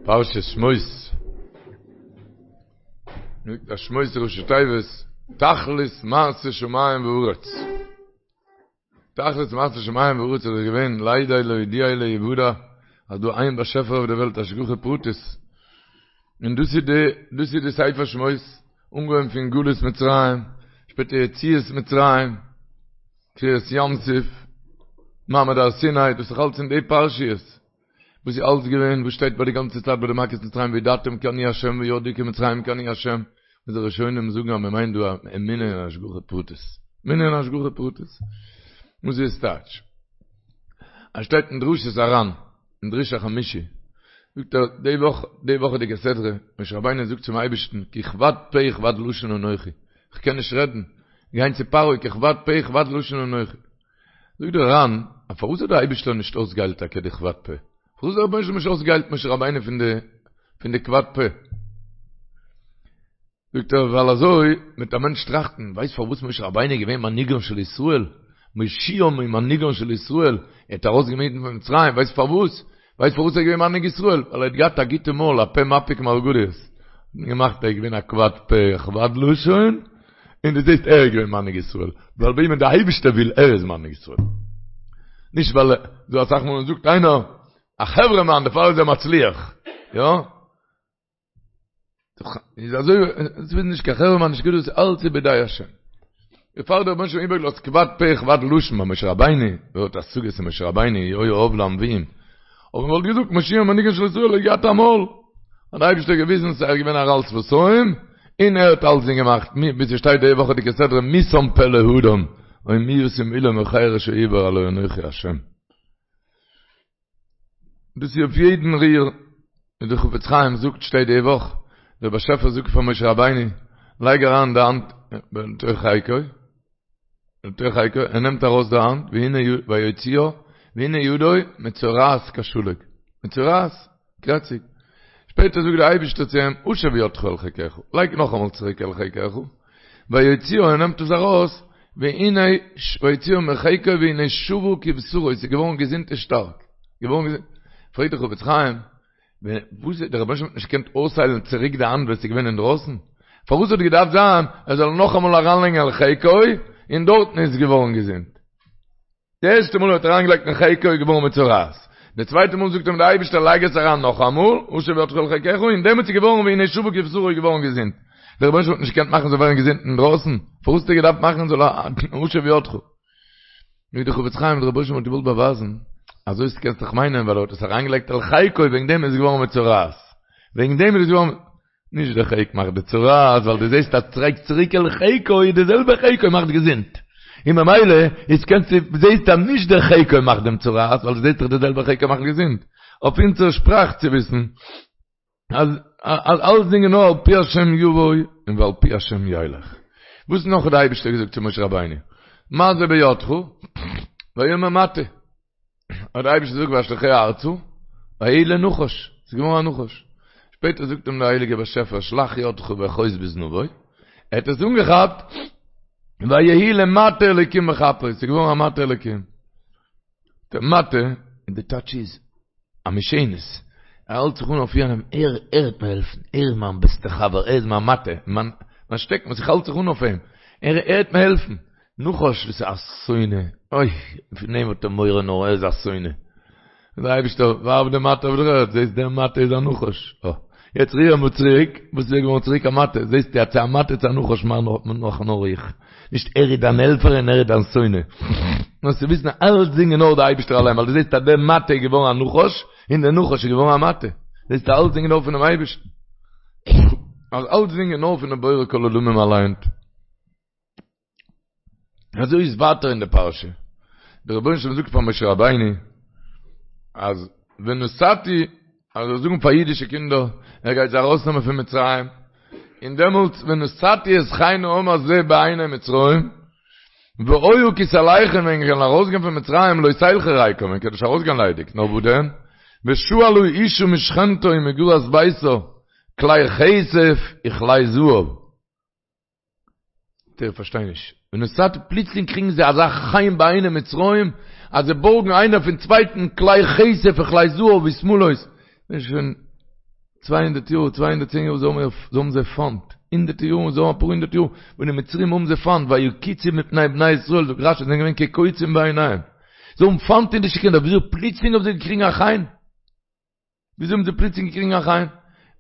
פרשת שמות, זאגט אז שמות איז ראשי תיבות תכלית מעשה שמים וארץ. תכלית מעשה שמים וארץ איז געווען לידע להודיע להיוודע אז דא איין באשעפער אויף די וועלט השגחה פרטית. און דאס איז די דאס איז די ספר שמות, אנגעהויבן פון גלות מצרים, שפעטער יציאת מצרים, קריעת ים סוף, מעמד הר סיני, דאס איז אלץ אין די פרשיות. וואס איז אלץ געווען, וואס שטייט ביי די גאנצע צייט ביי די מכות מצרים וידעתם כי אני ה' וידעו כי מצרים כי אני ה', וואס די ראשונים זאגן אז מען מיינט דא אמונה אין השגחה פרטית, אמונה אין השגחה פרטית, וואס איז טייטש? עס שטייט אין דרשות הר"ן, אין דרוש החמישי, זאגט ער די וואך, די וואכעדיגע סדרה, משה רבינו זאגט צום אייבערשטן כי כבד פה וכבד לשון אנכי, איך קען נישט רעדן, גיין צו פרעה כי כבד פה וכבד לשון אנכי. זאגט דער ר"ן, א פארוואס האט דער אייבישטער נישט אויסגעהיילט טאקע די כבד פה? פארוואס האט דער רבונו של עולם נישט אויסגעהיילט משה רבינו פון די פון די כבד פה? זאגט ער, ווייל אזוי וועט א מענטש טראכטן, ווייסט פארוואס משה רבינו איז געווען מנהיגן של ישראל, מושיעם ומנהיגן של ישראל, ער האט ארויסגענומען אידן פון מצרים, ווייסט פארוואס? ווייסט פארוואס ער איז געווען מנהיג ישראל? ווייל ער האט געהאט א גוטע מויל, א פה מפיק מרגליות. געמאכט ער איז געווען א כבד פה וכבד לשון, און דו זעסט ער איז געווען מנהיג ישראל, ווייל וועמען די אייבישטער וויל ער איז מנהיג ישראל. נישט ווייל דא אסאך מאל זאגט איינער א חברה מאן דערפאר איז ער מצליח, יא? איז אזוי, עס איז נישט קיין חברה מאן נישט גדול, אלץ איז בידי השם. דערפאר האט דער רבונו של עולם איבערגעלאזט כבד פה וכבד לשון ביי משה רבינו, ווער האט השגות אין משה רבינו, היה אב לנביאים. אבער מען וואלט געזאגט מושיען ומנהיגן של ישראל האט געהאט א מויל, האט דער אייבערשטער געוויזן אז ער איז געווען ערל שפתים, און ער האט אלצדינג געמאכט, ווי ס'שטייט די וואכעדיגע סדרה מי שם פה לאדם, או מי ישים אולם או חרש או עור הלא אנכי השם. דאס איז אויף יעדן ריר, ווי דער חפץ חיים זאגט שטייט די וואך, דער באשעפער זאגט פאר משה רבינו, לייג אריין די האנט בתוך חיקו, לתוך חיקו, ער נעמט ארויס די האנט, והנה ויוציאה, והנה ידו מצורעת כשלג, מצורעת, קרעציג. שפעטער זאגט דער אייבערשטער צו אים, השב ידך אל חיקך, לייג נאכאמאל צוריק אל חיקך, ויוציאה, ער נעמט עס ארויס, והנה ויוציאה מחיקו והנה שבה כבשרו, עס איז געווארן געזונט און שטארק, געווארן געזונט. פרעגט דער חפץ חיים, וואס דער רבונו של עולם האט נישט געקענט אויסהיילן צוריק די האנט ווען עס איז געווען אינדרויסן? פארוואס האט געדארפט זיין ער זאל נאכאמאל אריינלייגן אל חיקו און דארטן איז געווארן געזונט? די ערשטע מאל ער האט אריינגעלייגט אין חיקו איז געווארן מצורעת, די צווייטע מאל זאגט אים דער אייבערשטער לייג עס אריין נאכאמאל, השב ידך אל חיקך, און דעמאלטס איז געווארן והנה שבה כבשרו איז געווארן געזונט. דער רבונו של עולם האט נישט געקענט מאכן זאל ווערן געזונט אינדרויסן? פארוואס האט ער געדארפט מאכן זאל השב ידך? זאגט דער חפץ חיים, דער רבונו של עולם האט געוואלט באווייזן, אזוי קענסט דאך מיינען ווייל ער האט עס אריינגעלייגט אל חיקו וועגן דעם איז עס געווארן מצורעת, וועגן דעם איז עס געווארן, נישט דער חיק מאכט די צרעת, ווייל דו זעסט אז לייגסט צוריק אל חיקו איז די זעלבע חיקו מאכט געזונט, און ממילא איז קענסטו זעסט אז נישט דער חיקו מאכט דעם צרעת, ווייל דו זעסט דאך די זעלבע חיקו מאכט געזונט, אויף אונזער שפראך צו וויסן אז אז אלסדינג איז נאר על פי השם יבוא און ועל פי השם ילך. וואס נאך האט די אייבישטער געזאגט צו משה רבינו? מה זה בידך? ויאמר מטה. האט דער אייבערשטער געזאגט ואשליכהו ארצה, ויהי לנחש, ס'איז געווארן א נחש. שפעטער זאגט אים דער הייליגער באשעפער שלח ידך ואחוז בזנבו, ער האט עס אנגעכאפט, ויהי למטה אלוקים בכפו, ס'איז געווארן א מטה אלוקים. דער מטה, און די טייטש איז, א משענת, ער האלט זיך אן אויף יענעם, ער ער וועט מיר העלפן, ער איז מיין בעסטער חבר, ער איז מיין מטה, מיין שטעקן וואס איך האלט זיך אן אויף אים, ער ער וועט מיר העלפן. נחש וואס איז א שונא, אוי, פון אים האט ער מורא נאר ער איז א שונא. דער אייבערשטער ווארף די מטה אויף דער ערד, זעסט דער מטה איז א נחש, אה, יעצט ריר אים צוריק, וואס איז ער געווארן צוריק א מטה, זעסטו אז צו א מטה צו א נחש מאך נאר איך, נישט ער איז דיין העלפער און ער איז דיין שונא. נאר צו וויסן אז אלצדינג איז נאר דער אייבערשטער אליין, ווייל דו זעסט אז דער מטה איז געווארן א נחש, און דער נחש איז געווארן א מטה, זעסטו אלצדינג איז נאר פונעם אייבערשטן. אז אלצדינג איז נאר פונעם בורא כל עולמים אליין. אזוי איז ווייטער אין די פרשה, דער רבונו של עולם זאגט פאר משה רבינו, אז ונתתי, אז ער זאל זאגן פאר אידישע קינדער, ער גייט זיי ארויסנעמען פון מצרים, און דעמאלטס ונתתי את חן העם הזה בעיני מצרים, והיה כי תלכון ווען ענק וועלן ארויסגיין פון מצרים לא תלכו ריקם, ענק וועלן נישט ארויסגיין ליידיג, נאר וואו דען? ושאלה אשה משכנתה ומגרת ביתה, כלי כסף וכלי זהב. איך פארשטיי נישט. ונתתי פלוצלינג קריגן זיי אזא חן בעיני מצרים, אז זיי בארגן איינער פון צווייטן כלי כסף וכלי זהב ושמלות. שוין. 200 יאר, 210 יאר, זיי האבן זיי פיינט, הונדערטע יארן, זיי האבן אפאר הונדערט יאר, וואס די מצרים האבן זיי פיינט, ויקוצו מפני בני ישראל, זאגט רשי, זיי זענען געווען כקוצים בעיניהם. זיי האבן פיינט אידישע קינדער, וויאזוי פלוצלינג האבן זיי געקריגן א חן? וויאזוי האבן זיי פלוצלינג געקריגן א חן?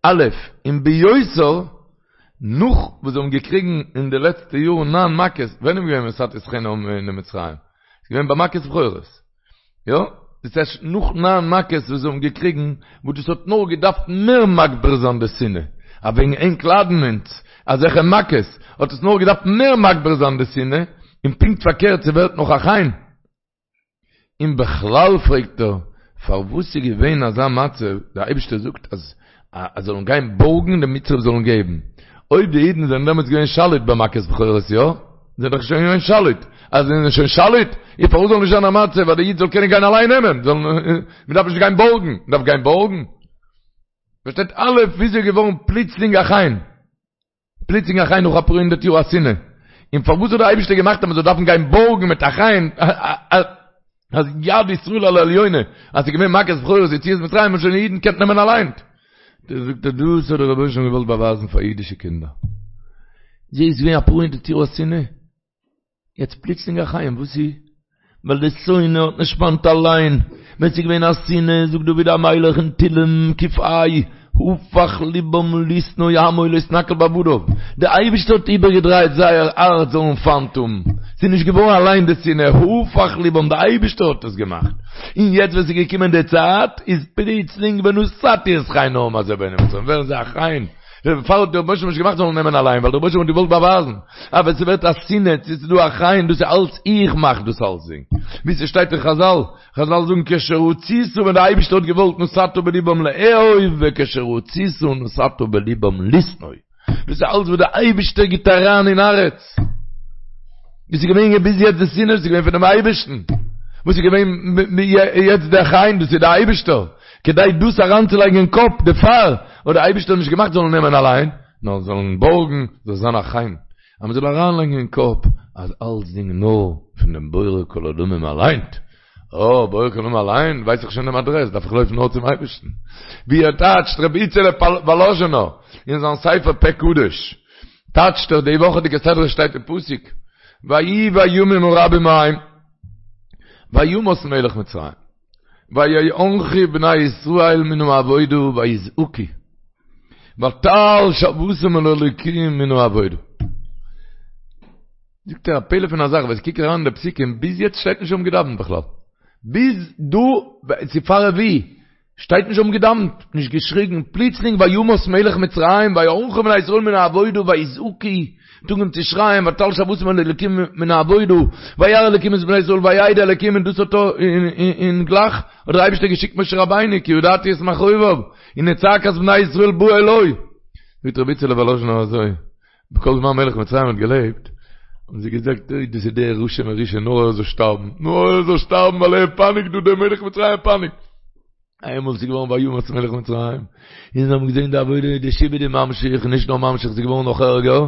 א', און ביותר, נאך וואס זיי האבן געקריגן אין די לעצטע יארן ניין מכות, ווען איז געווען ונתתי את חן העם בעיני מצרים? ס'איז געווען ביי מכת בכורות. יא? דאס הייסט נאך ניין מכות וואס זיי האבן געקריגן, וואס דאס האט נאר געדארפט מער מגביר זיין די שנאה, אז וועגן ענק ליידן אונז אזעלכע מכות, האט עס נאר געדארפט מער מגביר זיין די שנאה, און פונקט פארקערט ס'ווערט נאך א חן. און בכלל פרעגט ער, פארוואס איז געווען אזא מצב, דער אייבערשטער זאגט אז אז זאלן גיין בארגן די מצרים זאלן געבן, אויב די אידן זענען דעמאלטס געווען שליט ביי מכת בכורות יא? זענען דאך שוין געווען שליט, אז זיי זענען שוין שליט, איז פארוואס זאל נישט זיין א מצב אז די איד זאל קענען גיין אליין נעמען, זאל מען דארף נישט גיין בארגן, מען דארף גיין בארגן? פארשטייט א' וויאזוי איז געווארן פלוצלינג א חן? פלוצלינג א חן נאך אפאר הונדערט יאר א שנאה. און פארוואס האט דער אייבערשטער געמאכט אז מען זאל דארפן גיין בארגן מיט א חן, אז יד ישראל על העליונה, אז ס'איז געווען מכת בכורות יציאת מצרים האבן שוין די אידן געקענט נעמען אליין. זאגט ער דאס האט דער רבונו של עולם געוואלט באווייזן פאר אידישע קינדער. ס'איז געווען אפאר הונדערט יאר א שנאה. יעצט פלוצלינג א חן, וואס איז? ווייל די שונא האט נישט פיינט אליין, ווען ס'איז געווען א שנאה, זאגט דוד המלך אין תהלים ק"ה, הפך לבם לשנוא עמו להתנכל בעבדיו, די אייבערשטער האט איבערגעדרייט זייער הארץ זאלן פיינט האבן, ס'איז נישט געווארן אליין די שנאה, הפך לבם, די אייבערשטער האט עס געמאכט, און יעצט ווען ס'איז געקומען די צייט, איז פלוצלינג ונתתי את חן העם הזה בעיני מצרים, ווערן זיי א חן. דערפאר האט דער רבונו של עולם נישט געמאכט זאלן נעמען אליין, ווייל דער רבונו של עולם האט געוואלט באווייזן, אז ווען ס'ווערט א שנאה, צו ס'איז דא א חן, דאס איז אלץ איך מאך דאס אלצדינג. ווי ס'שטייט אין חזל, חזל זאגן כשרצית ווען דער אייבערשטער האט געוואלט נתת בלבם לאהוב וכשרצית נתת בלבם לשנוא. דאס איז אלץ וואס דער אייבערשטער גיבט אריין אין הארץ. וואס איז געווען ביז יעצט די שנאה, דאס איז געווען פונעם אייבערשטן. וואס איז געווען יעצט דער חן, דאס איז דער אייבערשטער. כדי דאס אריינצולייגן אין קאפ, דערפאר האט דער אייבערשטער נישט געמאכט זאלן נעמען אליין, נאר זאלן בארגן, זאל זיין א חן. אז מען זאל אריינלייגן אין קאפ אז אלצדינג נאר פון דעם בורא כל עולמים אליין. אה, בורא כל עולמים אליין, ווייס איך שוין דעם אדרעס, דארף איך לויפן נאר צום אייבערשטן. ווי ער טייטשט רבי איצעלע וואלאזשינער אין זיין ספר פה קדוש. טייטשט ער די וואכעדיגע סדרה שטייט אין פסוק ויהי בימים הרבים ההם וימת מלך מצרים ויאנחו בני ישראל מן העבודה ויזעקו ותעל שועתם אל האלוקים מן העבודה זאגט ער א פלא פון א זאך ווען כ'קוק אריין אין די פסוקים ביז יעצט שטייט נישט זיי האבן געדאווענט בכלל ביז דא צו פאר רביעי שטייט נישט זיי האבן געדאווענט, נישט געשריגן, פלוצלינג וימת מלך מצרים ויאנחו בני ישראל מן העבודה ויזעקו, האט אנגעהויבן צו שרייען ותעל שועתם אל האלקים מן העבודה, וירא אלקים את בני ישראל וידע אלקים און דאס האט און גלייך האט דער אייבערשטער געשיקט משה רבינו כי ידעתי את מכאוביו הנה צעקת בני ישראל באה אלי. זאגט רבי איצעלע וואלאזשינער אזוי, בכל זמן מלך מצרים האט געלעבט, האבן זיי געזאגט, אוי דאס איז דער רשע מרושע, נאר ער זאל שטארבן, נאר ער זאל שטארבן ווייל ער פייניגט דא, דער מלך מצרים פייניגט. איינמאל ס'איז געווארן וימת מלך מצרים, און זיי האבן געזען די עבודה, די שעבוד איז ממשיך, נישט נאר ממשיך, ס'איז געווארן נאך ערגער,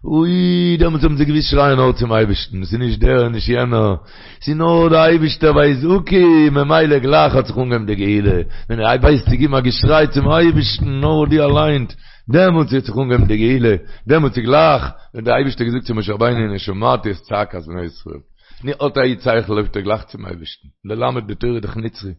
אוי, דעמאלטס האבן זיי געוואוסט שרייען נאר צום אייבערשטן, ס'איז נישט דער און נישט יענער, ס'איז נאר דער אייבערשטער ויזעקו, ממילא גלייך האט זיך אנגעהויבן די גאולה, ווען ער ווייסט צו געבן א געשריי צום אייבערשטן, נאר דו אליין, דעמאלטס האט זיך אנגעהויבן די גאולה, דעמאלטס איז גלייך ווען דער אייבערשטער האט געזאגט צו משה רבינו הנה שמעתי את צעקת בני ישראל, נו האט א איד שכל לויפט ער גלייך צום אייבערשטן, ללמד די תורה דאך נצחי,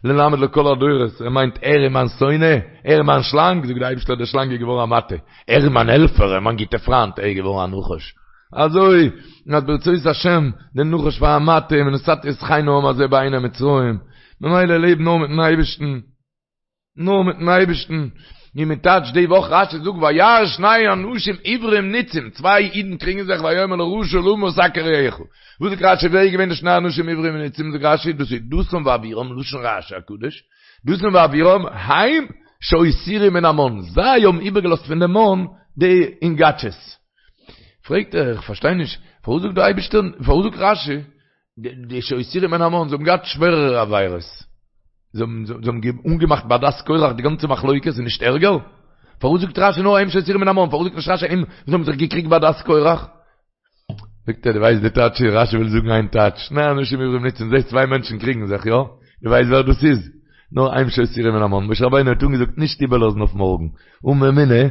ללמד לכל הדורות, ער מיינט ער איז מיין שונא, ער איז מיין שלאנג, זאגט דער אייבערשטער דער שלאנג איז געווארן א מטה, ער איז מיין העלפער, ער איז מיין גוטער פריינט, ער איז געווארן א נחש, אזוי אז ברצות השם, דער נחש פאר א מטה, ונתתי את חן העם הזה בעיני מצרים, ממילא לעב נאר מיטן אייבערשטן. נאר מיטן אייבערשטן, ווי מען טייטשט די וואך רשי זאגט וירא שני אנשים עברים נצים, צוויי אידן קריגן זיך ויאמר לרשע למה תכה רעך, וואס זאגט רשי ווער איז געווען די שני אנשים עברים נצים, זאגט רשי דאס איז דתן ואבירם, לשון רשי הקדוש, דתן ואבירם הם שהותירו מן המן, זיי האבן איבערגעלאזט פון די מן די אינגאטשעס. פרעגט ער איך פארשטיי נישט, פארוואס זאגט דער אייבערשטער, פארוואס זאגט רשי די שהותירו מן המן, זיי האבן געהאט שווערערע עבירות, זיי האבן אנגעמאכט בעדת קורח די גאנצע מחלוקת איז נישט ערגער? פארוואס זאגט רשי נאר הם שהותירו מן המן, פארוואס זאגט נישט רשי הם וואס האבן זיך געקריגט בעדת קורח? זאגט ער דו ווייסט די טייטש, רשי וויל זאגן איין טייטש, שני אנשים עברים נצים, זעסט צוויי מענטשן קריגן זיך, יא? דו ווייסט ווער דאס איז? נאר הם שהותירו מן המן, משה רבינו האט אנגעזאגט נישט איבערלאזן אויף מארגן, אן אמונה,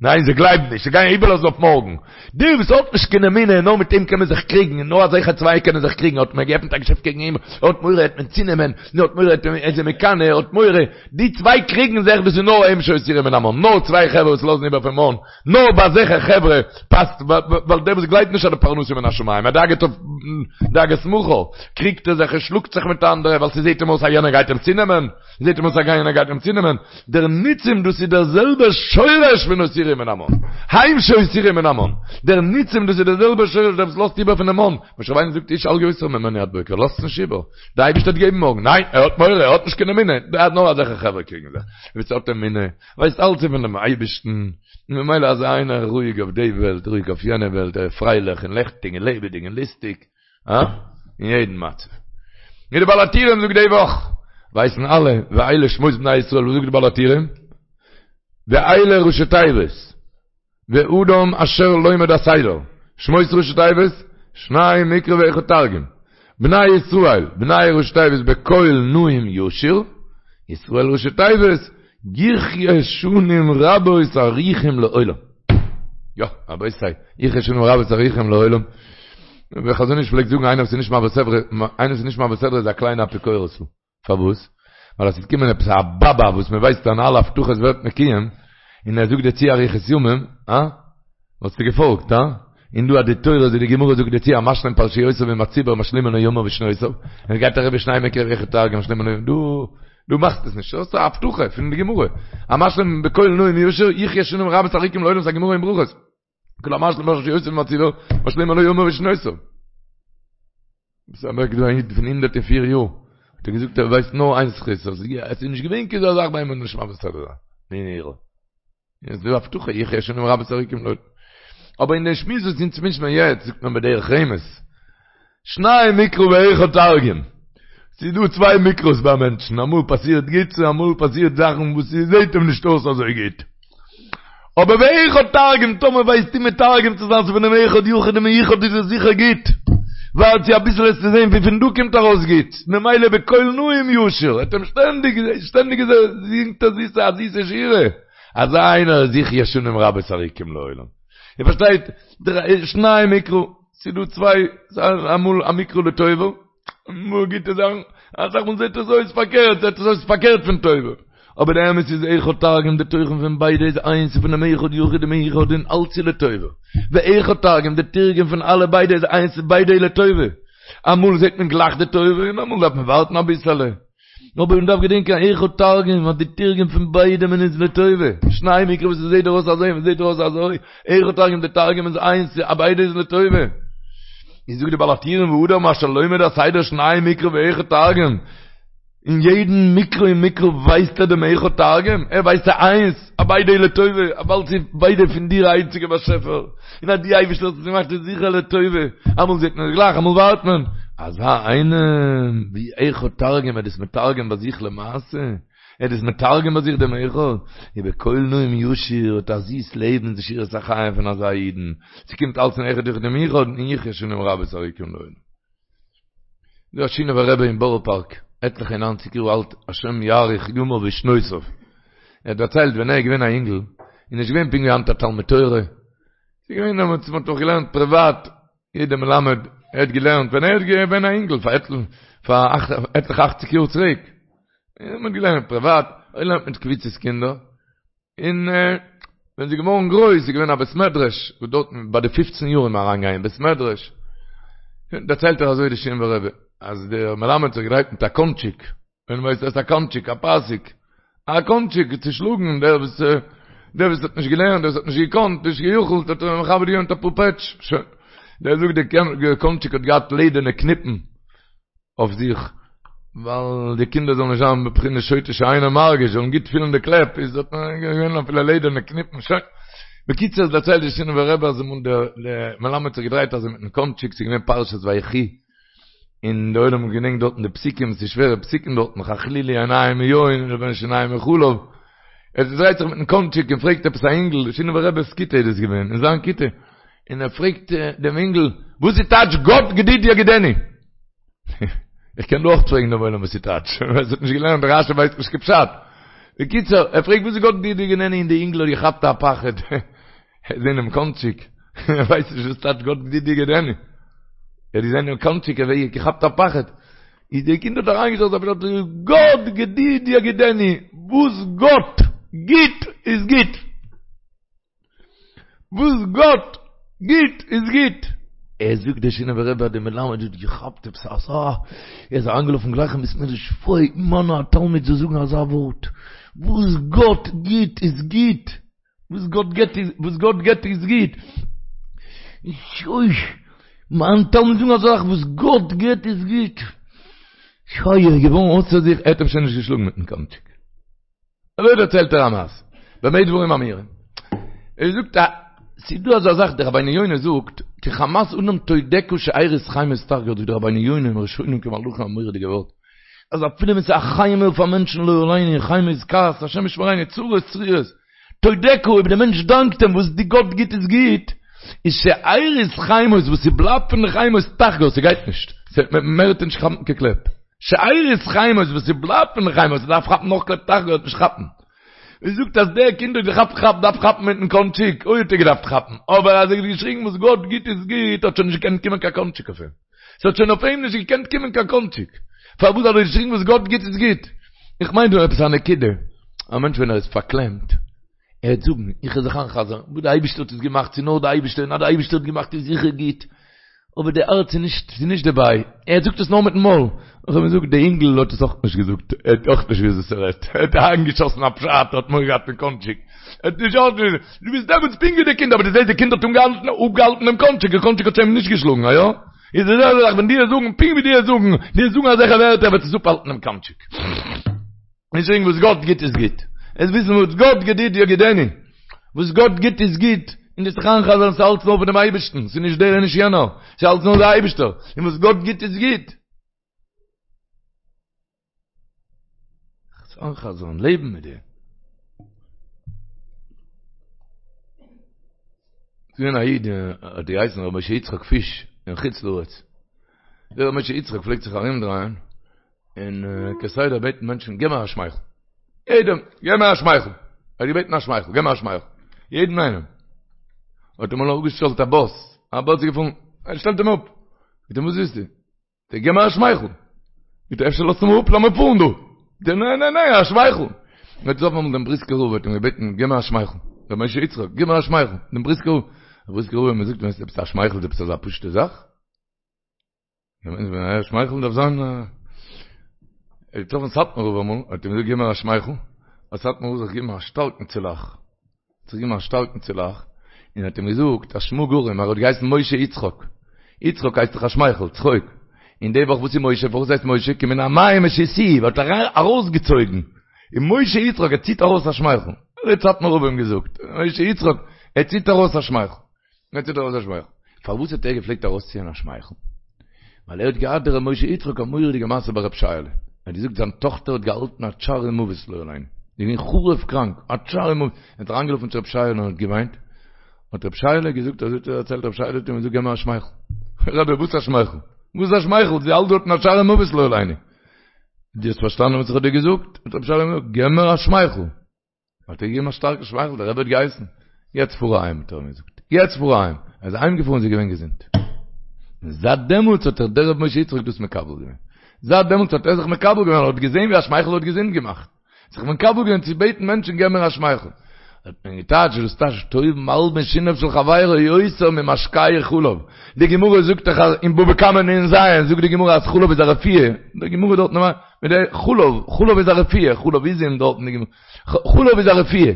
ניין זיי גלייבן נישט, זיי גייען איבערלאזן אויף מארגן, דער וואס האט נישט קיין אמונה, נאר מיט אים קען מען זיך קריגן, און נאר אזעלכע צוויי קענען זיך קריגן, האט מען געעפנט א געשעפט קעגן אים, ער האט מורא העט מען צונעמען, ער האט מורא ער איז אים מקנא, ער האט מורא, די צוויי קריגן זיך, דאס איז נאר הם שהותירו מן המן, נאר צוויי חברה וואס לאזן איבער פון מן, נאר ביי אזעלכע חברה פאסט, ווייל דער וואס גלייבט נישט אז די פרנסה מן השמים, ער דאגה'ט אויף דאגת מחר, קריגט ער זיך און שלאגט זיך מיט אנדערע ווייל ס'זעט אים אויס אז יענער גייט אים צונעמען, זעט אים אויס אז יענער גייט אים צונעמען, דער ניצים דאס איז דער זעלבער שורש פון הותירו מן המן, הם שהותירו מן המן, דער ניצים דאס איז דער זעלבער שורש דער וואס לאזט איבער פונעם מן, משה רבינו זאגט איש אל יותר ממנו עד בוקר, לאזטס נישט איבער, דער אייבערשטער וועט געבן מארגן, ניין ער האט מורא, ער האט נישט קיין אמונה, נאר אזעלכע חברה קריגן זיך, ווער ס'האט אמונה, ווייסט אלץ איז פון דעם אייבערשטן, און ממילא אזא איינער רואיג אויף די וועלט, רואיג אויף יענע וועלט, ער איז פרייליך און לעכטיג און לעבעדיג און לוסטיג, אה? אין יעדן מצב. ווי די בעל הטורים זאגט די וואך, ווייסן אלע, ואלה שמות בני ישראל, וואס זאגט די בעל הטורים? ואלה ראשי תיבות, ואדם אשר לומד הסדר, שמות ראשי תיבות, שניים מקרא ואחד תרגום, בני ישראל, בני ראשי תיבות בקול נעים ישיר, ישראל ראשי תיבות, יחיה שנים רבות ארוכים לעולם. יא, רבותי, יחיה שנים רבות ארוכים לעולם. ווי חזון איש פלעגט זאגן איינער וואס איז נישט מעביר סדרה, איינער וואס איז נישט מעביר סדרה איז א קליינע אפיקורס'ל. פארוואס? ווייל אז ס'וועט קומען עפעס א באבא וואס מען ווייסט אז אלע הבטחות ווערט מקוים, און ער זאגט דיר צו אריכות ימים, אה? וואלסטו געפאלגט, הא? און דא אז די תורה אזוי די גמרא זאגט דיר צו המשלים פרשיותיו עם הציבור משלימין לו ימיו ושנותיו, און עס גייט אריבער שנים מקרא ואחד תרגום משלימין לו, דא דו מאכסט עס נישט, דאס איז א הבטחה פון די גמרא, המשלים בקול נעים ישיר יחיה שנים רבות ארוכים לעולם ס'א גמרא אין ברכות, כל המשלים פרשיותיו עם הציבור משלימין לו ימיו ושנותיו. ס'איז אוועק דא א איד פון 104 יאר, האט ער געזאגט ער ווייסט נאר איין זכות, אז עס איז נישט געווען קיין אזא זאך ביי אים נישט מעביר סדרה זיין. ניין ניין. איז דא הבטחה יחיה שנים רבות ארוכים לעולם. אבער אין דעם שמועס וואס אונז מישן מיר יעצט זאגט מען בדרך רמז. שניים מקרא ואחד תרגום. ס'איז דא צוויי מקרא'ס ביי מענטשן, אמאל פאסירט גוטס און אמאל פאסירט זאכן וואס ס'זעט אים נישט אויס אזוי גוט. אבער ואחד תרגום, טאמער ווייסטו מתרגם צו זיין ס'איז פונעם אחד יחיד ומיוחד איז עס זיכער גוט. ווארט צו אביסל וועסטו זען ווי פון דא קומט ארויס גוט. ממילא בקול נעים ישיר, האט אים שטענדיג שטענדיג זינגט ער זיסע א זיסע שירה. אזא איינער איז יחיה שנים רבות ארוכים לעולם. איר פארשטייט? שניים מקרא, ס'איז דא צוויי, אמאל א מקרא לטובה, אמאל גוטע זאכן, אסאך מאל זעט עס אויס פארקערט, זעט עס אויס פארקערט פון טובה. אבער די אמת איז אחד תרגום, די תוכן פון ביידע איז איינס, ס'איז פונעם אחד יחיד ומיוחד און אלץ איז לטובה. ואחד תרגום, די תרגום פון אלע ביידע איז איינס, ביידע איז לטובה. אמאל זעט מען גלייך די טובה און אמאל דארף מען ווארטן אביסעלע. אבער מען דארף געדענקען אחד תרגום אז די תרגום פון ביידע מען איז לטובה, שניים מקרא וואס עס זעט דיר אויס אזוי און עס זעט דיר אויס אזוי, אחד תרגום די תרגום איז איינס א ביידע איז לטובה. איז זאגט די בעל הטורים ואדם אשר לומד הסדר שניים מקרא ואחד תרגום, אין יעדן מקרא און מקרא ווייסט ער דעם אחד תרגום, ער ווייסט ס'איז איינס, א ביידע איז לטובה, ווייל ס'איז ביידע פון דיר איינציגער באשעפער, און אז דו אייבערשטער האסט עס געמאכט איז זיכער לטובה, אמאל זעט מען עס גלייך אמאל ווארט מען, אזא איינעם ווי אחד תרגום ער איז מתרגם ביי זיך למעשה, ער איז מתרגם ביי זיך דעם אחד, ובקול נעים ישיר האט א זיס לעבן די שירת החיים פון אזא אידן, ס'קומט אלץ פון אחד יחיד ומיוחד און יחיה שנים רבות ארוכים לעולם. דא א שינאווער רבי אין בארא פארק, עטליכע און ניינציג יאר אלט, השם יאריך ימיו ושנותיו, ער האט דערציילט ווען ער איז געווען א אינגל, איז נישט געווען פונקט ווי היינט א תלמוד תורה, ס'איז געווען דעמאלטס מען האט נאך געלערנט פריוואט, יעדער מלמד, ער האט געלערנט ווען ער איז געווען א אינגל פאר עטליכע אכציג יאר צוריק, מען האט געלערנט פריוואט, ער האט געלערנט מיט קבוצות קינדער, און ווען ס'איז געווארן גרויס איז געווען א בית מדרש, וואס דארטן ביי די פופצן יאר איז מען אריינגעגאנגען אין בית מדרש, דערציילט ער אזוי די שינאווער רבי, אז דער מלמד האט זיך געדרייט מיט א קאנטשיק, ווען ווייסט עס א קאנטשיק, א פאסיק, א קאנטשיק צו שלאגן דער וואס דער וואס האט נישט געלערנט, דער וואס האט נישט געקאנט, נישט גע'יכול'ט, האט ער מכבד געווען מיט אפאר פעטש, שוין. דער זאגט דער קאנטשיק האט געהאט לעדערנע קניפן אויף זיך, ווייל די קינדער זאלן נישט זיין בבחינת שוטה שאינו מרגיש, זאלן גוט פילן די קלעפ, איז האט מען געווען אפילו לעדערנע קניפן, שוין. בקיצור, דערציילט די שינאווער רבי אז אמאל דער מלמד האט זיך געדרייט אזוי מיטן קאנטשיק, ס'איז געווען פרשת ויחי, און די עולם האט געדענקט דארטן די פסוקים, ס'איז שווערע פסוקים דארטן, חכלילי עיניים מיין ולבן שיניים מחלב, ער דרייט זיך מיטן קאנטשיק און פרעגט עפעס א אינגל, שינאווער רבי'ס כיתה איז דאס געווען, אין זיין כיתה, און ער פרעגט דעם אינגל, וואס איז טייטש גד גדוד יגודנו? איך קען דא אויך פרעגן דעם עולם וואס ס'טייטש, ווער ס'האט נישט געלערנט רשי ווייסט נישט קיין פשט. בקיצור, ער פרעגט וואס איז גאט גדידי יגודנו און די אינגל האט געכאפט א פחד, ער האט געזען דעם קאנטשיק, ער ווייסט נישט וואס טייטש גאט גדידי יגודנו. ער האט געזען דעם קאנטשיק, ער האט געכאפט א פחד. איז דער קינד האט אריינגעשטעלט א פשט, גאט גדידי יגודנו, וואס גאט גיט איז גוט. וואס גאט גיט איז גוט. ער זאגט דער שינאווער רבי אז דער מלמד האט געכאפט עפעס אזא, ער איז אריינגעלאפן גלייך אין בית מדרש, פוי, מיינע א תלמיד זאל זאגן אזא ווארט, וואס גאט גיט איז גוט, וואס גאט גיט איז, וואס גאט גיט איז גוט, אוי, מיין תלמיד זאגן אזא זאך, וואס גאט גיט איז גוט, אוי, ער איז געווארן אויסער זיך, ער האט אים שוין נישט געשלאגן מיטן קאנטשיק. אזוי דערציילט ער א מעשה, במה דברים אמורים. ער זאגט א, ס'איז דא אזא זאך, דער רבינו יונה זאגט, כי חמת אדם תודך שארית חיימות תחגור, זאגט דער רבינו יונה אין ראשונים כמלאכים א מורא'דיגע ווארט, אז אפילו ווען ס'איז א חימה אויף א מענטשן לא עלינו, חימה איז כעס, השם ישמרינו, צרות צרורות, תודך, אויב דער מענטש דאנקט אים וואס די גאט גיט איז גוט, איז שארית חיימות וואס ס'בלייבט פון די חיימות תחגור, ס'גייט נישט, מער וועט ער נישט כאפן קיין קלעפ. שארית חיימות וואס ס'בלייבט פון די חיימות דארף כאפן נאך קלעפ תחגור וועט נישט כאפן. ער זאגט אז דער קינד האט געכאפט כאפ דארף כאפן מיטן קאנטשיק, אוי האט ער געדארפט כאפן, אבער אז ער האט געשריגן וואס גאט גיט איז גוט האט שוין נישט געקענט קומען קיין קאנטשיק אויף אים. ס'האט שוין אויף אים נישט געקענט קומען קיין קאנטשיק. פארוואס האט ער געשריגן וואס גאט גיט איז גוט? איך מיין דא עפעס א נקודה. א מענטש ווען ער איז פארקלעמט, ער וועט זאגן, איך וועל זיך איינ'חזר'ן, וואס די אייבערשטער האט עס געמאכט, ס'איז נאר די אייבערשטער, און אז די אייבערשטער האט געמאכט איז זיכער גוט. אבער די הארץ איז נישט, ס'איז נישט דערביי. ער זאגט עס נאר מיטן מויל. איך האב געזאגט, די אינגל האט עס אויך נישט געזאגט, ער האט אויך נישט געוואוסט וואס ער רעדט. ער האט אריינגעשאסן א פשט, ער האט מורא געהאט פון קאנטשיק. ער האט נישט אויך, דו ביסט דעמאלטס פונקט ווי די קינד, אבער דו זעסט די קינד האט אנגעהאלטן, אפגעהאלטן דעם קאנטשיק, דער קאנטשיק האט שוין אים נישט געשלאגן, א יא? איז די זעלבע זאך ווען דו וועסט זאגן, פונקט ווי דו וועסט זאגן, דו וועסט זאגן אזעלכע ווערטער וועט עס אפהאלטן דעם קאנטשיק. נישט זאגן וואס גאט גיט איז גוט. עס וויסן וואס גאט גדידי יגודנו. וואס גאט גיט איז גוט. און דאס זיך איינ'חזר'ן ס'איז אלץ נאר פון דעם אייבערשטן. ס'איז נישט דער און נישט יענער. ס'איז אלץ נאר דער אייבערשטער. און וואס גאט גיט איז גוט. זיך איינ'חזר'ן, לעבן מיט דעם. ס'איז געווען א איד האט געהייסן ר' משה יצחק פיש אין חוץ לארץ. דער ר' משה יצחק פלעגט זיך ארומדרייען און כסדר בעטן מענטשן געב מיר א שמייכל. יעדעם, געב מיר א שמייכל. ער האט געבעטן א שמייכל, געב מיר א שמייכל. יעדן איינעם. האט אים אמאל אפגעשטעלט א באס, א באס איז געפארן, ער שטעלט אים אפ. זאגט אים וואס ווילסטו? זאגט ער געב מיר א שמייכל. זאגט ער אפשר לאזטו מיר אפ לאמיר פארן דא. זאגט ער ניין ניין ניין א שמייכל. ער האט געטראפן אמאל דעם בריסקער רב האט אים געבעטן געב מיר א שמייכל. ר' משה יצחק געב מיר א שמייכל. דעם בריסקער רב. דער בריסקער רב האט אים געזאגט ווייסט עפעס א שמייכל איז עפעס אזא פשוטע זאך? א שמייכל דארף זיין ער האט געטראפן סאטמאר רב אמאל האט אים געזאגט גיב מיר א שמייכל האט סאטמאר רב זיך געגעבן א שטארקן צולאך האט זיך געגעבן א שטארקן צולאך און האט אים געזאגט א שמא גרים ער האט געהייסן משה יצחק יצחק הייסט דאך א שמייכל צחוק און די וואך וואס איז משה פארוואס הייסט משה כי מן המים משיתיהו האט ער ארויסגעצויגן און משה יצחק ער ציט ארויס א שמייכל אזוי האט סאטמאר רב אים געזאגט משה יצחק ער ציט ארויס א שמייכל ער ציט ארויס א שמייכל. פארוואס האט ער געפלעגט ארויסציען א שמייכל? ווייל ער האט געהאט דער ר' משה יצחק א מורא'דיגע מעשה ביי ר' שייעלע. ער האט געזאגט זיין טאכטער האט געהאלטן א צער מוות לא עלינו. זי איז געווען חרוב קראנק, א צער מוות. ער האט אריינגעלאפן צו ר' שייעלע און האט געוויינט. האט ר' שייעלע געזאגט, אזוי האט ער דערציילט, ר' שייעלע האט אים געזאגט געב מיר א שמייכל. רבי וואס א שמייכל? וואס א שמייכל? זי האלט דארטן א צער מוות לא עלינו. דו האסט פארשטאנען וואס איך האב דיר געזאגט? האט ר' שייעלע געזאגט, געב מיר א שמייכל. האט ער געגעבן א שטארקן שמייכל, דער רבי האט געהייסן, יעצט פאר אהיים, האט ער אים געזאגט, יעצט פאר אהיים, ער איז אהיים געפארן, זי איז געווען געזונט. און זייט דעמאלטס האט זיך דער רבי משה יצחק דאס מקבל געווען. זייט דעמאלטס האט ער זיך מקבל געווען, ער האט געזען ווי א שמייכל האט געזונט געמאכט. זיך מקבל געווען צו בעטן מענטשן געב מיר א שמייכל. האט מען געטייטשט דאס טייטש טוב מלבין שיניו של חברו יותר ממשקהו חלב. די גמרא זאגט דאך אין בבא קמא נ"ז זאגט די גמרא אז חלב איז א רפואה. די גמרא דארט מיט די חלב, חלב איז א רפואה, חלב עזים דארט אין די גמרא. חלב איז א רפואה.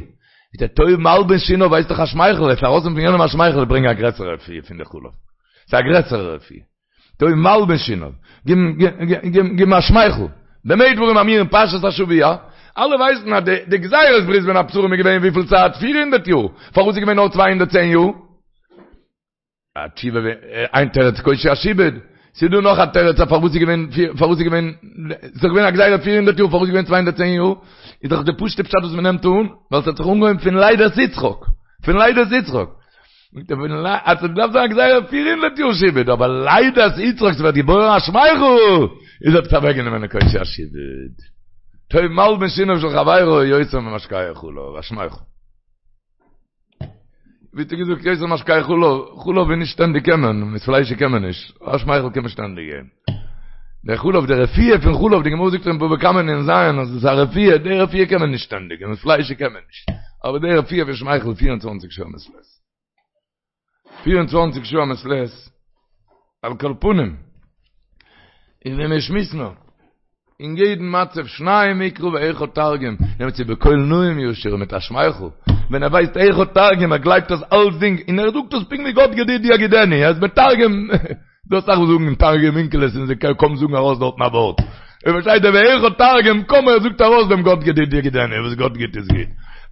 איז דער טוב מלבין שיניו ווייסט דאך א שמייכל, עס ארויסנעמען פון יענעם א שמייכל איז ברענגען א גרעסערע רפואה פון די חלב. ס'איז א גרעסערע רפואה. טוב מלבין שיניו. גיב אים א שמייכל. במה דברים אמורים פרשת השבוע, אלע ווייסן אז די גזירת ברית בין הבתרים איז געווען וויפיל צייט? 400 יאר. פארוואס איז געווען נאר 210 יאר? א תשובה איין תירוץ קושי השעבוד, ס'איז דא נאך א תירוץ אז פארוואס איז געווען פארוואס איז געווען ס'איז דאך געווען א גזירה פיר הונדערט יאר פארוואס איז געווען 210 יאר, איז דאך די פשוט'ע פשט וואס מ'נעמט אן, ווייל ס'האט זיך אנגעהויבן פון לידת יצחק, פון לידת יצחק. זאגט ער פון אז ס'דארף זיין א גזירה פיר הונדערט יאר שעבוד, אבער לידת יצחק ס'ווערט געבוירן א שמייכל! איז עפעס אוועקגענומען די קושי השעבוד. טוב מלבין שיניו של חברו יותר ממשקהו חלב, א שמייכל. ווי האט ער געזאגט יותר ממשקהו חלב, חלב איז נישט שטענדיג קען מען, מיט פליישיג קען מען נישט, א שמייכל קען מען שטענדיג געבן. דער חלב, די רפואה פון חלב, די גמרא זאגט אין בבא קמא נ"ז אז עס איז א רפואה, די רפואה קען מען נישט שטענדיג, און מיט פליישיג קען מען נישט. אבער די רפואה פון שמייכל 24 שעה מעת לעת. 24 שעה מעת לעת, על כל פנים, און ווען מיר שמועסן נאר, אין יעדן מצב שניים מקרא ואחד תרגום, נעמט צו בקול נעים ישיר מיט א שמייכל, ווען ער ווייסט אחד תרגום, ער גלייבט אז אלסדינג, און ער זאגט עס פונקט ווי גאט גדידי יגידני, ער איז מתרגם, דא אסאך וואס זאגן תרגום אונקלוס און זיי קוים זאגן ארויס דארטן א ווארט, ער פארשטייט דער ואחד תרגום, קוים ער זאגט ארויס דעם גאט גדידי יגידני, וואס גאט גיט איז גוט,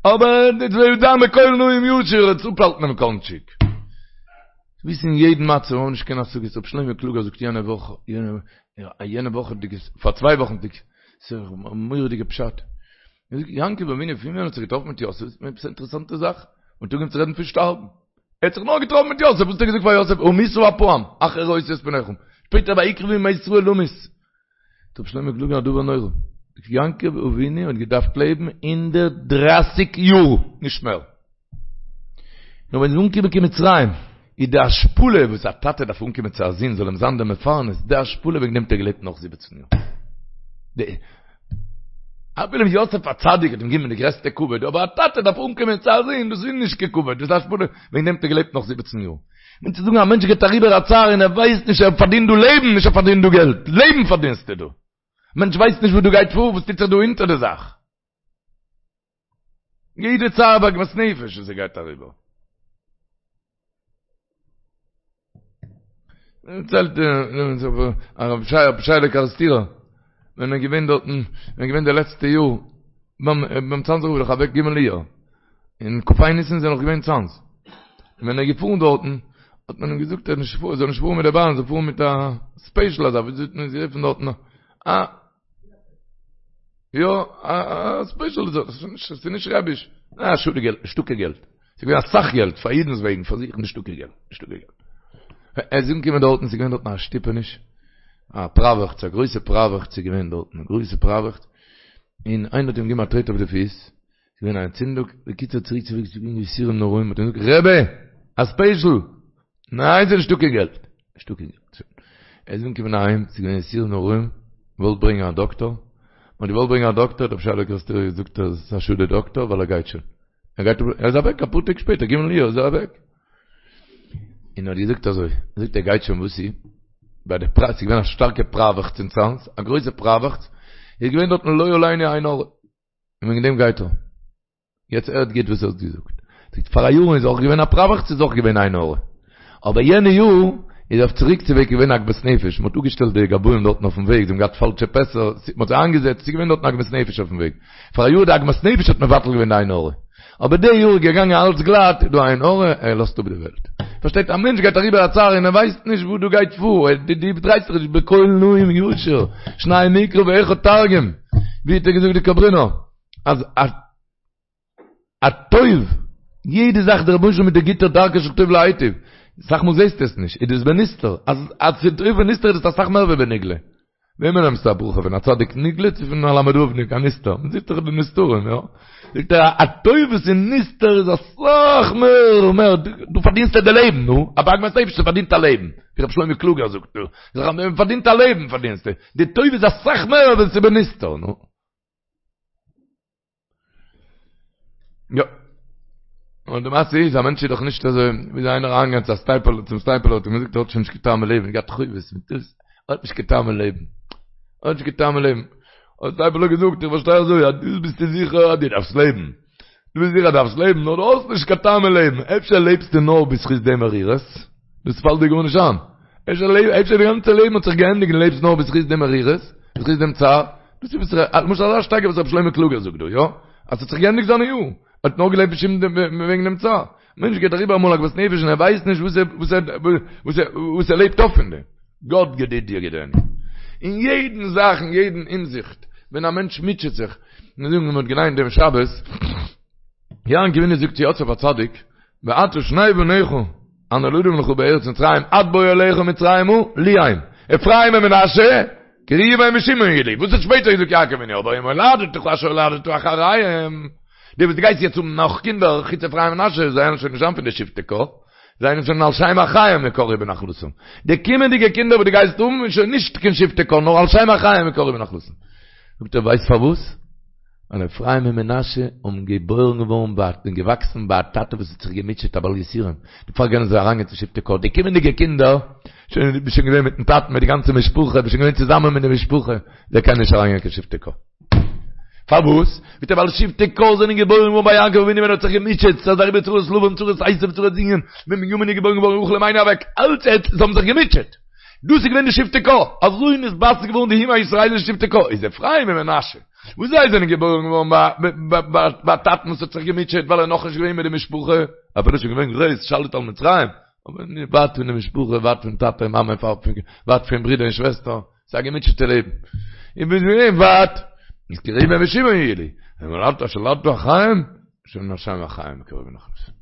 אבער דאס וועט זיין בקול נעים ישיר, עס אפהאלטן דעם קאנטשיק. וויסן אין יעדן מצב האבן נישט קיין השגות, רבי שלמה קלוגער זאגט יענע וואך, יענע וואך, פאר צוויי וואכן, ס'איז א מורא'דיגע פשט. ער זאגט, יעקב אבינו פון ווען האט זיך געטראפן מיט יוסף, איז עפעס א אינטערעסאנטע זאך, און אנגעהויבן צו רעדן פון שטארבן. ער האט זיך נאר געטראפן מיט יוסף, וואס האט ער געזאגט פאר יוסף, אמותה הפעם, אחרי ראותי את פניך. שפעטער ויקרבו ימי ישראל למות. זאגט רבי שלמה קלוגער א דבר נורא. יעקב אבינו האט געדארפט לעבן 130 יאר, נישט מער. נאר ווען מ'איז אנגעקומען קיין מצרים, איז די השפלה וואס א טאטע דארף אנקומען צו א זון זאל אים זיין דער מפרנס, די השפלה וועגן דעם האט ער געלעבט נאך זיבעצן יאר. די אפילו יוסף הצדיק האט אים געגעבן די גרעסטע כבוד, אבער א טאטע דארף אנקומען צו א זון, דאס איז נישט קיין כבוד, דאס איז השפלה, וועגן דעם האט ער געלעבט נאך זיבעצן יאר. מיינט צו זאגן א מענטש גייט אריבער א צער און ער ווייסט נישט ער פארדינט דא לעבן, נישט ער פארדינט דא געלט, לעבן פארדינסטו דא. מענטש ווייסט נישט וואס דא גייט פאר, וואס טוט זיך דא אונטער די זאך. יעדע צער ועגמת נפש וואס ער גייט אריבער. דערציילט הרב ישעי'לע קערעסטירער, ווען ער איז געווען דארטן, ווען ער איז געווען די לעצטע יאר, ביים צאנזער רב איז דאך אוועק ג' אייר, און כ"ה ניסן איז ער נאך געווען אין צאנז. און ווען ער איז געפארן דארטן, האט מען אים געזאגט ער זאל נישט פארן מיט די באן, ער זאל פארן מיט א ספעישל אזא, ווי האט מען עס גערופן דארטן, א יא, א ספעישל, ס'איז נישט רעביש, א שאד די געלט, נישטא קיין געלט. ס'איז געווען אסאך געלט, פאר אידנ'ס וועגן, פאר זיך נישטא קיין געלט, נישטא קיין געלט. ער איז אנגעקומען דארטן, ס'איז געווען דארטן א שטופעניש, א פראוועכץ, א גרויסע פראוועכץ איז געווען דארטן, א גרויסע פראוועכץ, און איינער האט אים געגעבן א טרעט אויף די פיס, ס'איז געווען א אנטצינדונג, בקיצור צוריק צו וועגס איז געווען יסורים נוראים, האט ער געזאגט, רבי, א ספעישל! ניין ס'איז נישטא קיין געלט, נישטא קיין געלט, שוין. ער איז אנגעקומען אהיים, ס'איז געווען יסורים נוראים, געוואלט ברענגען א דאקטאר, מ'האט געוואלט ברענגען א דאקטאר, האט רבי ישעי'לע קערעסטירער געזאגט אז ס'איז א שאד די דאקטאר ווייל ער גייט שוין. ער גייט ער איז אוועק אפאר טעג שפעטער, ג' אייר איז ער אוועק. און ער האט געזאגט אזוי, ער זאגט ער גייט שוין וואס איז? ביי די פרא, ס'איז געווען א שטארקע פראוועכץ אין צאנז, א גרויסע פראוועכץ, איז געווען דארטן לא עלינו עין הרע. און וועגן דעם גייט ער. יעצט הערט גוט וואס ער האט געזאגט. זאגט פאר א יאר איז אויך געווען א פראוועכץ איז אויך געווען עין הרע. אבער יענע יאר איז אויף צוריק צו וועג געווען עגמת נפש, מ'האט אפגעשטעלט די גבאים דארטן אויפן וועג, זיי האבן געהאט פאלשע פעסער, מ'האט זיי איינגעזעצט, ס'איז געווען דארטן עגמת נפש אויפן וועג. פאר א יאר די עגמת נפש האט מבטל געווען די עין הרע. אבער די יאר איז געגאנגען אלץ גלאט, איז דא עין הרע, ער לאזט אפ די וועלט. פארשטייט א מענטש גייט אריבער א צער און ער ווייסט נישט וואס דא גייט פאר, דו דרייסט זיך נישט בקול נעים ישיר, שנים מקרא ואחד תרגום, ווי האט ער געזאגט די קאברינער, אז א א טוב, יעדע זאך דער רבונו של עולם מיט די גוטע דרכו של טוב להיטיב, אסאך מאל זעסטו עס נישט, איז דאס בנסתר, אז אז ס'איז טוב בנסתר איז דאס אסאך מער ווי בנגלה. וועמען נעמסטו א ברכה פון א צדיק נגלה צו פון א למד ו'ניק א נסתר? מען זעט דאך די נסתרים, יא? זאגט ער א טוב וואס איז נסתר איז אסאך מער מער, דו פארדינסט די לעבן, נו, א בעגמת נפש פארדינט א לעבן, ווי רבי שלמה קלוגער זאגט דא, מען פארדינט א לעבן פארדינסטו, די טוב איז אסאך מער ווען ס'איז בנסתר, נו. יא. און די מעשה איז, א מענטש איז דאך נישט אזוי, ווי איז איינער אריינגעגאנגען צו א סטייפלער, צום סטייפלער האט אים געזאגט ער האט שוין נישט קיין טעם אין לעבן, געהאט חובות מיט דאס, ער האט נישט קיין טעם אין לעבן. ער האט נישט קיין טעם אין לעבן. האט סטייפלער געזאגט, איך פארשטיי אזוי, אז דאס ביסטו זיכער אז דו דארפסט לעבן. דו ביסט זיכער אז דו דארפסט לעבן, נאר דו האסט נישט קיין טעם אין לעבן. אפשר לעבסטו נאר בזכות די מרירות? דאס פאלט דיר גארנישט איין. אפשר אפשר די גאנצע לעבן האט זיך געענדיגט און לעבסט נאר בזכות די מרירות, בזכות דעם צער. דאס איז וואס ר', למשל אזא שטייגער וואס ר' שלמה קלוגער זאגט דא, יא? אז ס'האט זיך געענדיגט זיינע יארן. ער האט נאר געלעבט בשום וועגן דעם צער. מענטש גייט אריבער אמאל עגמת נפש און ער ווייסט נישט וואס ער וואס ער וואס ער וואס ער לעבט אויף פון דעם. גאט גדידי יגידני. אין יעדן זאך אין יעדן הינזיכט ווען א מענטש מוטשעט זיך, מיר זאגן מען האט געליינט דעם שבת, יעקב אבינו זאגט צו יוסף הצדיק, ועתה שני בניך הנולדים לך בארץ מצרים עד בואי אליך מצרימה לי הם, אפרים ומנשה. כי ראובן ושמעון יהיו לי, וואס האט שפעטער געזאגט יעקב אבינו, אבער ומולדתך אשר הולדת אחריהם, די וואס דו גייסט יעצט האבן נאך קינדער, חוץ אפרים ומנשה, זיי וועלן שוין נישט זיין פון די שבטי קה, זיי זענען שוין על שם אחיהם יקראו בנחלתם. די קומענדיגע קינדער וואס דו גייסט האבן איז שוין נישט קיין שבטי קה, נאר על שם אחיהם יקראו בנחלתם. זאגט ער, ווייסט פארוואס? ווייל אפרים און מנשה האבן געבוירן געווארן ביי און געוואקסן ביי א טאטע וואס האט זיך געמוטשעט א בעל יסורים, דערפאר קענען זיי אריינגיין צו שבטי קה. די קומענדיגע קינדער, שוין ביסט שוין געווען מיטן טאטן מיט די גאנצע משפחה, ביסט שוין געווען צוזאמען מיט די משפחה, זיי קענען נישט אריינגיין קיין שבטי קה. פארוואס? זאגט ער ווייל שבטי קה זענען געבוירן געווארן ביי יעקב אבינו ווען ער האט זיך געמוטשעט, ס'איז אריבער צרות לבן, צרות עשו, צרות זינגען, ווען בנימין איז געבוירן געווארן רחל אמנו אוועק, אלץ ער זיי האבן זיך געמוטשעט. דאס איז געווען די שבטי קה, אזוי נתבסס געווארן די אומה הישראלית שבטי קה, איז אפרים און מנשה, וואס זיי זענען געבוירן געווארן ביי א טאטן וואס האט זיך געמוטשעט ווייל ער איז נאכנישט געווען מיט די משפחה, אפילו איז שוין געווען גרויס, שליט על מצרים, אבער ווייט פון די משפחה, ווייט פון טאטע און מאמע, ווייט פון ברודער און שוועסטער. ס'איז א געמוטשעטע לעבן. איך בין געווען ווייט. איז כי ראובן ושמעון יהיו לי. ומולדתך אשר הולדת אחריהם, שוין על שם אחיהם יקראו בנחלתם.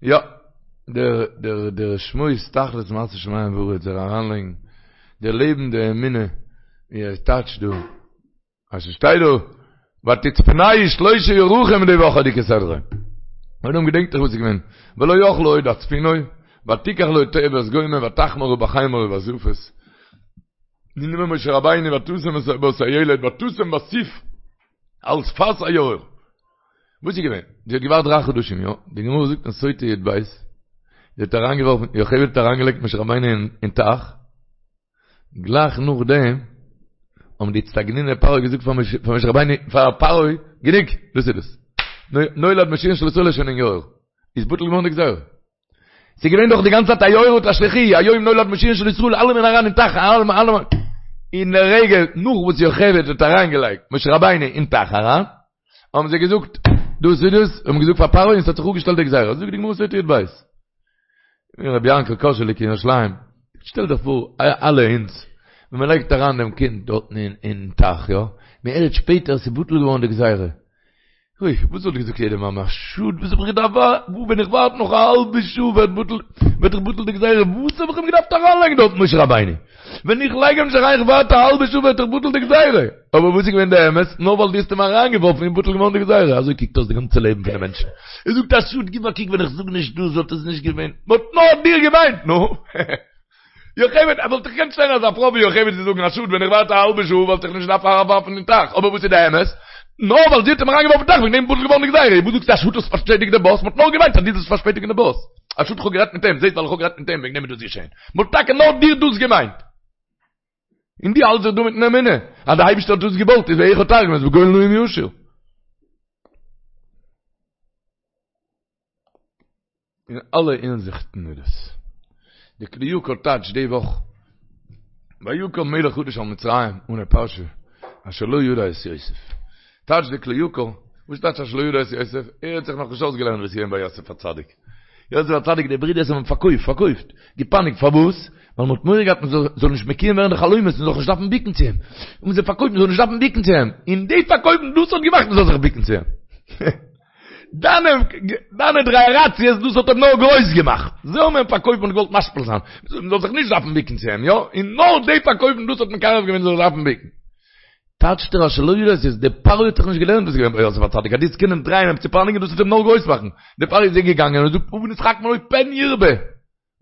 יא, דער דער דער שמועס תכלית מעשה שמים וארץ זאל אריינלייגן די לעבן די אמונה ווי ער טייטשט דא. אז ס'שטייט דא ותצפנהו שלשה ירחים די וואכעדיגע סדרה. און געדענקט איך וואס איז געווען. ולא יכלה עוד הצפינו, ותקח לו טבת גומא ותחמרה בחמר ובזפת. גענומען משה רבינו ותשם בו את הילד ותשם בסוף על שפת היאור. וואס איז געווען? זי האט געווארט דריי חדשים, יא? די גמרא זאגט אין סוטה י"ב, זי האט אריינגעווארפן, יוכבד האט אריינגעלייגט משה רבינו אין טייך, גלייך נאכדעם האבן די אצטגניני פרעה געזאגט פאר משה רבינו, פאר פרעה, גענוג, דאס איז דאס. נולד מושיען של ישראל איז שוין אין יאור. איז בטל געווארן די גזירה. ס'איז געווען דאך די גאנצע צייט היאורה תשליכוהו, היום נולד מושיען של ישראל, אלעמען אריין אין טייך, אלעמען, אלעמען. אין די רגע נאך וואס יוכבד האט אריינגעלייגט משה רבינו אין טייך אריין, האבן זיי געזאגט, דאס איז דאס, האבן געזאגט פאר פרעה און ס'האט זיך אפגעשטעלט די גזירה. זאגט די גמרא סוטה י"ב. רבי יענקל קאזשעליק אין ירושלים, שטעל דיך פאר, אלע אונז, ווען מען לייגט אריין דעם קינד דארטן אין טייך, יא, מען הערט שפעטער ס'איז בטל געווארן די גזירה. אוי, וואס וואלט געזאגט יעדע מאמע, א שאד, וואס האב איך געדארפט ווארטן, ווען איך ווארט נאך א האלבע שעה ווערט בטל, ווערט דאך בטל די גזירה, וואס האב איך אים געדארפט אריינלייגן דארט משה רבינו? ווען איך לייג אים נישט אריין, איך ווארט א האלבע שעה ווערט דאך בטל די גזירה. אבער וואס איז געווען די אמת? נאר ווייל דו האסט אים אריינגעווארפן איז בטל געווארן די גזירה. אזוי קוקט אויס די גאנצע לעבן פון די מענטשן. ער זאגט א שאד, גיב א קוק ווען איך זאג נישט דאס וואלט עס נישט געווען. מען האט נאר דיר געמיינט, נו. יוכבד, ער וואלט דאך געקענט שטיין אזא פרוי ווי יוכבד צו זאגן א שאד ווען איך ווארט א האלבע שעה וואלט איך נישט געדארפט אריינווארפן אין טייך. אבער וואס איז די אמת? נאר ווייל זי האט אים אריינגעווארפן אין טייך וועגן דעם איז בטל געווארן די גזירה. וואס זאגסטו א שאד האסט פארשפעטיגט די באס? מען האט נאר געמיינט אז דו זאלסט פארשפעטיגן די באס. א שאד איך האב גערעדט מיט אים, זעסט ווייל איך האב גערעדט מיט אים וועגן דעם איז דאס געשען. מען האט טאקע נאר דיר דאס געמיינט. און דו האלטסט זיך דא מיטן אמונה אז די אייבערשטער האט דאס געוואלט איז ואחד תרגום איז בגול נעים ישיר. אין אלע הינזיכטן איז דאס. די כלי יקר טייטשט די וואך ויקם מלך חדש על מצרים אן א פרשה אשר לא ידע את יוסף. טייטשט די כלי יקר, וואס טייטש אשר לא ידע את יוסף? ער האט זיך נאכנישט אויסגעלערנט וואס איז געווען ביי יוסף הצדיק. יוסף הצדיק די ברידערס האבן אים פארקויפט, פארקויפט, געפייניגט, פארוואס? ווייל מ'האט מורא געהאט מ'זאל נישט מקוים ווערן די חלומות, מ'זאל זיך נישט דארפן ביקן צו אים. האבן זיי פארקויפט מ'זאל נישט דארפן ביקן צו אים. און די פארקויפן דאס האט געמאכט מ'זאל זיך ביקן צו אים. דיינע דיינע דרייעראציעס דאס האט אים נאר גרויס געמאכט. זיי האבן אים פארקויפט מ'האט געוואלט משפיל זיין. מ'זאל זיך נישט דארפן ביקן צו אים, יא? און נאר די פארקויפן דאס האט מקרב געווען מ'זאל זיך דארפן ביקן. טייטשט ער אשר לא ידע את יוסף, דער פרעה האט זיך נישט געלערנט וואס איז געווען ביי יוסף הצדיק, אז דו וועסט קענען דרייען אים צו פייניגן דאס וועט אים נאר גרויס מאכן, דער פרעה איז געגאנגען און זאגט הבה נתחכמה לו פן ירבה,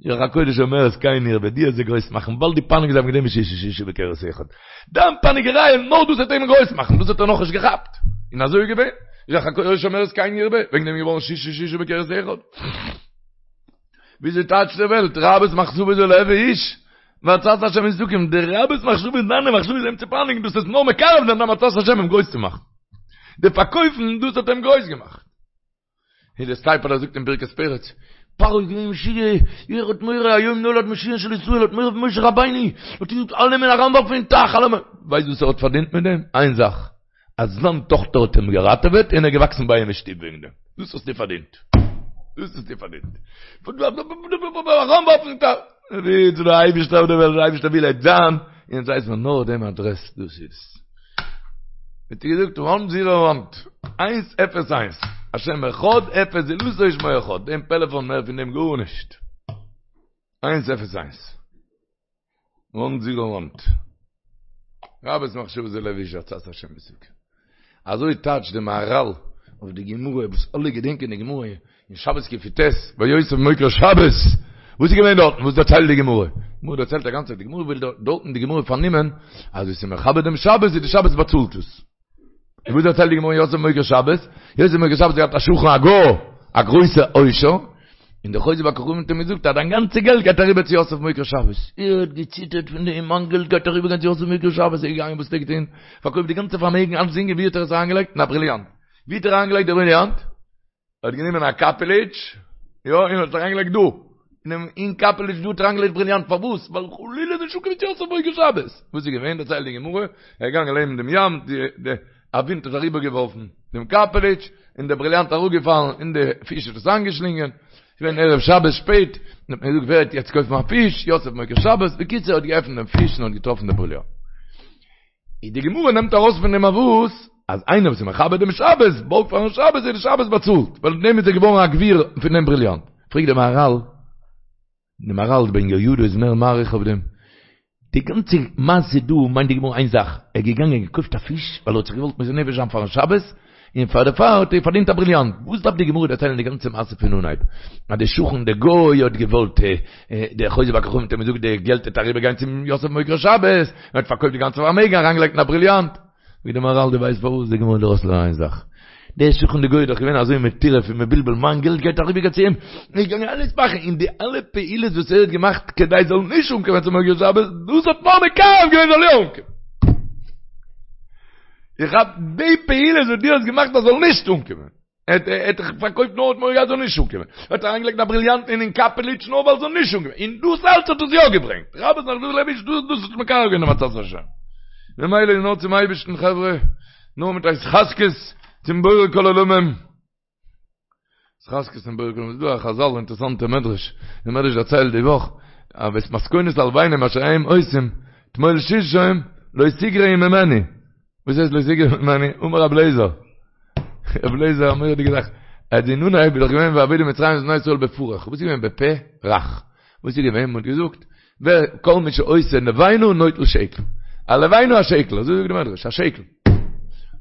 רוח הקודש אומרת כן ירבה, דו וועסט זיי גרויס מאכן, ווייל דו פייניגסט זיי וועגן דעם ששה ששה בכרס אחד, דיין פייניגעריי נאר דאס וועט אים גרויס מאכן, דאס האט ער נאכנישט געכאפט, און אזוי איז געווען, רוח הקודש אומרת כן ירבה, וועגן דעם איז געווארן ששה ששה בכרס אחד. וויאזוי טייטשט די וועלט, רבות מחשבות בלב איש, ועצת השם היא תקום, די רבות מחשבות דיינע מחשבות אים צו פייניגן דאס איז נאר מקרב זיין דיין עצת השם אים גרויס צו מאכן. די פארקויפן דאס האט אים גרויס געמאכט. ווי דער סטייפלער זאגט אין ברכת פרץ, פרעה איז געווען משוגע, ער האט מורא היום נולד מושיען של ישראל, האט מורא פון משה רבינו, האט געזאגט אלעמען אריינווארפן אין טייך, אלעמען, ווייסט וואס ער האט פארדינט מיט דעם? איין זאך, אז זיין טאכטער האט אים געראטעוועט און ער איז געוואקסן ביי אים אין שטוב וועגן דעם. דאס האסטו פארדינט. דאס האסטו פארדינט. אריינווארפן אין טייך. ווי צו דער אייבערשטער אויף דער וועלט, דער אייבערשטער וויל ער זיין, און אונז ווייסן מיר נאר דעם אדרעס, דאס איז. האט ער געזאגט וואן זירא וואן, איינס אפס איינס, השם אחד אפס זולתו ושמו אחד, דעם פעלעפאן מער פון דעם גארנישט. איינס אפס איינס. וואן זירא וואן. רבות מחשבות בלב איש עצת השם היא תקום. אזוי טייטשט די מהרל אויף די גמרא וואס אלע געדענקען די גמרא אין שבת קי"ט ביי יוסף מוקיר שבת, וואס איז געווען דארטן? וואס דערציילט די גמרא? די גמרא דערציילט א גאנצע, די גמרא וויל דארטן די גמרא פארנומען אז ווער ס'איז מכבד דעם שבת איז די שבת באצאלט עס. און וואס דערציילט די גמרא אין יוסף מוקיר שבת? יוסף מוקיר שבת האט געהאט א שכן א גוי, א גרויסע עושר, און דער חוזה בכוכבים האט אים געזאגט אז דיין גאנצע געלט גייט אריבער צו יוסף מוקיר שבת. ער האט געציטערט פון דעם, מיין געלט גייט אריבער גיין צו יוסף מוקיר שבת, ער איז געגאנגען וואס האט ער געטון? פארקויפט די גאנצע פארמעגן, אלצדינג, און ווי האט ער עס אריינגעלייגט? אין א בריליאנט. ווי האט ער אריינגעלייגט די בריליאנט? ער האט גענומען א קאפעליטש, יא, און האט עס אריינגעלייגט דא, אינעם אין קאפעליטש דא האט ער אריינגעלייגט בריליאנט, פארוואס? ווייל חלילה נישט אנקומען צו יוסף מוקיר שבת. וואס איז געווען? דערציילט די גמרא, ער איז געגאנגען לעבן דעם ים, די די א ווינט האט אריבערגעווארפן דעם קאפעליטש, און דער בריליאנט איז אראפגעפאלן, און די פיש האט עס איינגעשלינגען, ס'איז געווען ערב שבת שפעט, און האט מען געזאגט ווער וועט יעצט קויפן א פיש, יוסף מוקיר שבת, בקיצור ער האט געעפנט דעם פיש און האט געטראפן די בריליאנט. איז די גמרא נעמט ארויס פון דעם א וואס? אז איינער וואס איז מכבד דעם שבת, בארגט פארן שבת, איז די שבת באצאלט, ווייל מיט דעם איז ער געווארן א גביר פון דעם בריליאנט. פרעגט דער מהרל, דער מהרל בן יהוידע איז מער מאריך אויף דעם, די גאנצע מעשה דא מיינט די גמרא איין זאך, ער איז געגאנגען געקויפט א פיש, ווייל ער האט זיך געוואלט מוסר נפש זיין פארן שבת, און פאר דערפאר האט ער פארדינט א בריליאנט. וואס דארף די גמרא דערציילן די גאנצע מעשה פון אנהייב? אז דער שכן דער גוי האט געוואלט, דער חוזה בכוכבים האט אים געזאגט די געלט וועט אריבער גיין צום יוסף מוקיר שבת, און האט פארקויפט די גאנצע פארמעגן אריינגעלייגט אין א בריליאנט. זאגט דער מהרל דו ווייסט פארוואס די גמרא וויל ארויסלערנען איין זאך? דער שכן דער גוי איז דאך געווען אזוי מטורף און מבולבל מיין געלט גייט אריבער גיין צו אים, ער איז געגאנגען אלעס מאכן און די אלע פעולות וואס ער האט געמאכט כדי זאל נישט אנקומען צום מוקיר שבת, דאס האט נאר מקרב געווען זאל יא אנקומען. איך האב די פעולות וואס דו האסט געמאכט אז זאל נישט אנקומען. ער האט דאך פארקויפט נאר האט מורא געהאט זאל נישט אנקומען. ער האט אריינגעלייגט א בריליאנט אין אין קאפעליטש נאר ווייל זאל נישט אנקומען. און דאס אלץ האט עס יא געברענגט. רבות מחשבות בלב איש דאס דאס האט מקרב געווען דעם עצת השם. ממילא איז נאר צום אייבערשטן חברה, נאר מיט התחזקות צום בורא כל עולמים. התחזקות צום בורא כל עולמים. ס'איז דא א חזל אינטערעסאנטע מדרש. די מדרש דערציילט די וואך, אז ואת מתכונת הלבנים אשר הם עושים, תמול שלשום לא תגרעו ממני. וואס הייסט לא תגרעו ממני? אמר רב לעזער. רב לעזער א מורא'דיגע זאך. אז אין אנהייב איז דאך געווען ויעבידו מצרים את בני ישראל בפרך. וואס איז געווען בפה רך? וואס איז געווען? מ'האט געזאגט, ווער כל מי שעושה לבנה נוטל שקל. א לבנה א שקל, אזוי זאגט די מדרש, א שקל.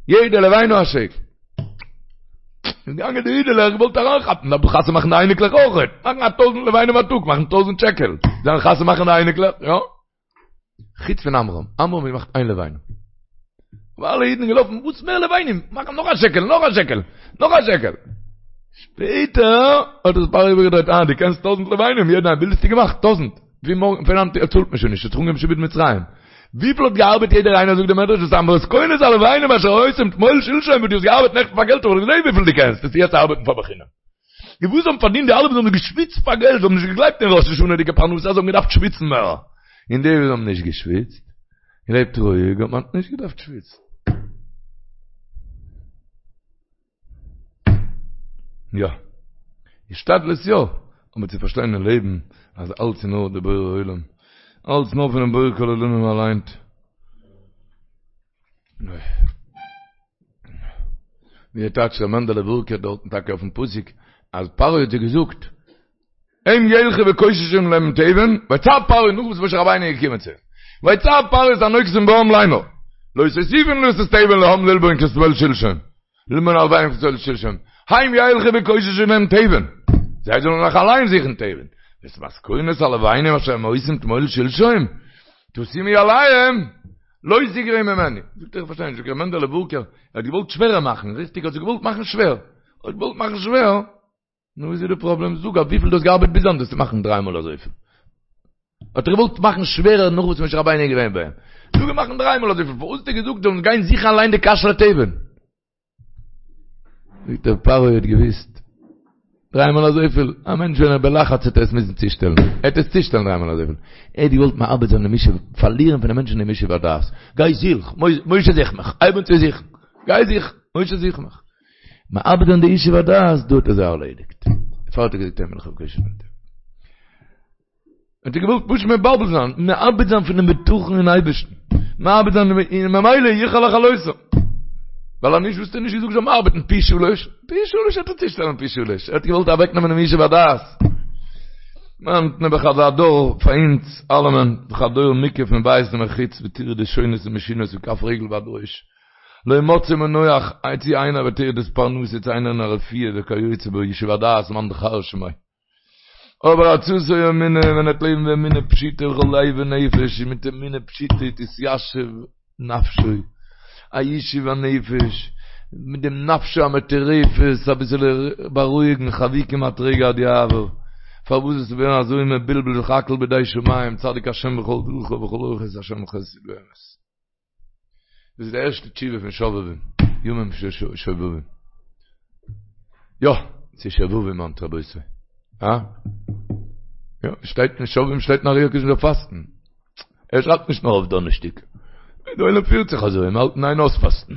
יעדע לבנה א שקל. איז געגאנגען די אידעלעך געוואלט אריינכאפן, דארף דאך חתונה מאכן די אייניקלעך אויכעט. מאכן א טויזענט לבנים א טאג, מאכן טויזענט שקל. זיי חתונה מאכן די אייניקלעך, יא. חוץ פון עמרם, עמרם האט געמאכט איין לבנה. אבער אלע אידן געלאפן, וואס מער לבנים, מאכן נאך א שקל, נאך א שקל, נאך א שקל. שפעטער האט עס פרעה איבערגעדרייט, אה, דו קענסט טויזענט לבנים, יעדער איינער, וויפיל האסטו געמאכט? טויזענט. פון מארגן, פון היינט צאלט מען שוין נישט, האט זיך אנגעהויבן שעבוד מצרים. וויפיל האט געארבעט יעדער איינער, זאגט דער מדרש, ואת המתכונת הלבנים אשר עושים תמול שלשום, וואס דו האסט געארבעט נעכטן פאר געלט, האב איך געזען וויפיל דו קענסט, וועסטו יעצט ארבעטן פאר בחינם. די וואס האבן פארדינט די אלע וואס האבן געשוויצט פאר געלט, זיי האבן נישט געגלייבט אין ראש השנה'דיגע פרנסה, זיי האבן געדארפט שוויצן מער. און די וואס האבן נישט געשוויצט, געלעבט רואיג, האט מען נישט געדארפט שוויצן. יא. השתדלות יא, אבער צו פארשטיין אין לעבן אז אלץ איז נאר די בורא עולם, אלץ נאר פונעם בורא כל עולמים אליין. ווי טייטשט ר' מענדעלע ווארקער דארטן טאקע אויפן פסוק אז פרעה האט זיי געזאגט הם ילכו וקוששו להם תבן ויצו פרעה נאך וואס משה רבינו איז געקומען צו אים ויצו פרעה את הנוגשים בעם לאמר לא תוסיפון לתת תבן לעם ללבון כתמול שלשום ללבון הלבנים כתמול שלשום הם ילכו וקוששו להם תבן זיי זאלן נאך אליין זוכן תבן ואת מתכונת הלבנים אשר הם עושים תמול שלשום תשימו עליהם לא תגרעו ממני. זאגט ער איך פארשטיי נישט, זאגט ר' מענדעלע ווארקער, ער האט געוואלט שווערער מאכן, ריכטיג האט זיך געוואלט מאכן שווער, ער האט געוואלט מאכן שווער, נו וואס איז די פראבלעם, זאג אויף וויפיל דו האסט געארבעט ביז היינט וועסטו מאכן דריי מאל אזויפיל. האט ער געוואלט מאכן שווערער נאך וואס משה רבינו איז געווען ביי אים. זאג אים מאכן דריי מאל אזויפיל, פארוואס האט ער געזאגט זאלן גיין זוכן אליין די קש לתבן? זאגט ער פרעה האט געוויסט דריי מאל אזויפיל, א מענטש ווען ער בלחץ וועט ער עס מוזן צושטעלן, ער וועט עס צושטעלן דריי מאל אזויפיל, ער האט געוואלט מאבד זיין דעם ישוב, פארלירן פון די מענטשן דעם ישוב הדעת, גיי זוך, משה זוך מיך, הייב אן צו זוכן, גיי זוך, משה זוך מיך, מאבד זיין די ישוב הדעת, דא האט ער זיי ארלעדיגט, דערפאר האט ער געזאגט הם ילכו וקוששו להם תבן. האט ער געוואלט פשוט מבלבל זיין, מאבד זיין פונעם בטחון אין אייבערשטן, מאבד זיין און ממילא יוכל לכלותם. ווייל אז נישט וואלסטו נישט געזאגט זאל מען ארבעטן פי שלוש, פי שלוש וועט ער צושטעלן פי שלוש, ער האט געוואלט אוועקנעמען דעם ישוב הדעת. היינט נעבעך אזא דור פאר אונז אלעמען, דאך א דור מוקף מבית ומחוץ בטרדות שונות ומשונות מכף רגל ועד ראש, לא מצא מנוח צו איינער בטרדות פרנסה צו איינער אין א רפואה וכיוצא בו ישוב הדעת מאן דכר שמיה. אבער עצתו אמונה ווען ער וועט לעבן באמונה פשוטה בכל לב ונפש און מיט אמונה פשוטה תתיישב נפשו, א ישוב הנפש, מיט דעם נפשו המטורפת אביסעלע בארואיגן חבי כמעט רגע עד יעבור, פארוואס זאלסטו ווערן אזוי מבולבל זיך הכל בידי שמים צדיק השם בכל דרכיו וכל אורחות השם חסד ואמת. דאס איז די ערשטע תשובה פון שובבים, ימים של שובבים. יא, ס'איז שובבים היינט רבותי. אה? יא, שטייט אין שובבים שטייט אין אר"י הקדוש מ'זאל פאסטן. ער שרייבט נישט נאר אויף דאנערשטאג. די עולם פירט זיך אזוי, מ'האלט אין איין אויספאסטן.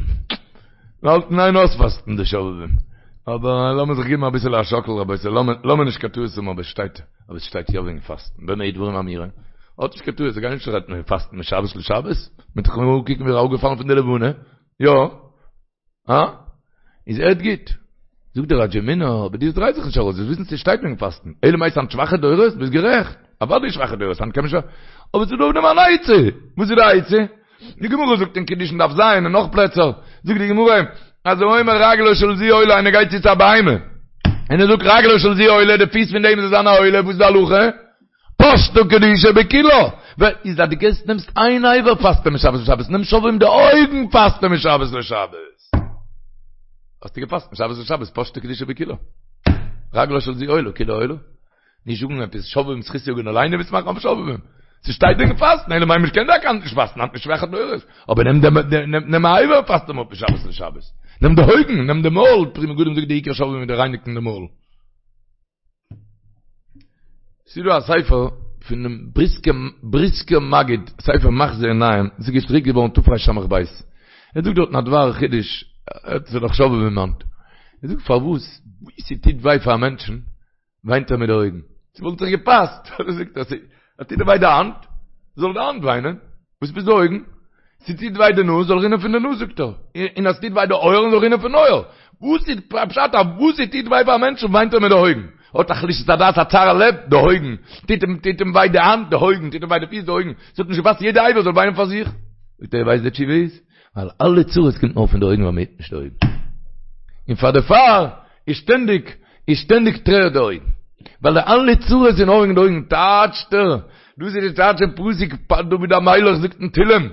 מ'האלט אין איין אויספאסטן די שובבים. אבער לאמיר זיך געבן אביסעלע א שאקל רבותי, לאמיר נישט קיין טעות האבן אבער שטייט, אבער עס שטייט יא וועגן פאסטן, במה דברים אמורים? האט נישט קיין טעות, זיי גייען נישט רעדן וועגן פאסטן משבת לשבת, מ'וועט דאך נאר אנקוקן ווי אראפגעפאלן פון די לבנה, יא? הא? איז הערט גוט. זאגט דער ראדזימינער, אבער דאס דרייט זיך נישט ארויס, זאלסט וויסן ס'שטייט וועגן פאסטן, אלא מאי ס'היינט שוואכע דורות, ביסט גערעכט, אוודאי שוואכע דורות, היינט קען מען שוין, אבער ס'איז דא אויף דעם אן עצה, וואס איז די עצה? די גמרא זאגט אין קידושין דף ז און נאך פלעצער, זאגט די גמרא, אז האומר רגלו של זו עולה איינער גייט צו צו א בהמה, און ער זאגט רגלו של זו עולה, די פיס פון דעם זאל זיין א עולה, וואס איז די הלכה? פשטה קדושה בכולה, איז אז דו גייסט נעמסט איין אבר פאסטו משבת לשבת, נעם שובבים די אויגן פאסטו משבת לשבת. האסטו געפאסט משבת לשבת פשטה קדושה בכולה. רגלו של זו עולה, כולה עולה. נישט זאגן עפעס שובבים זכות יגן עלינו וועסט מאכן אויף שובבים. ס'שטייט וועגן פאסטן, אלא מאי מ'קען דאך נישט פאסטן, היינט שוואכע דורות. אבער נעם דעם נעם א אבר פאסט אים אפ משבת לשבת. נעם די אויגן, נעם די מויל, פרי מגדים זאגט די עיקר שובבים איז די רייניגן די מויל. ס'איז דא א ספר פונעם בריסקער בריסקער מגיד, ספר מחזה עיניים, דאס איז געדרוקט געווארן תרס"ב, ער זאגט דארטן א דבר חידוש, עס איז דאך שובבים היינט, ער זאגט פארוואס ווי ס'טוט וויי פאר א מענטשן וויינט ער מיט די אויגן, ס'וואלט זיך געפאסט, זאגט ער, ס'טוט דיר וויי די האנט, זאל די האנט וויינען, וואס עפעס די אויגן? ס'טוט וויי די נאז, זאל רינען פון די נאז זאגט ער, און אז ס'טוט וויי די אויערן זאל רינען פון אויער. וואס איז פשט אז וואס ס'טוט וויי פאר א מענטשן וויינט ער מיט די אויגן? האט א חלישת הדעת א צער הלב, די אויגן. טוט אים טוט אים וויי די האנט, די אויגן. טוט אים וויי די פיס, די אויגן. ס'האט נישט געפאסט יעדע אבר זאל וויינען פאר זיך. זאגט ער, ווייסט די תשובה איז? ווייל אלע צרות קומט נאר פון די אויגן ווייל מ'היט נישט די אויגן. און פאר דערפאר איז שטענדיג איז שטענדיג טרערט די אויגן. ווייל די אלע צרות איז נאר וועגן די אויגן טייטשט ער, דאס איז די טייטש אין פסוק דוד המלך זאגט אין תהילים,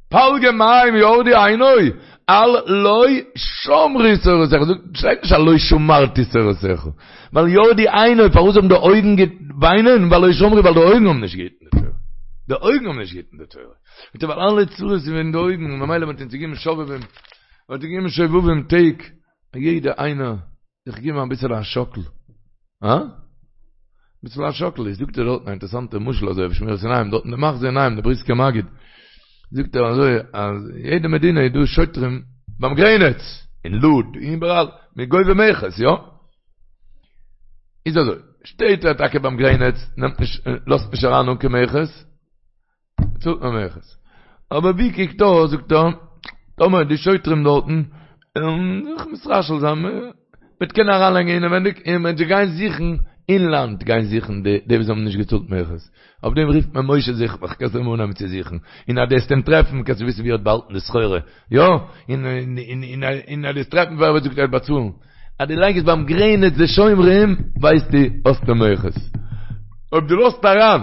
פלגי מים ירדו עיני, על לא שמרו תורתך, זאגט שטייט נישט על לא שמרתי תורתך, ווייל ירדו עיני, פארוואס האבן די אויגן געוויינען, ווייל לא שמרו, ווייל די אויגן האבן נישט געהיטן די תורה, די אויגן האבן נישט געהיטן די תורה, זאגט ער ווייל אלע צרות איז וועגן די אויגן, ממילא מען האט אונז געגעבן שובבים, מען האט געגעבן שובבים טעג, יעדע איינער זיך געבן אביסעלע א שאקל, הא? אביסל א שאקל, איז זאגט ער דארטן א אינטערעסאנטע משל אזוי אויף שמירת עיניים, דארטן די מחזה עיניים, די בריסקער מגיד, זאגט ער אזוי אז יעדע מדינה איז דא שוטרים ביים גרעניץ, אין לוד, איבעראל, מ'איז גובה מכס, יא? איז אזוי, שטייט ער טאקע ביים גרעניץ, נעמט נישט, לאזט נישט אריין אן קיין מכס, צאלט מען מכס. אבער ווי קוקט אויס, זאגט ער, טאמער די שוטרים דארטן וועלן זיך מתרשל זיין, מ'וועט קענען אריינלייגן אינעווענדיג, און מ'וועט זיי גיין זוכן אין לאנד, גיין זוכן די די וואס האבן נישט געצאלט מכס. אויף דעם רופט מען משה זוך מיך, קענסט אים אנהייבן צו זוכן, און אז דו וועסט אים טרעפן, קענסטו וויסן ווי ער האט באהאלטן די סחורה. יא, און און און אז דו וועסט טרעפן ווער וועט זאגט ער וועט באצאלן. אז דו לייגסט ביים גרעניץ די שומרים, ווייסטו, האסטו מכס. אויב דו לאזט אריין.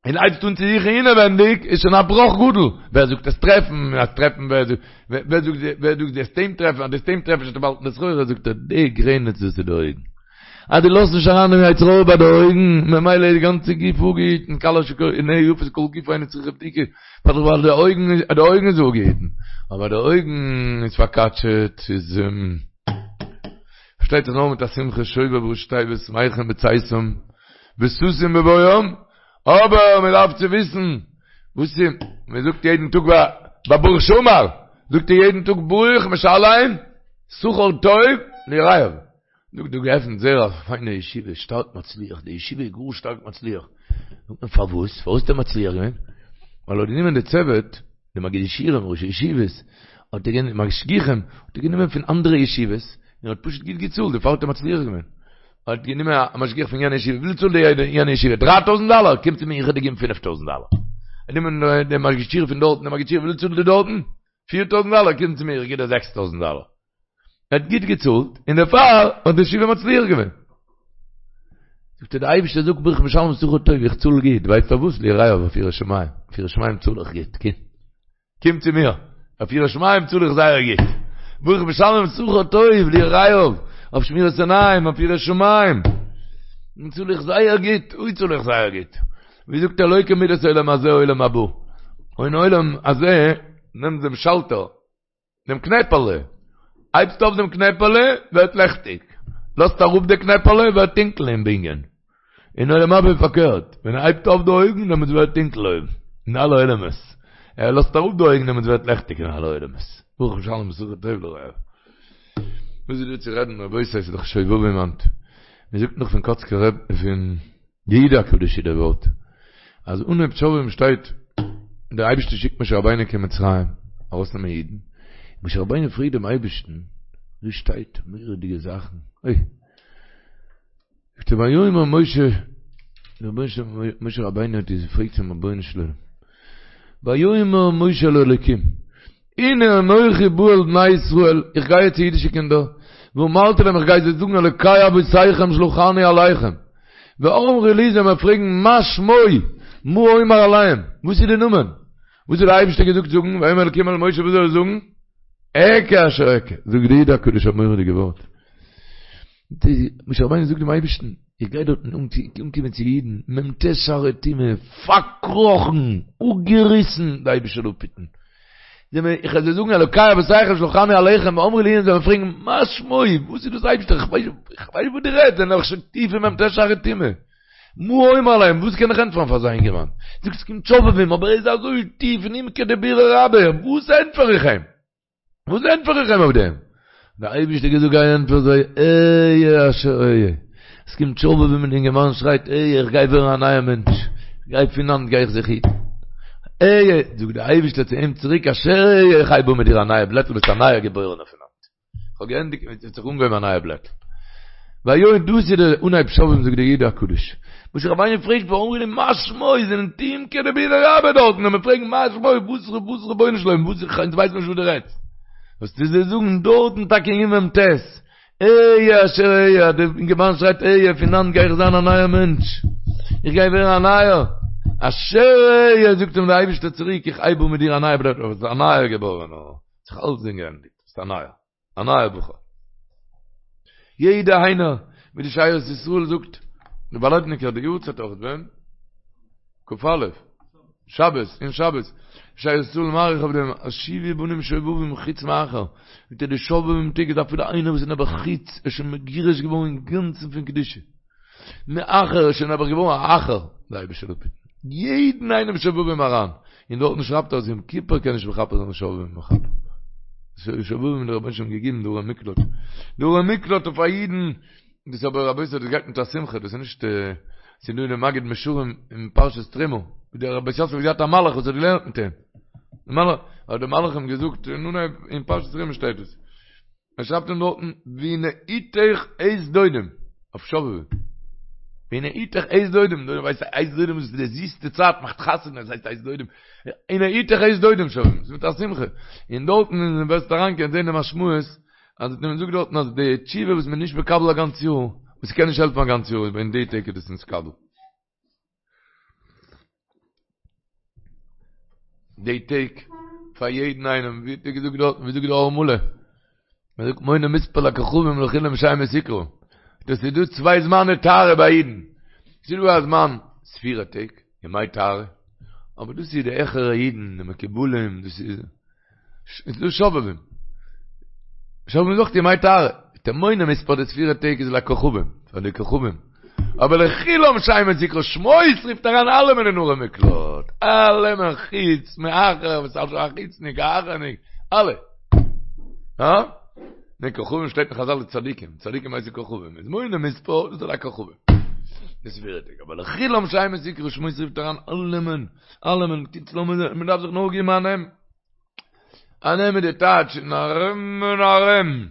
און הייבסט אן צו זוכן אינעווענדיג, איז שוין א בראך גדול. ווער זאגט וועסט טרעפן, אז טרעפן ווער זאגט, ווער זאגט, ווער זאגט וועסט אים טרעפן, אז דו וועסט אים טרעפן שוין באהאלטן די סחורה, זאגט ער, די גרעניץ דאס איז די אויגן. אז דו לאזט נישט אריין דעם יצר הרע ביי די אויגן, ממילא איז די גאנצע גוף אפגעהיטן, כלה שעיניה יפות כל גופה אינה צריכה בדיקה, ווייל די אויגן, די אויגן איז אפגעהיטן. אבער די אויגן איז פארקאטשעט, איז, פארשטייט זיך נאר מיט א שמחה שובב ראשי תיבות שמחים בצאתם וששון בבואם, אבער מען דארף צו וויסן וואס איז, מען זאגט יעדן טאג ביי ברוך שאמר, זאגט ער יעדן טאג ברוך משלם שכר טוב ליראיו, זאגט דא געעפנט זייער א פיינע ישיבה, שטארק מצליח, די ישיבה איז גאר שטארק מצליח, זאגט מען פארוואס, פארוואס האט ער מצליח געווען? ווייל ער האט גענומען די צוות, די מגידי שיעורים, ראשי ישיבות, האט ער גענומען, משגיחים, האט ער גענומען פון אנדערע ישיבות, און האט פשוט גוט געצאלט, דערפאר האט ער מצליח געווען. האט גענומען א משגיח פון יענע ישיבה, וויפיל צאלט די יענע ישיבה? דריי טויזענט דאלער? קום צו מיר איך וועל דיר געבן פינף טויזענט דאלער. ער נעמען די מגיד שיעור פון דארטן, די מגיד שיעור וויפיל צאלט די דארטן? פיר טויזענט דאלער? קום צו מיר איך גיב דיר זעקס טויזענט דאלער. ער האט גוט געצאלט, און דערפאר האט די ישיבה מצליח געווען. זאגט ער די אייבערשטער זאגט ברוך משלם שכר טוב איך צאל גוט, ווייסט פארוואס? ליראיו אויף יראת שמים, אויף יראת שמים צאל איך גוט, קום. קום צו מיר, אויף יראת שמים צאל איך זייער גוט. ברוך משלם שכר טוב ליראיו, אויף שמירת עיניים, אויף יראת שמים. צאל איך זייער גוט, אוי צאל איך זייער גוט. ווי זאגט ער לא כמידת עולם הזה עולם הבא. אין עולם הזה נעמט דעם שאלטער, דעם קנעפעלע, הייבסט אויף דעם קנעפעלע, ווערט לעכטיג. לאזט אראפ די קנעפעלע, ווערט טונקל אין בנין. אין עולם הבא איז פארקערט, ווען ער הייבט אויף די אויגן דעמאלטס ווערט טונקל אויבן, אין אלע עולמות, ער לאזט אראפ די אויגן דעמאלטס ווערט לעכטיג אין אלע עולמות, ברוך משלם שכר טוב ליראיו. וואס איז דא צו רעדן רבותי ס'איז דאך שובבים היינט, מען זאגט נאך פון קאצקער רב פון די איד הקדוש איז דער ווארט, אז אנהויב שובבים שטייט דער אייבערשטער שיקט משה רבינו קיין מצרים ארויסנעמען אידן, משה רבינו פרעגט דעם אייבערשטן, ווי שטייט מורא'דיגע זאכן, אוי. זאגט ער ויאמר משה, משה רבינו האט געפרעגט צום רבונו של עולם, ויאמר משה אל האלוקים, הנה אנכי בא אל בני ישראל, איך גיי יעצט צו אידישע קינדער, ואמרתי להם איך גיי זיי זאגן אלוקי אבותיכם שלחני אליכם, ואמרו לי זיי וועלן מיר פרעגן מה שמו, מה אומר אליהם, וואס איז די נאמען, וואס האט דער אייבערשטער געזאגט זאגן, ויאמר אלוקים אל משה וואס זאל ער זאגן, אקיה אשר אקיה, זאגט די איד הקדוש א מורא'דיגע ווארט. משה רבינו זאגט דעם אייבערשטן, איך גיי דארטן אנקומען צו אידן, מ"ט שערי טומאה, פארקראכן, אפגעריסן, די אייבערשטער זאל אפהיטן. איך וועל זיי זאגן אלוקי אבותיכם שלחני אליכם, ואמרו לי און זיי וועלן פרעגן, מה שמו, וואס איז דאס אייבערשטער, איך ווייס נישט וואס דו רעדסט, זיי זענען דאך שוין טיף אין מ"ט שערי טומאה. מה אומר אליהם, וואס קען איך ענטפערן פאר אזא אינגערמאן? זאגסט עס קומט שובבים, אבער ער איז אזוי טיף אין עומקא דבירא רבה, וואס ענטפער איך אים? וואס ענטפער איך אים אויף דעם? דער אייבערשטער געזאגט גיי ענטפער זיי, אהיה אשר אהיה. עס קומט שובבים און די אינגערמאן שרייט אהיה איך גיי ווערן א נייער מענטש, איך גיי פון היינט גיי איך זיך היטן. אהיה, זאגט דער אייבערשטער צו אים צוריק אשר אהיה איך הייב אן מיט דיר א נייע בלעטל ביסט א נייער געבוירענער פון היינט. איך האב געענדיגט מיט דיר, האט זיך אנגעהויבן א נייע בלעטל. ויהי דאס איז דער אנהייב שובבים זאגט דער איד הקדוש. משה רבינו פרעגט ואמרו לי מה שמו זענען עומקא דבירא רבה דארטן און מען פרעגט מה שמו וואס וואס רבונו של עולם וואס איך אונז ווייסן נישט וואס דו רעדסט. וועסטו זיי זאגן דארטן טאקע אין מ"ט אהיה אשר אהיה דער אינגערמאן שרייט אהיה פון היינט גיי איך זיין א נייער מענטש איך גיי ווערן א נייער אשר אהיה זאגט אים דער אייבערשטער צוריק איך הייב אן מיט דיר א נייע בלעטל ביסט א נייער געבוירענער האט זיך אלצדינג געענדיגט ביסט א נייער. א נייער בחור. יעדער איינער, ווי די שארית ישראל זאגט, די וואלעדניקער די יארצייט אויך ווען? כ"א, שבת, אין שבת, שארית ישראל מאריך אויף דעם, אז שובו בנים שובבים חוץ מאחר, זאגט ער די שובבים טעג איז אפילו איינער וואס איז נעבעך חוץ, איז שוין מגורש געווארן אינגאנצן פון קדושה. מאחר איז שוין נעבעך געווארן א אחר, די אייבערשטער זאל אפהיטן יעדן איינעם שובבים אריין, און דארטן שרייבט ער אז יום כיפור קען נישט מכפר זיין שובבים מכפר. שובבים האט דער רבונו של עולם געגעבן די ערי מקלט, די ערי מקלט אויף א אידן, דאס אבער רבותי דאס גייט מיט א שמחה, דאס איז נישט, ס'איז דא אין די מגיד מישרים אין פרשת תרומה, ווי דער בית יוסף האט געהאט א מלאך וואס האט געלערנט מיט אים, די מלאך, האט דער מלאך אים געזאגט, אין אנהייב אין פרשת תרומה שטייט עס. ער שרייבט אים דארטן והנה עתך עת דודים, אויף שובבים. והנה עתך עת דודים, דו ווייסט עת דודים איז די זיסטע צייט, מאכט חתונה, עס הייסט עת דודים. הנה עתך עת דודים שובבים, ס'איז מיט א שמחה. און דארטן ווען וועסט אריין קענסט זען די משמעות, אז מען זאגט דארטן אז די תשובה וואס מען איז נישט מקבל א גאנץ יאר, וואס ס'קען נישט העלפן א גאנץ יאר, איז אין די טעג איז דאס נתקבל. די טעג פאר יעדן איינעם, ווי האט ער געזאגט דארטן, ווי זאגט דער אור מלא, מען זאגט מונה מספר לכוכבים לכולם שמות יקרא, דאס איז דא צוויי זמני טהרה ביי אידן, ס'איז דא א זמן ספירה טעג, ימי טהרה, אבער דאס איז די העכערע אידן, די מקובלים, דאס איז. איז דא שובבים. שובבים זאגט ימי טהרה. דער מונה מספר די ספירה טעג איז לכוכבים, פאר די כוכבים. אבער לכולם שמות יקרא שמות רופט אריין אלעמען אין ערי מקלט. אלעמען חוץ מאחר וואס אלס א חוצניק א אחרניק. אלע. הא? די כוכבים שטייט אין חזל די צדיקים. צדיקים הייסן כוכבים. איז מונה מספר דאס איז לכוכבים. די ספירה טעג. אבער לכולם שמות יקרא שמות רופט אריין אלעמען. אלעמען. קיצור מען דארף זיך נאר געבן א נעם. א נעם איז די טייטש אין ארום און ארום.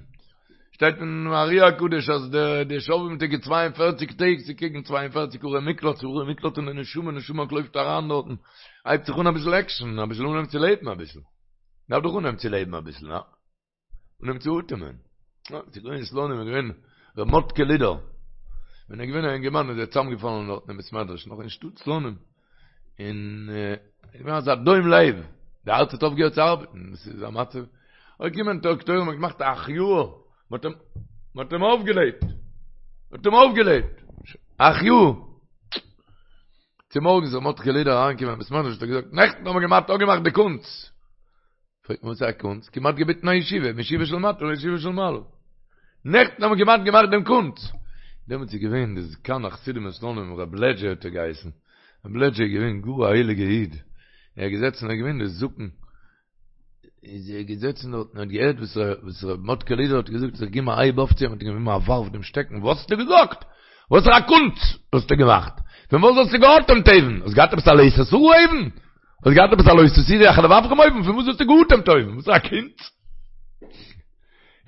שטייט אין ארי הקדוש אז די די שובבים טעג איז 42 טעג ס'איז קעגן 42 ערי מקלט צו ערי מקלט און די נשמה נשמה לויפט אריין דארטן הייבט זיך אן אביסל עקשן אביסל אנהייבן צו לעבן אביסל דארף דאך אנהייבן צו לעבן אביסל הא? אנהייבן צו אטעמען. יא, ס'איז געווען אין סלאנים איז געווען ר' מאטקע לידער. ווען ער איז געווען א אינגערמאן איז ער צוזאמגעפאלן דארטן אין בית מדרש נאך אין שטאט סלאנים. און איז געווען אזא דום לב. די הארץ האט אויפגעהערט צו ארבעטן. דאס איז א מצב. אוי געקומען דאקטוירים האבן געמאכט א החייאה. מ'האט אים מ'האט אים אויפגעלעבט. מ'האט אים אויפגעלעבט. החייאה. צומארגנס איז ר' מאטקע לידער אריינגעקומען אין בית מדרש האט ער געזאגט, נעכטן האבן מיר געמאכט אפגעמאכט די קונץ. פרעגט מען וואס איז א קונץ? כמעט געביטן א ישיבה, מישיבה של מטה לישיבה של מעלה. נעכטן האבן מיר כמעט געמאכט דעם קונץ. דעמאלטס איז געווען די זקן החסידים אין סלאנים, רב לעדזשע האט ער געהייסן. רב לעדזשע איז געווען גאר א הייליגע איד. ער איז געזעצן, ער איז געווען די זקן. איז ער געזעצן דארט און האט געהערט וואס וואס ר' מאטקע לידער האט געזאגט, זיך געגעבן א הייב אויף צו אים, האט אים געגעבן א ווארף דעם שטעקן, וואס האסטו געזאגט? וואסערע א קונץ האסטו געמאכט? פון וואס האסטו געאטעמט אויבן? האסט געהאט עפעס א לא תתורו אויבן? האסט געהאט עפעס א לא תתורו אחרי לבבכם אויבן? פון וואס האסטו געאטעמט אויבן? וואס איז א קונץ?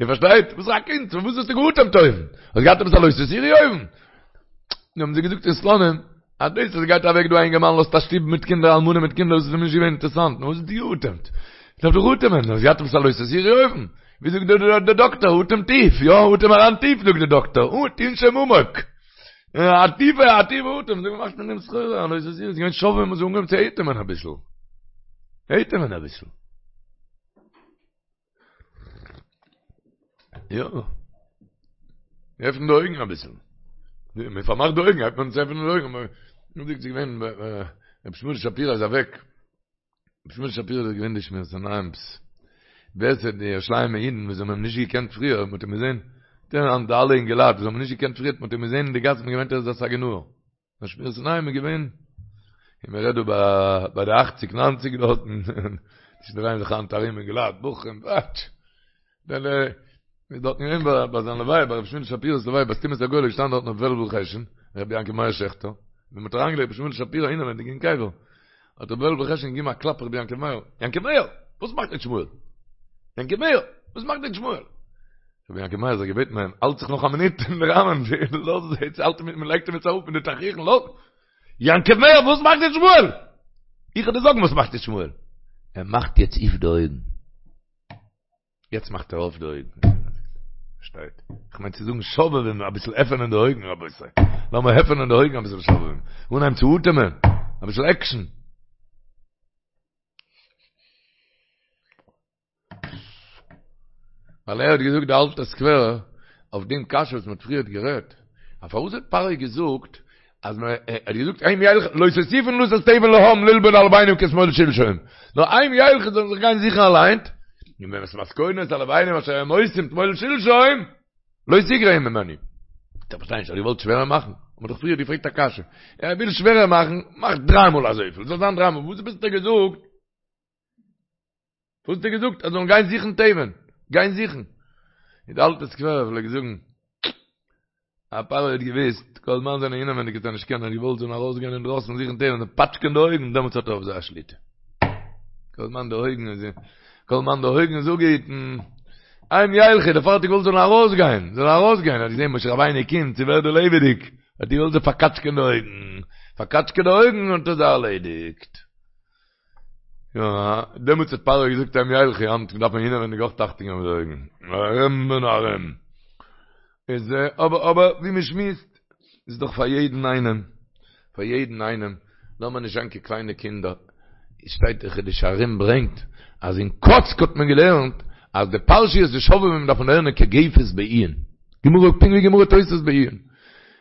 איר פארשטייט? וואס איז א קונץ? פון וואס האסטו געאטעמט אויבן? האסט געהאט עפעס א לא תתורו אויבן? נו האבן זיי געזאגט אין סלאנים, אז דאס אז גייט אוועק דא א אינגערמאן לאזט א שטוב מיט קינדער אלמנה מיט קינדער דאס איז אים נישט געווען אינטערעסאנט, נו וואס האסטו געאטעמט? דארף דאך אטעמען, האסט געהאט עפעס א לא תתורו אויבן? ווי זאגט דער דאקטער, אטעם טיף, יא, אטעם אריין טיף זאגט דער דאקטער, תנשום עמוק. א טיפע, א טיפע אטעם, זאג מאכט מען דעם סחורה, א לא תתורו, איז געווען שובבים מ'האט אנגעהויבן צו אטעמען אביסל. אטעמען אביסל. יא. עפן די אויגן אביסל. מען פארמאכט די אויגן, הייבט מען אן צו עפענען די אויגן. נו זאגט ס'איז געווען, רבי שמואל שפירא איז אוועק. רבי שמואל שפירא איז געווען די שמירת עינים'ס. ווער ס'האט די ירושלימ'ע אידן וואס האבן אים נישט געקענט פריער, מ'האט אים געזען, די אלע אינגעלייט וואס האבן אים נישט געקענט פריער, מ'האט אים געזען אין די גאס, מ'האט געמיינט ער איז א סגי נהור. דער שמירת עיניים איז געווען, און מען רעדט דא ביי ביי די אכציג ניינציג דארטן, עס דרייען זיך היינט ארום אינגעלייט, בחורים, וואטש, דער איז דארטן געווען ביי ביי זיין לוויה, ביי רבי שמואל שפירא'ס לוויה, ביי סתימת הגולל איז געשטאנען דארטן רבי וועלוול חשין, רבי יעקב מאיר שעכטער, ווען מען האט אריינגעלייגט רבי שמואל שפירא אינעווענדיג אין קבר, האט רבי וועלוול חשין געגעבן א קלאפ רבי יעקב מאיר, יעקב מאיר! וואס מאכט יעצט שמואל? יעקב מאיר! וואס מאכט יעצט שמואל? רבי יעקב מאיר האט זיך געבעטן ביי אים, האלט זיך נאך א מינוט אין די ראמען, לאז יעצט האלט אים, מען לייגט אים יעצט אראפ מיט די תכריכים, לאז! יעקב מאיר, וואס מאכט יעצט שמואל? איך וועל דיר זאגן וואס מאכט יעצט שמואל. ער מאכט יעצט אויף די אויגן. יעצט מאכט ער אויף די אויגן. שטייט. איך מיין צו זאגן שובבים, אביסל עפענען די אויגן רבותי. לאמיר עפענען די אויגן אביסל שובבים. אנהייבן צו אטעמען. אביסל עקשן. ווייל ער האט געזאגט די אלטע סקווערער אויף דעם קשיא וואס מען האט פריערט גערעדט, אז פארוואס האט פרעה געזאגט אז מען ער האט געזאגט הם ילכו לא תוסיפון לתת תבן לעם ללבון הלבנים כתמול שלשום, נאר הם ילכו זאלן זיך גיין זוכן אליין, און ואת מתכונת הלבנים אשר הם עושים תמול שלשום לא תגרע ממנו. איך פארשטיי נישט, ער האט געוואלט שווערער מאכן? האט מען דאך פריער געפרעגט א קשיא, ער וויל שווערער מאכן, מאך דריי מאל אזויפיל, זאל זיין דריי מאל, וואס ביסטו געזאגט? וואס האט ער געזאגט? אז זאלן גיין זוכן תבן, גיין זוכן. און די אלטע סקווערער פלעגט זאגן, אז פרעה האט געוואוסט, כל זמן זענען אינעווייניג וועט ער נישט קענען, ער האט געוואלט זאלן ארויסגיין אינדרויסן זוכן תבן, זיי פאטשקען די אויגן, דעמאלטס האט ער אויף זיי א שליטה. כל זמן די אויגן איז, כל זמן די אויגן איז אפגעהיטן, הם ילכו, דערפאר האט ער געוואלט זאלן ארויסגיין, זאלן ארויסגיין, ער האט געזען משה רבינו קומט, ס'ווערט דא לעבעדיג, האט ער געוואלט זיי פארקאטשקען די אויגן, פארקאטשקען די אויגן האט ער זיי ארלעדיגט. יא, דעמאלטס האט פרעה געזאגט הם ילכו, היינט דארף מען אינעווענדיג אויך אכטונג געבן מיט די אויגן. ארום און ארום. איז אבער אבער ווי מען שמועסט, איז דאך פאר יעדן איינעם, פאר יעדן איינעם, לאמיר נישט זיין קיין קליינע קינדער. עס שטייט דער חידושי הרי"ם ברענגט, אז אין קאצק האט מען געלערנט אז די פרשיות די שובבים דארף מען לערנען כגפת בעיון. גמרא, פונקט ווי גמרא תוס' בעיון.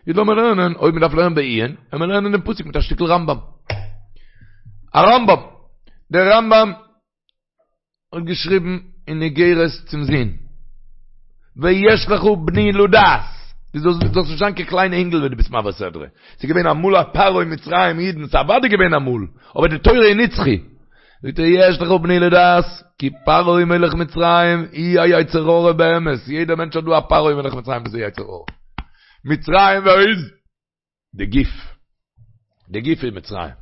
איז לאמיר לערנען, אויב מען דארף לערנען בעיון, וועלן מיר לערנען דעם פסוק מיט א שטיקל רמב"ם. א רמב"ם. דער רמב"ם האט געשריבן אין איגרת צום זון, ויש לך בני לדעת, דו זאלסט זאלסט נישט זיין קיין קליין אינגל ווען דו ביסט מעביר סדרה. ס'איז געווען אמאל א פרעה אין מצרים אידן, ס'איז אוודאי געווען אמאל, אבער די תורה איז נצחי. זאגט ער יש לך בני לדעת כי פרעה מלך מצרים הוא היצר הרע באמת, יעדער מענטש האט דא א פרעה מלך מצרים וואס איז יצר הרע. מצרים ווער איז? די גוף. די גוף איז מצרים.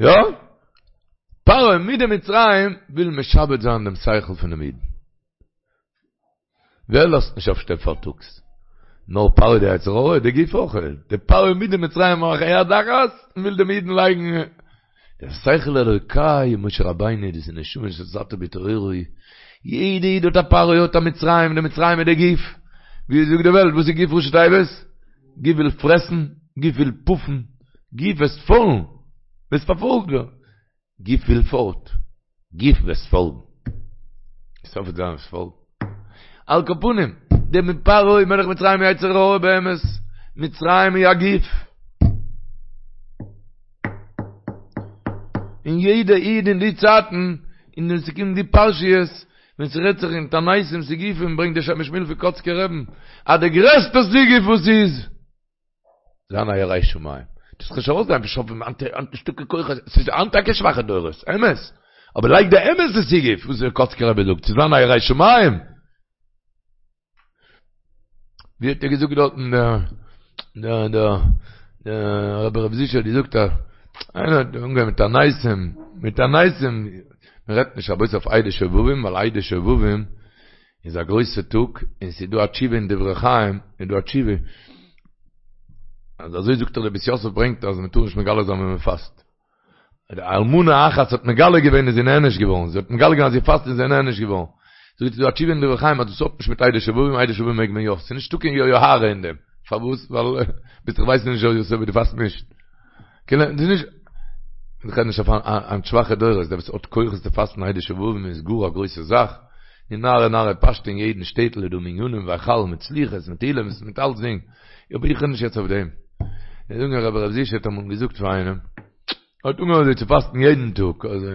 יא? פרעה מיט די מצרים וויל משעבד זיין דעם שכל פונעם אידן. ווער לאזט נישט אויפשטיין פארטאגס? נאר פרעה די יצר הרע, די גוף אויך, די פרעה מיט די מצריים מאכן יד אחת און וויל דעם אידן לייגן דער שכל אלוקי משה רבינו דאס איז נשמה שנתת בי טהורה היא, יעדע איד האט א פרעה האט א מצרים, די מצרים איז די גוף, ווי זאגט די וועלט וואס איז גוף ראשי תיבות? גוף וויל פרעסן, גוף וויל פאפן, גוף וועסט פאלן, וועסט פארפאלגט ווערן. גוף וויל פארט, גוף וועסט פאלגן. סוף וועט זיין וועסט פאלגן. על כל פנים, דער מיט פרעה מלך מצרים יצר הרע באמת, מצרים איז א גוף. און יעדע איד אין די צייטן, און ווען ס'קומט די פרשיות, ווען ס'רעדט זיך אין תעניתים סיגופים, ברענגט דער שם משמואל פון קאצקער רבי'ן, אז די גרעסטע סיגוף וואס איז, זיין א ירא שמים. דאס קען שוין אויסזען ווי שובבים היינט היינט נישטא קיין כוחות, ס'איז היינט טאקע שוואכע דורות, אמת, אבער לייג די אמת'ע סיגוף וואס דער קאצקער רבי זאגט, צו זיין א ירא שמים. ווי האט ער געזאגט דארטן דער דער דער דער רבי ר' זישע האט געזאגט אז איינער האט אנגעהויבן מיט תעניתים, מיט תעניתים, מען רעדט נישט רבותי אויף ה' דשובבים, ווייל ה' דשובבים איז א גרויסע טאג, און ס'איז דא א תשובה אין דברי חיים, איז דא א תשובה, אז אזוי זאגט דער בית יוסף ברענגט אז מ'טאר נישט מגלה זיין ווען מ'פאסט. די אלמנה אחת האט מגלה געווען איז זי נענש געווארן, זי האט מגלה געווען אז זי פאסט און זי איז נענש געווארן. זאגט ס'איז דא א תשובה אין דברי חיים אז דאס האט נישט מיט ה' דשובבים, ה' דשובבים מעג מען יא, ס'איז נישטא קיין יוהרא אין דעם. פארוואס? ווייל ביסט איך ווייס נישט אויב דו פאסט נישט. כאילו, דאס איז נישט, איך רעד נישט אויף היינט שוואכע דורות, דער וואס האט כוחות צו פאסטן ה' דשובבים איז גאר א גרויסע זאך, און נהרא נהרא פשטא אין יעדן שטעטל איז דא מניינים והיכל מיט סליחות מיט תהילים'ס מיט אלצדינג, אבער איך רעד נישט יעצט אויף דעם. איך זאג נאר רבי ר' זושא האט אמאל געזאגט פאר איינעם, ער האט אנגעהויבן אזוי צו פאסטן יעדן טאג, אזוי,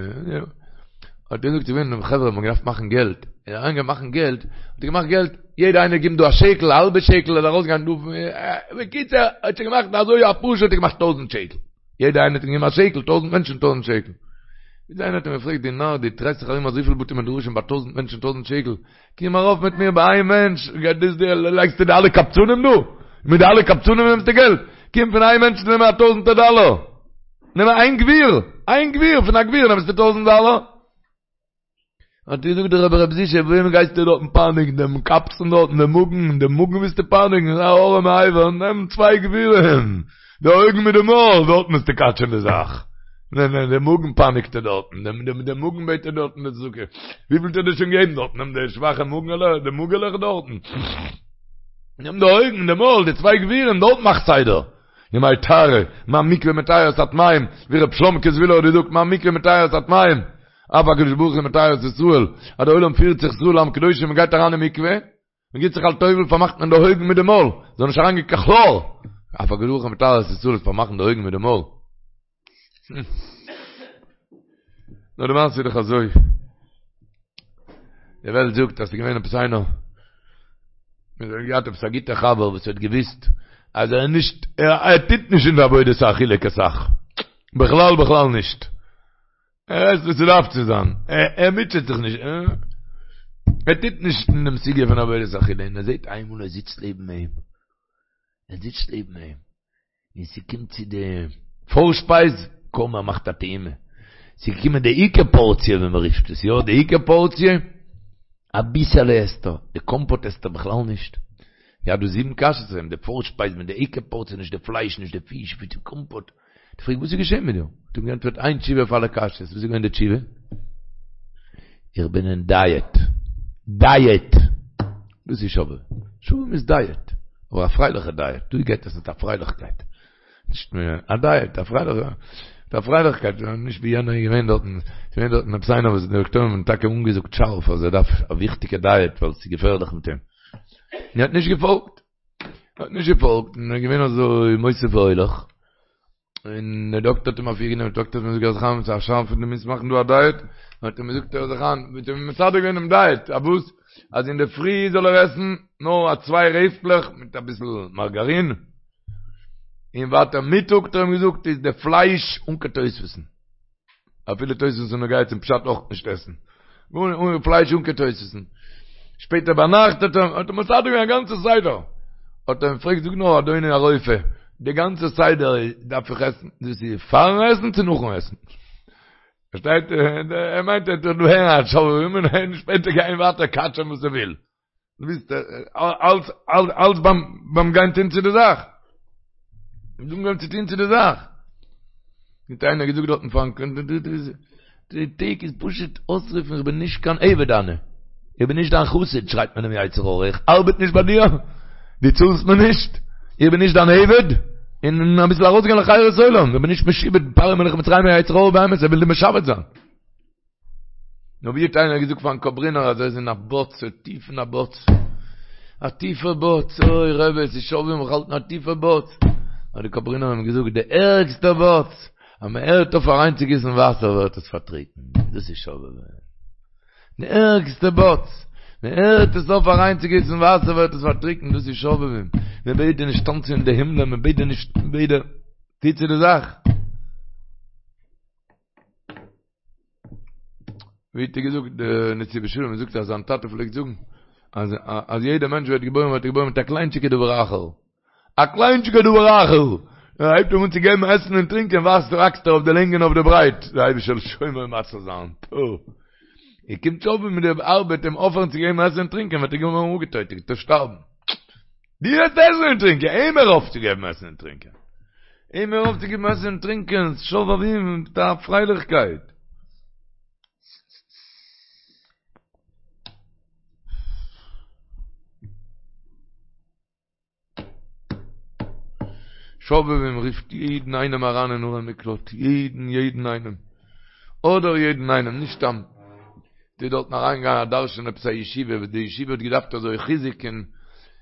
האט ער געזאגט ס'איז געווען חברה האבן געדארפט מאכן געלט, ער איז אריינגעגאנגען מאכן געלט, האט ער געמאכט געלט, יעדער איינער גיבט דא א שקל, א האלבע שקל, ער איז ארויסגעגאנגען דא, בקיצור, ער האט שוין געמאכט אזוי א פאר שעה האט ער געמאכט טויזענט שקל, יעדער איינער האט אים געגעבן א שקל, טויזענט מענטשן טויזענט שקל. ביז איינער האט אים געפרעגט, דו נאר, דו דרייסט זיך ארום אזויפיל בתי מדרשים ביי טויזענט מענטשן טויזענט שקל, קום ארויף מיט מיר ביי איין מענטש, לייגסטו די אלע קבצנים דא? מיט די אלע קבצנים נעמסטו געלט? קום פון איין מענטש נעם א טויזענטער דאלער! נעם איין גביר! איין גביר! פון א גביר נעמסטו טויזענט דאלער? האט געזאגט דער רבי רב זישע, וועם גייסטו דארטן פייניגן? דעם קבצן דארטן, דעם מאגן, דעם מאגן ווילסטו פייניגן? א ארעמע אבר, נעם צוויי גבירים, די אויגן מיט די מויל, דארטן וועסטו קאטשען די זאך. נע נע, די מאגן פייניגט ער דארטן, דעם דעם דעם מאגן בעט ער דארטן די צדקה. וויפיל האט ער דיר שוין געגעבן דארטן? נעם די שוואכע מאגנעלע, די מאגעלעך דארטן. נעם די אויגן, די מויל, די צוויי גבירים, דארט מאך סדר. ימי טהרה, מה מקווה מטהר את הטמאים, ווי ר' שלומקע זוויהלער האט געזאגט, מה מקווה מטהר את הטמאים, אף הקדוש ברוך הוא מטהר את ישראל, אז דער עולם פירט זיך ישראל עם קדושים, מען גייט אריין אין מקווה, מען גיט זיך א טובל פארמאכט מען די אויגן מיט די מויל, זאל נישט אריינגיין קיין כלאר, אף הקדוש ברוך הוא מטהר את ישראל איז פארמאכן די אויגן מיט די מויל. נאר די מעשה איז דאך אזוי, די וועלט זאגט אז ס'איז געווען עפעס איינער, האט געהאט עפעס א גוטע חבר וואס האט געוויסט אז ער איז נישט, ער טוט נישט אין די עבודת האכילה קיין סך, בכלל בכלל נישט. ער עסט וואס ס'דארף צו זיין, ער מוטשעט זיך נישט, ער טוט נישט אין דעם סוגיא פון עבודת אכילה, און ער זעט איינמאל ער זיצט לעבן אים, ער זיצט לעבן אים, און ס'קומט צו די פארשפייז, קוים ער מאכט א טעימה, ס'איז געקומען די עיקר פארציע ווי מ'רופט עס, יא, די עיקר פארציע, אביסעלע עסט ער, די קאמפאט עסט ער בכלל נישט, געהאט דא זיבן קשיות אויף אים, די פארשפייז מיט די עיקר פארציע, נישט די פלייש, נישט די פיש, די קאמפאט. האט געפרעגט וואס איז געשען מיט דיר? האט אים געענטפערט איין תשובה אויף אלע קשיות, וואס איז געווען די תשובה? איך בין אין דייעט. דייעט! דאס איז שובבים. שובבים איז דייעט. אבער א פרייליכע דייעט. דא גייט עס מיט א פרייליכקייט. נישט מער א דייעט, א פרייליכע, מיט א פרייליכקייט. נישט ווי יענער איז געווען דארטן, ס'איז געווען דארטן עפעס איינער וואס די דאקטוירים האבן טאקע אנגעזאגט שארף אז ער דארף א וויכטיגע דייעט ווייל ס'איז געפערליך מיט אים. און ער האט נישט געפאלגט. האט נישט געפאלגט און איז געווען אזוי מוסיף והולך, און דער דאקטער האט אים אפירגענומען, דער דאקטער האט אים געזאגט הער זיך איין, ס'איז א שאנד דו מוזט מאכן דא א דייעט, האט אים געזאגט הער זיך איין, האט אים מסדר געווען דעם דייעט, א וואס? אז אינדערפרי זאל ער עסן נאר א צוויי רעפטלעך מיט אביסל מארגארין, און ווייטער מיטאג האט ער אים געזאגט איז די פלייש אן קיין תוספות'ן. אפילו תוספות איז נוגע צום פשט אויך נישט עסן. אן פלייש אן קיין תוספות'ן. שפעטער ביינאכט האט ער האט ער מסדר געווען א גאנצע סדר. האט ער אים געפרעגט זאג נאר אדוני הרופא, די גאנצע סדר דארף איך עסן, דאס איז פארן עסן צו נאכן עסן? פארשטייט ער מיינט ער טוט דא הערן א שובבים און שפעטער גיין ווייטער קאטשען וואס ער וויל. דו ביסט אלץ אלץ ביים ביים גיין טון צו די זאך. אנגעהויבן צו טון צו די זאך. האט איינער געזאגט דארטן פארן די טעג איז פשוט אויסרופן איך בין נישט קיין עבד אני. איך בין נישט דיין חסיד שרייט מען דעם יצר הרע איך ארבעט נישט ביי דיר, דו צאלסט מיר נישט, איך בין נישט דיין עבד, און אביסל ארויסגיין לחירות עולם, איך בין נישט משועבד פרעה מלך מצרים יצר הרע באמת ער וויל דיר משעבד זיין. נאר ווי האט איינער געזאגט פארן קאברינער אז ער איז אין א בוץ, טיף אין א בוץ, א טיפע בוץ, אוי רבי עס איז שובבים איך האלט אין א טיפע בוץ, האט די קאברינער אים געזאגט די ערגסטע בוץ, אז מען הערט אויף אריינצוגיסן וואסער ווערט עס פארטריקנט, דאס איז שובבים. די ערגסטע בוץ, מען הערט עס אויף אריינצוגיסן וואסער ווערט עס פארטריקנט, דאס איז שובבים, מען בעט דיר נישט טאנצן אין די הימלען, מען בעט דיר נישט, מען בעט דיר, טו צו די זאך. ווי האט ער געזאגט די נתיבות שלום זאגט אז זיין טאטע פלעגט זאגן אז אז יעדער מענטש ווערט געבוירן ווערט ער געבוירן מיט א קליינטשיגע דבר אחר א קליינטשיגע דבר אחר ער הייבט אים אן צו געבן עסן און טרינקען וואקסט וואקסט ער אויף די לענג און אויף די ברייט דער אייבערשטער זאל שומר ומציל זיין טא ער קומט שובבים מיט די ארבעט אים אויפהערן צו געבן עסן און טרינקען וועט ער געווארן אפגעטויטעט און שטארבן דו וועסט עסן און טרינקען, אים הער אויף צו געבן עסן און טרינקען. אים הער אויף צו געבן עסן און טרינקען, שובבים מיט א פרייליכקייט. שובבים רופט יעדן איינעם אריין אין ערי מקלט, יעדן יעדן איינעם. אדער יעדן איינעם, נישט סתם. ס'איז דארטן אריינגעגאנגען א דרשן אין עפעס א ישיבה וואס די ישיבה האט געדארפט אזוי חיזוק און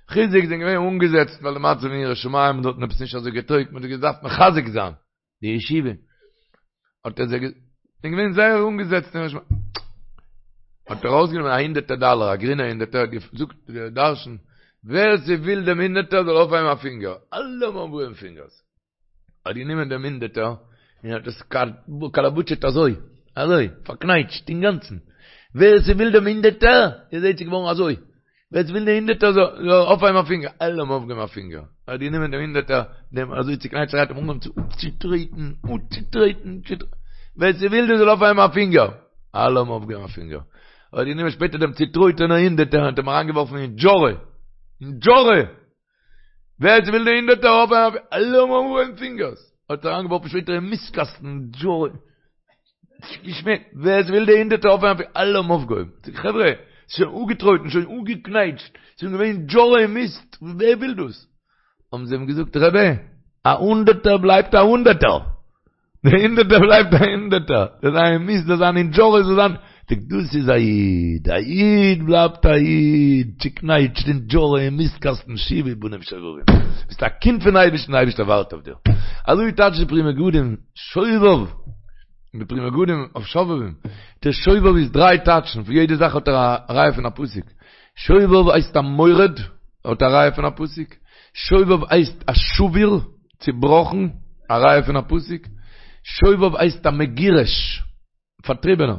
חיזוק זענען געווען אנגעזעצט ווייל די מצב אין יראת שמים האט דארטן עפעס נישט אזוי געטויגט מען האט געדארפט מחזק זיין די ישיבה האט ער זיי זענען געווען זייער אנגעזעצט אין יראת שמים האט ער ארויסגענומען א הונדערטער דאלער א גרינע הונדערטער האט געזאגט די דרשן ווער ס'וויל דעם הונדערטער זאל אויפהייבן א פינגער אלע האבן אויפגעהויבן פינגערס האט גענומען דעם הונדערטער און האט עס קאלאבוטשעט אזוי, אזוי, פארקנייטשט אינגאנצן. ווער ס'וויל דעם הונדערטער, איר זעט ס'איז געווארן אזוי. ווער ס'וויל די הונדערטער זאל אויפהייבן א פינגער. אלע האבן אויפגעהויבן א פינגער. ער האט גענומען דעם הונדערטער, דעם אזוי צוקנייטשט, האט אים אנגעהויבן צו אפצוטרעטן, אפצוטרעטן, ווער ס'וויל דאס זאל אויפהייבן א פינגער. אלע האבן אויפגעהויבן א פינגער. ער האט גענומען שפעטער דעם צוטרויטענער הונדערטער און האט אים אריינגעווארפן אין דזשארע. אין דזשארע! ווער ס'וויל די הונדערטער אויפהייבן אלע האבן אנגעהויבן פינגערס האט אריינגעווארפן שפעטער אין מיסטקאסטן געשמעקט ווער ס'וויל די הונדערטער אויפהייבן אלע האבן אויפגעהויבן זאג חברה ס'איז שוין אפגעטרויטן שוין אפגעקנייטשט ס'איז שוין געווען דזשארע און מיסט ווער וויל דאס האבן זיי אים געזאגט רבי א הונדערטער בלייבט א הונדערטער די הונדערטער בלייבט א הונדערטער, זאל זיין אין מיסט, זאל זיין אין דזשארע, זאל זיין, זאגט דאס איז א איד, א איד בלייבט א איד, צוקנייטשט אין דזשארע אין מיסט קאסטן שובו בנים שובבים, ביסט א קינד פון אייבערשטן, די אייבערשטער ווארט אויף דיר, אזוי טייטשט די פרי מגדים, שובב, די פרי מגדים אויף שובבים, דער שובב איז דריי טייטשן, פון יעדע זאך האט ער א ראיה פון א פסוק, שובב הייסט א מורד, האט א ראיה פון א פסוק, שובב הייסט א שבור, צובראכן, א ראיה פון א פסוק, שובב הייסט א מגורש, פארטריבענער.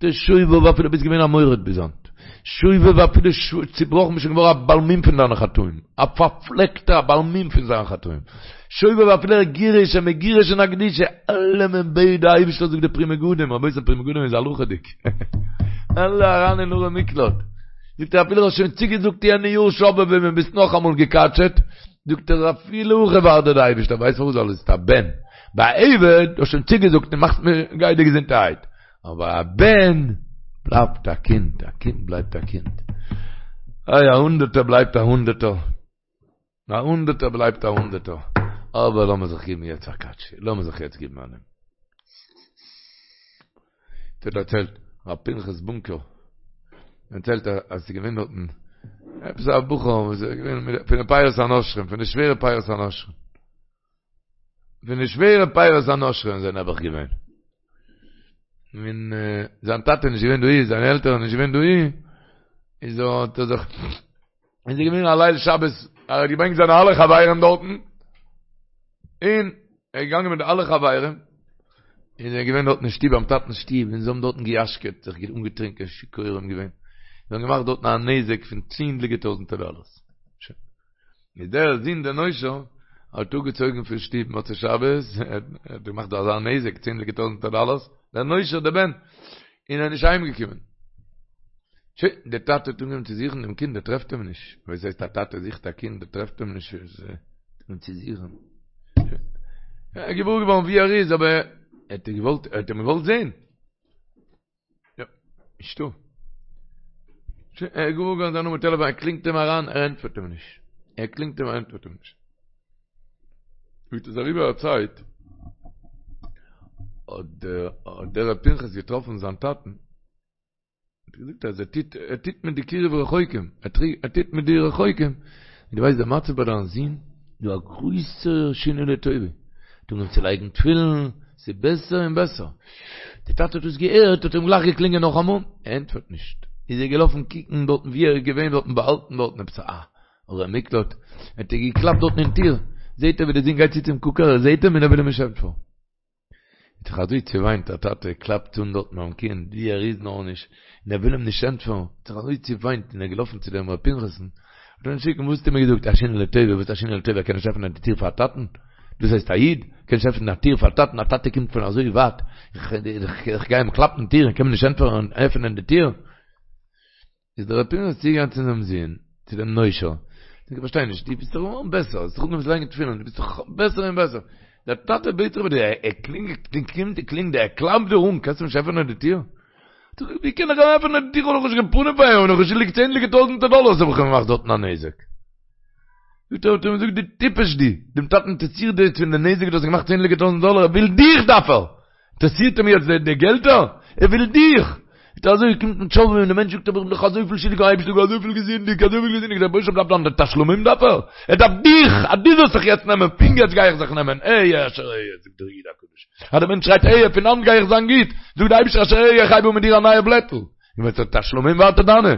דער שובב אפילו ביסט געווען א מורד ביז היינט. שובב אפילו צובראכן ביסט שוין געווארן א בעל מום פון דיינע חטאים. א פארפלעקטער א בעל מום פון זיינע חטאים. שובב אפילו א גירוש א מגורש אין א קדושה. אלעמען בעט די אייבערשטער זאגט די פרי מגדים, רבותי פרי מגדים איז הלכה'דיג. אלע אריין אין ערי מקלט. זאגט ער אפילו האסט שוין צוגעזאגט יענע יאר שובבים און ביסט נאכאמאל געקאטשעט. זאגט ער אפילו הכי ווארט דיר די אייבערשטער ווייסט פארוואס ווייל עס איז א בן, ביי א עבד האסט שוין צוגעזאגט און מאכסט מיר גיי דיר געזונטערהייט, אבער א בן בלייבט א קינד, א קינד בלייבט א קינד, איי א הונדערטער בלייבט א הונדערטער, א הונדערטער בלייבט א הונדערטער, אבער לאמיר זיך געבן יעצט א קאטש, לאמיר זיך יעצט געבן א נעם. האט דערציילט ר' פנחס בונקער, דערציילט אז ס'איז געווען דארטן עפעס א בחור וואס איז געווען פון די פירות הנושרים, פון די שווערע פירות הנושרים, פון די שווערע פירות הנושרים זענען נעבעך געווען. און זיין טאטע איז נישט געווען דאהי, זיינע עלטערן נישט געווען דאהי, איז האט ער זיך, איז ער געווען א ליל שבת, ער האט געברענגט זיינע אלע חברים דארטן, און ער איז געגאנגען מיט די אלע חברים, און זיי זענען געווען דארטן אין שטוב ביים טאטנ'ס שטוב, און זיי האבן דארטן געיאשקעט, זיך אנגעטרינקען, שיכורים געווען, זיי האבן געמאכט דארטן א נזק פון צענדליגע טויזנטער דאללערס. שוין. איז דער זון דער נושר האט אפגעצויגן פון שטוב מוצאי שבת, ער האט געמאכט דא אזא נזק, צענדליגע טויזנטער דאללערס, דער נושר דער בן, און ער איז נישט אהיימגעקומען. שוין, דער טאטע האט אנגעהויבן צו זוכן דעם קינד, ער טרעפט אים נישט. וואס הייסט א טאטע זוכט א קינד, ער טרעפט אים נישט, און צו זוכן. ער איז געוואר געווארן וואו ער איז, אבער ער האט געוואלט, ער האט אים געוואלט זען. יא, נישטא. שוין, ער איז געוואר געווארן זיין נומער טעלעפאן, ער קלינגט אים אריין, ער ענטפערט אים נישט. ער קלינגט אים, ער ענטפערט אים נישט. ווי עס איז אריבער א צייט, האט דער ר' פנחס געטראפן זיין טאטן, האט ער געזאגט אז ער טוט, ער טוט מיט די קירוב רחוקים, ער טוט מיט די רחוקים, און דו ווייסט די מצב ביי דיין זון, דא א גרויסע שינוי לטובה, האט אנגעהויבן צו לייגן תפילין, ס'איז בעסער און בעסער. די טאטע האט דאס געהערט, האט אים גלייך געקלינגען נאכאמאל, ער ענטפערט נישט, איז ער געלאפן קוקן דארטן ווי ער איז געווען דארטן באהאלטן דארטן עפעס א ערי מקלט, האט ער געקלאפט דארטן אין טיר, זעהט ער ווי די זון גייט צו צום קוקער, ער זעהט אים און ער וויל אים נישט ענטפערן. האט זיך אזוי צעוויינט, א טאטע קלאפט אן דארטן ביים קינד ווי ער איז נאר נישט, און ער וויל אים נישט ענטפערן, האט זיך אזוי צעוויינט און ער איז געלאפן צו דעם ר' פנחס'ן, האט אים שיקן, וואס האסטו מיר געזאגט, א שינוי לטובה, וואס א שינוי לטובה, ער קען נישט עפענען די טיר פאר א טאטן? דאס הייסט א איד? קען נישט עפענען א טיר פאר א טאטן, א טאטע קומט פון אזוי ווייט, איך גיי אים קלאפן טיר און קען מיר נישט ענטפערן עפענען די טיר? איז דער ר' פנחס צוגעגאנגען צו זיין זון, צו דעם נושר, זאגט איך פארשטיי נישט, דו ביסט דאך געווארן בעסער, האסט זיך אנגעהויבן צו לייגן תפילין, דו ביסט דאך בעסער און בעסער, דער טאטע בעט זיך ביי דיר, ער קלינגט, קלינגט, קלינגט, ער קלאפט דיר אן, קענסט אים נישט עפענען די טיר? זאגט ער, ווי קען איך אים עפענען די טיר, כ'האב דאך נישט קיין פנים פאר אים, כ'בין דאך שולדיג צענדליגע טויזענטער דאלארס האב איך אים געמאכט דארטן א נזק. זאגט ער, האט ער אים געזאגט, דו טיפש דו, דעם טאטן אינטערעסירט דאס פון די נזק דו האסט געמאכט צענדליגע טויזענט דאלאר, ער וויל דיך דארף ער! אינטערעסירט אים יעצט די געלטער? ער וויל דיך! זאגט ער אזוי קומט מיט שובבים און די מענטש זאגט אבער איך בין דאך אזויפיל שולדיג פארן אייבערשטן איך האב אזויפיל געזינדיגט אזויפיל געזינדיגט דער רבוש"ע דארף דאן די תשלומים דארף ער? ער דארף דיך! אז דו זאלסט זיך יעצט נעמען פון יעצט גיי איך זיך נעמען אהיה אשר אהיה זאגט דער איד הקדוש אז די מענטש שרייט אהיה פון היינט גיי איך זיין גוט זאגט די אייבערשטער אשר אהיה איך הייב אן מיט דיר א נייע בלעטל און ווען ס'איז תשלומים ווייטער דיינע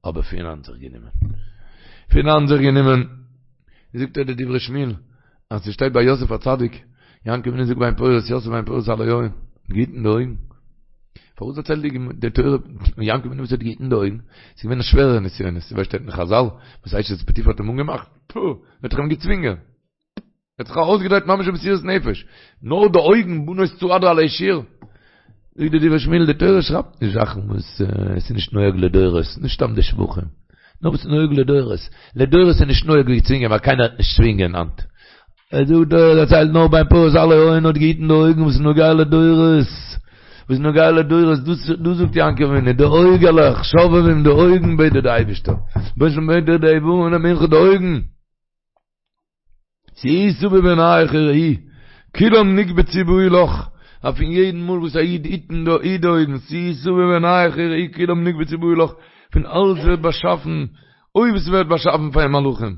אבער פון היינט זיך גענומען. פון היינט זיך גענומען. זאגט ער די דברי שמואל, אז ס'שטייט ביי יוסף הצדיק, יעקב אבינו זאגט בן פורת יוסף בן פורת על היין, געהיטן די אויגן. פארוואס דערציילט די תורה יעקב אבינו וואס האט געהיטן די אויגן? ס'איז געווען א שווערע נסיונות, ווי שטייט אין חזל, וואס אשת פוטיפר האט אים אנגעמאכט, פו, האט ער אים געצווינגען. ער האט זיך ארויסגעדרייט ממש במסירות נפש, נאר די אויגן בנות צעדה עלי שור. זאגט די דברי שמואל, די תורה שרייבט נישט זאכן וואס עס איז נישט נוהג לדורות, נישט סתם די שבחים, נאר וואס איז נוהג לדורות. לדורות איז נישט נוהג ווי צווינגען, ווייל קיינער וועט נישט צווינגען היינט. ער זאגט די תורה דערציילט נאר בן פורת עלי עין האט געהיטן די אויגן וואס איז נוגע לדורות. וואס איז נוגע לדורות, דאס זאגט יעקב אבינו, די אויגעלעך, שובבים די אויגן בעט דיר די אייבערשטער, בעט דיר די איברים למנחה די אויגן. שאו סביב עיניך וראי, כולם נקבצו באו לך, אז פון יעדן מאל וואס א איד היט אין די היט די אויגן, שאו סביב עיניך וראי כולם נקבצו באו לך, פון אלעס ווערט באשאפן, אויב עס ווערט באשאפן פאר אים מלאכים,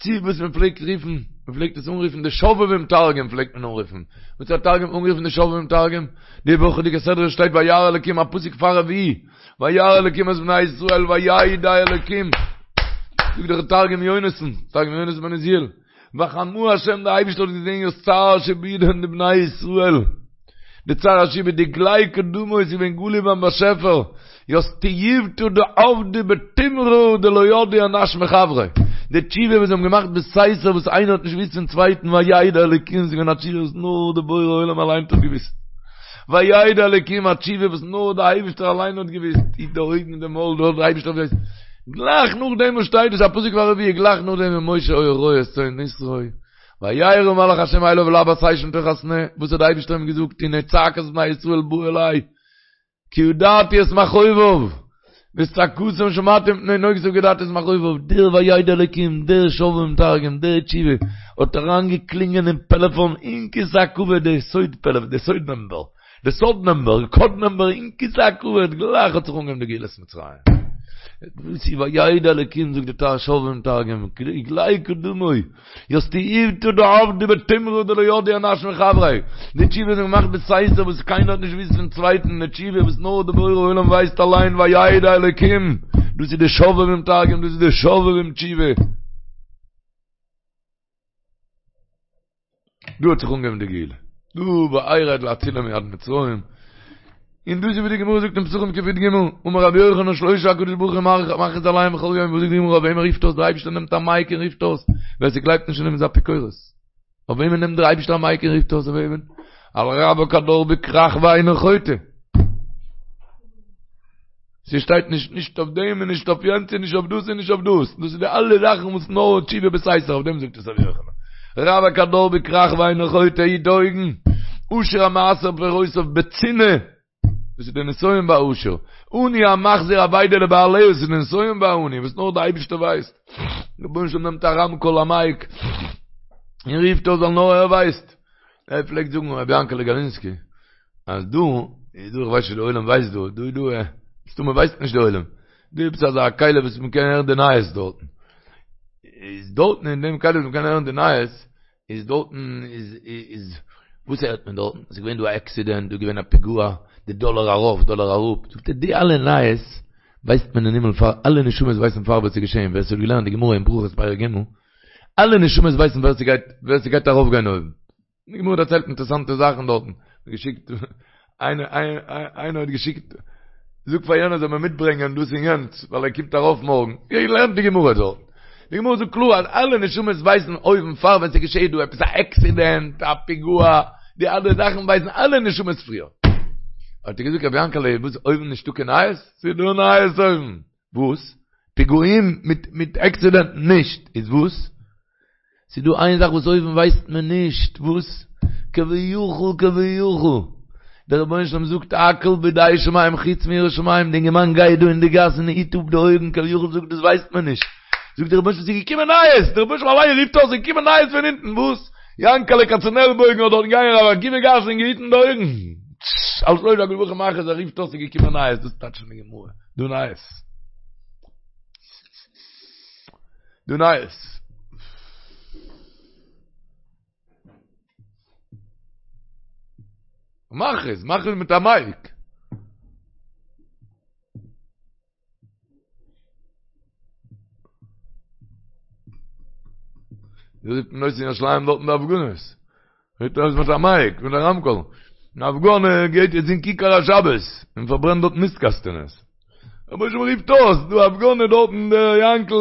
צו וואס מען פלעגט רופן, מען פלעגט עס אנרופן די שובבים תרגום פלעגט מען אנרופן, וואס האט תרגום אנגערופן די שובבים תרגום? די וואכעדיגע סדרה שטייט וירא אלקים א פסוק פאר רביעי, וירא אלקים את בני ישראל וידע אלקים, זאגט דער תרגום יונתן, תרגום יונתן בן עוזיאל, וחמא השם דער אייבערשטער האט געזען ית צער שעבודהון דבני ישראל, די צער השעבוד דגלי קדמא איז געווען גלוי ביים באשעפער, ית תיובתא דעבדו בטומרא דלא ידעי אינש מחבריה, די תשובה וואס זיי האבן געמאכט בסתר וואס איינער האט נישט געוואוסט פון צווייטן וידע אלקים איז געווען א תשובה וואס נאר דער בורא עולם אליין האט געוואוסט. וידע אלקים א תשובה וואס נאר די אייבערשטער אליין האט געוואוסט, היט די אויגן און די מויל נאר די אייבערשטער ווייסט, גלייך נאכדעם וואס שטייט דאס א פסוק פאר רביעי, גלייך נאכדעם ומשה היה רועה את צאן יתרו, וירא מלאך השם אליו בלבת אש מתוך הסנה, וואס האט די אייבערשטער אים געזאגט, הנה צעקת בני ישראל באה אלי, כי ידעתי את מכאוביו, ואת צעקתם שמעתי מפני נוגשיו כי ידעתי את מכאוביו, דער וידע אלקים, דער שובבים תרגום, דער תשובה, האט אריינגעקלינגען אין פעלעפאן אין כסא הכבוד די סוד פעלעפאן, די סוד נומבער, די סוד נומבער, קאוד נומבער אין כסא הכבוד, גלייך האט זיך אנגעהויבן די גאולת מצרים. דאס איז וידע אלקים זאגט די שובבים תרגום, גלי קדמוי. ית תיובתא דעבדו בטומרא דלא ידעי אינש מחבריה, די תשובה איז געמאכט בסתר וואס קיינער האט נישט געוואוסט פון צווייטן, די תשובה וואס נאר די בורא עולם ווייסט אליין וידע אלקים, דאס איז די שובבים תרגום, דאס איז די שובבים תשובה. דא האט זיך אנגעהויבן די גאולה, דא וארד להצילם מיד מצרים, און דאס איז ווי די גמרא זאגט אין פסחים קי"ג, אמר רבי יוחנן שלושה הקדוש ברוך הוא מכריז עליהם בכל יום, וואס זאגט די גמרא אויף וועמען רופט אויס דער אייבערשטער נעמט א מייק און רופט אויס, ווער ס'גלייבט נישט אין אים איז אפיקורס, אויף וועמען נעמט דער אייבערשטער א מייק און רופט אויס אויף וועמען? על רווק הדר בכרך ואינו חוטא. ס'שטייט נישט נישט אויף דעם און נישט אויף יענץ און נישט אויף דאס און נישט אויף דאס, דאס איז די אלע זאכן וואס נאר תשובה בסתר, אויף דעם זאגט עס רבי יוחנן. רווק הדר בכרך ואינו חוטא היט די אויגן, עשיר המעשר פירותיו בצנעה, דאס איז די נסיון ביי עשיר, עני המחזיר אבידה לבעליה, דאס איז די נסיון ביי עני וואס נאר די אייבערשטער ווייסט, רבונו של עולם נעמט א רמקול א מייק און רופט אויס ווייל נאר ער ווייסט. ער פלעגט זאגן רבי יענקעלע גאלינסקי אז דא איז דא איך ווייס נישט די עולם ווייסט דא דא איז דא מסתמא ווייסט נישט די עולם דא איז עפעס אזא כלי וואס מען קען הערן די נייעס דארטן איז דארטן אין דעם כלי וואס מען קען הערן די נייעס איז דארטן איז איז וואס הערט מען דארטן עס איז געווען דא א עקסידענט דא איז געווען א פיגוע די דאלער ארויף דאלער אראפ זאגט ער די אלע נייעס ווייסט מען אין הימל פאר אלע נשמות ווייסן פאר וואס איז געשען ווער עס האט געלערנט די גמרא אין ברכות פרק ג' אלע נשמות ווייסן ווער ס'גייט ווער ס'גייט ארויף גיין אויבן. די גמרא דערציילט אינטערעסאנטע זאכן דארטן. געשיקט איינער איינער האט געשיקט זאג פאר יענער זאל מיר מיטברענגען דאס און יענץ ווייל ער קומט ארויף מארגן. לערנט די גמרא דארט. די גמרא זאגט קלאר אז אלע נשמות ווייסן אויבן פאר ווען ס'געשעהט דא עפעס א עקסידענט, א פיגוע, די אלע זאכן ווייסן אלע נשמות פריער. האט ער געזאגט רבי יענקעלע וואס אויבן נישטא קיין נייעס? ס'דא נייעס אויבן. וואס? פיגועים מיט מיט עקסידענטן נישט, איז וואס? ס'איז דא איין זאך וואס אויבן ווייסט מען נישט, וואס? כביכול כביכול, דער רבונו של עולם זאגט הכל בידי שמים חוץ מיראת שמים, די אינגערמאן גייט דא אין די גאס און היט אפ די אויגן, כביכול זאגט דאס ווייסט מען נישט, זאגט דער רבונו של עולם ס'איז געקומען נייעס, דער רבונו של עולם אליין רופט אויס ס'איז געקומען נייעס פון אונטן, וואס? יענקעלע קאצענעלבויגן האט דארט געגאנגען רבי עקיבא גאס און געהיטן די אויגן, על שלשה הקדוש ברוך הוא מכריז ער רופט אויס ס'איז געקומען נייעס, דאס טייטשט די גמרא. דא נייעס. דא נייעס. מכריז, מכריז מיט א מייק. ווי זאגט מען אויס אין ירושלים דארטן די הפגנות? רופט אויס מיט א מייק, מיט א רמקול. אן הפגנה גייט יעצט אין כיכר השבת, און פארברענט דארט מיסט קאסטענעס. רבונו של עולם רופט אויס, דא הפגנה דארטן דער יענקל,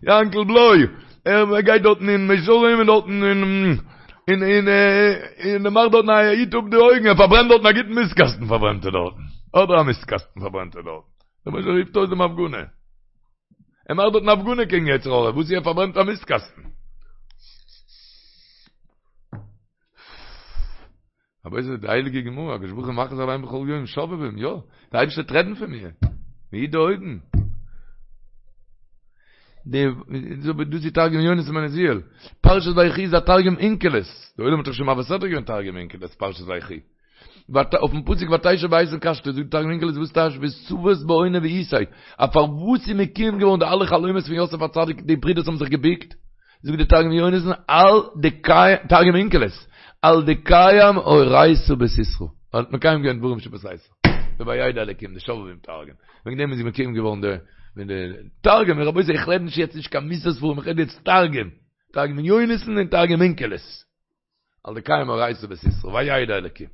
יענקל בלוי, ער גייט דארטן אין מאה שערים און דארטן אין אין אין און ער מאכט דארטן א היט אפ די אויגן, ער פארברענט דארטן א גוטן מיסט קאסטן פארברענט ער דארטן. אדער א מיסט קאסטן פארברענט ער דארטן. רבונו של עולם רופט אויס דעם הפגנה. ער מאכט דארטן הפגנה קעגן יצר הרע, וואס ער פארברענט א מיסט קאסטן. אבער איז די הייליגע גמרא, הקדוש ברוך הוא מכריז עליהם בכל יום שובבים, יא, די אייבערשטער וועט רעדן פון מיר, מ'היט די אויגן. די, דאס איז תרגום יונתן בן עוזיאל, פרשת ויחי איז א תרגום אונקלוס, די עולם האט דאך שוין מעביר סדרה געווען תרגום אונקלוס פרשת ויחי. אויפן פסוק ותשב באיתן קשתו זאגט תרגום אונקלוס וואס טייטש ותבת בעונא ואיתיה אז פארוואס איז מקוים געווארן די אלע חלומות פון יוסף הצדיק די ברידערס האבן זיך געביקט זאגט די תרגום יונתן על דקיים תרגום אונקלוס על דקיים אורייתא בסתרא ער האט מקיים געווען דברים שבסתר די וידע אלקים די שובבים תרגום וועגן דעם איז מקוים געווארן די ווען די תרגום רבותי איך רעד נישט יעצט נישט קיין מוסר ספרים איך רעד יעצט תרגום תרגום יונתן און תרגום אונקלוס על דקיים אורייתא בסתרא, וידע אלקים.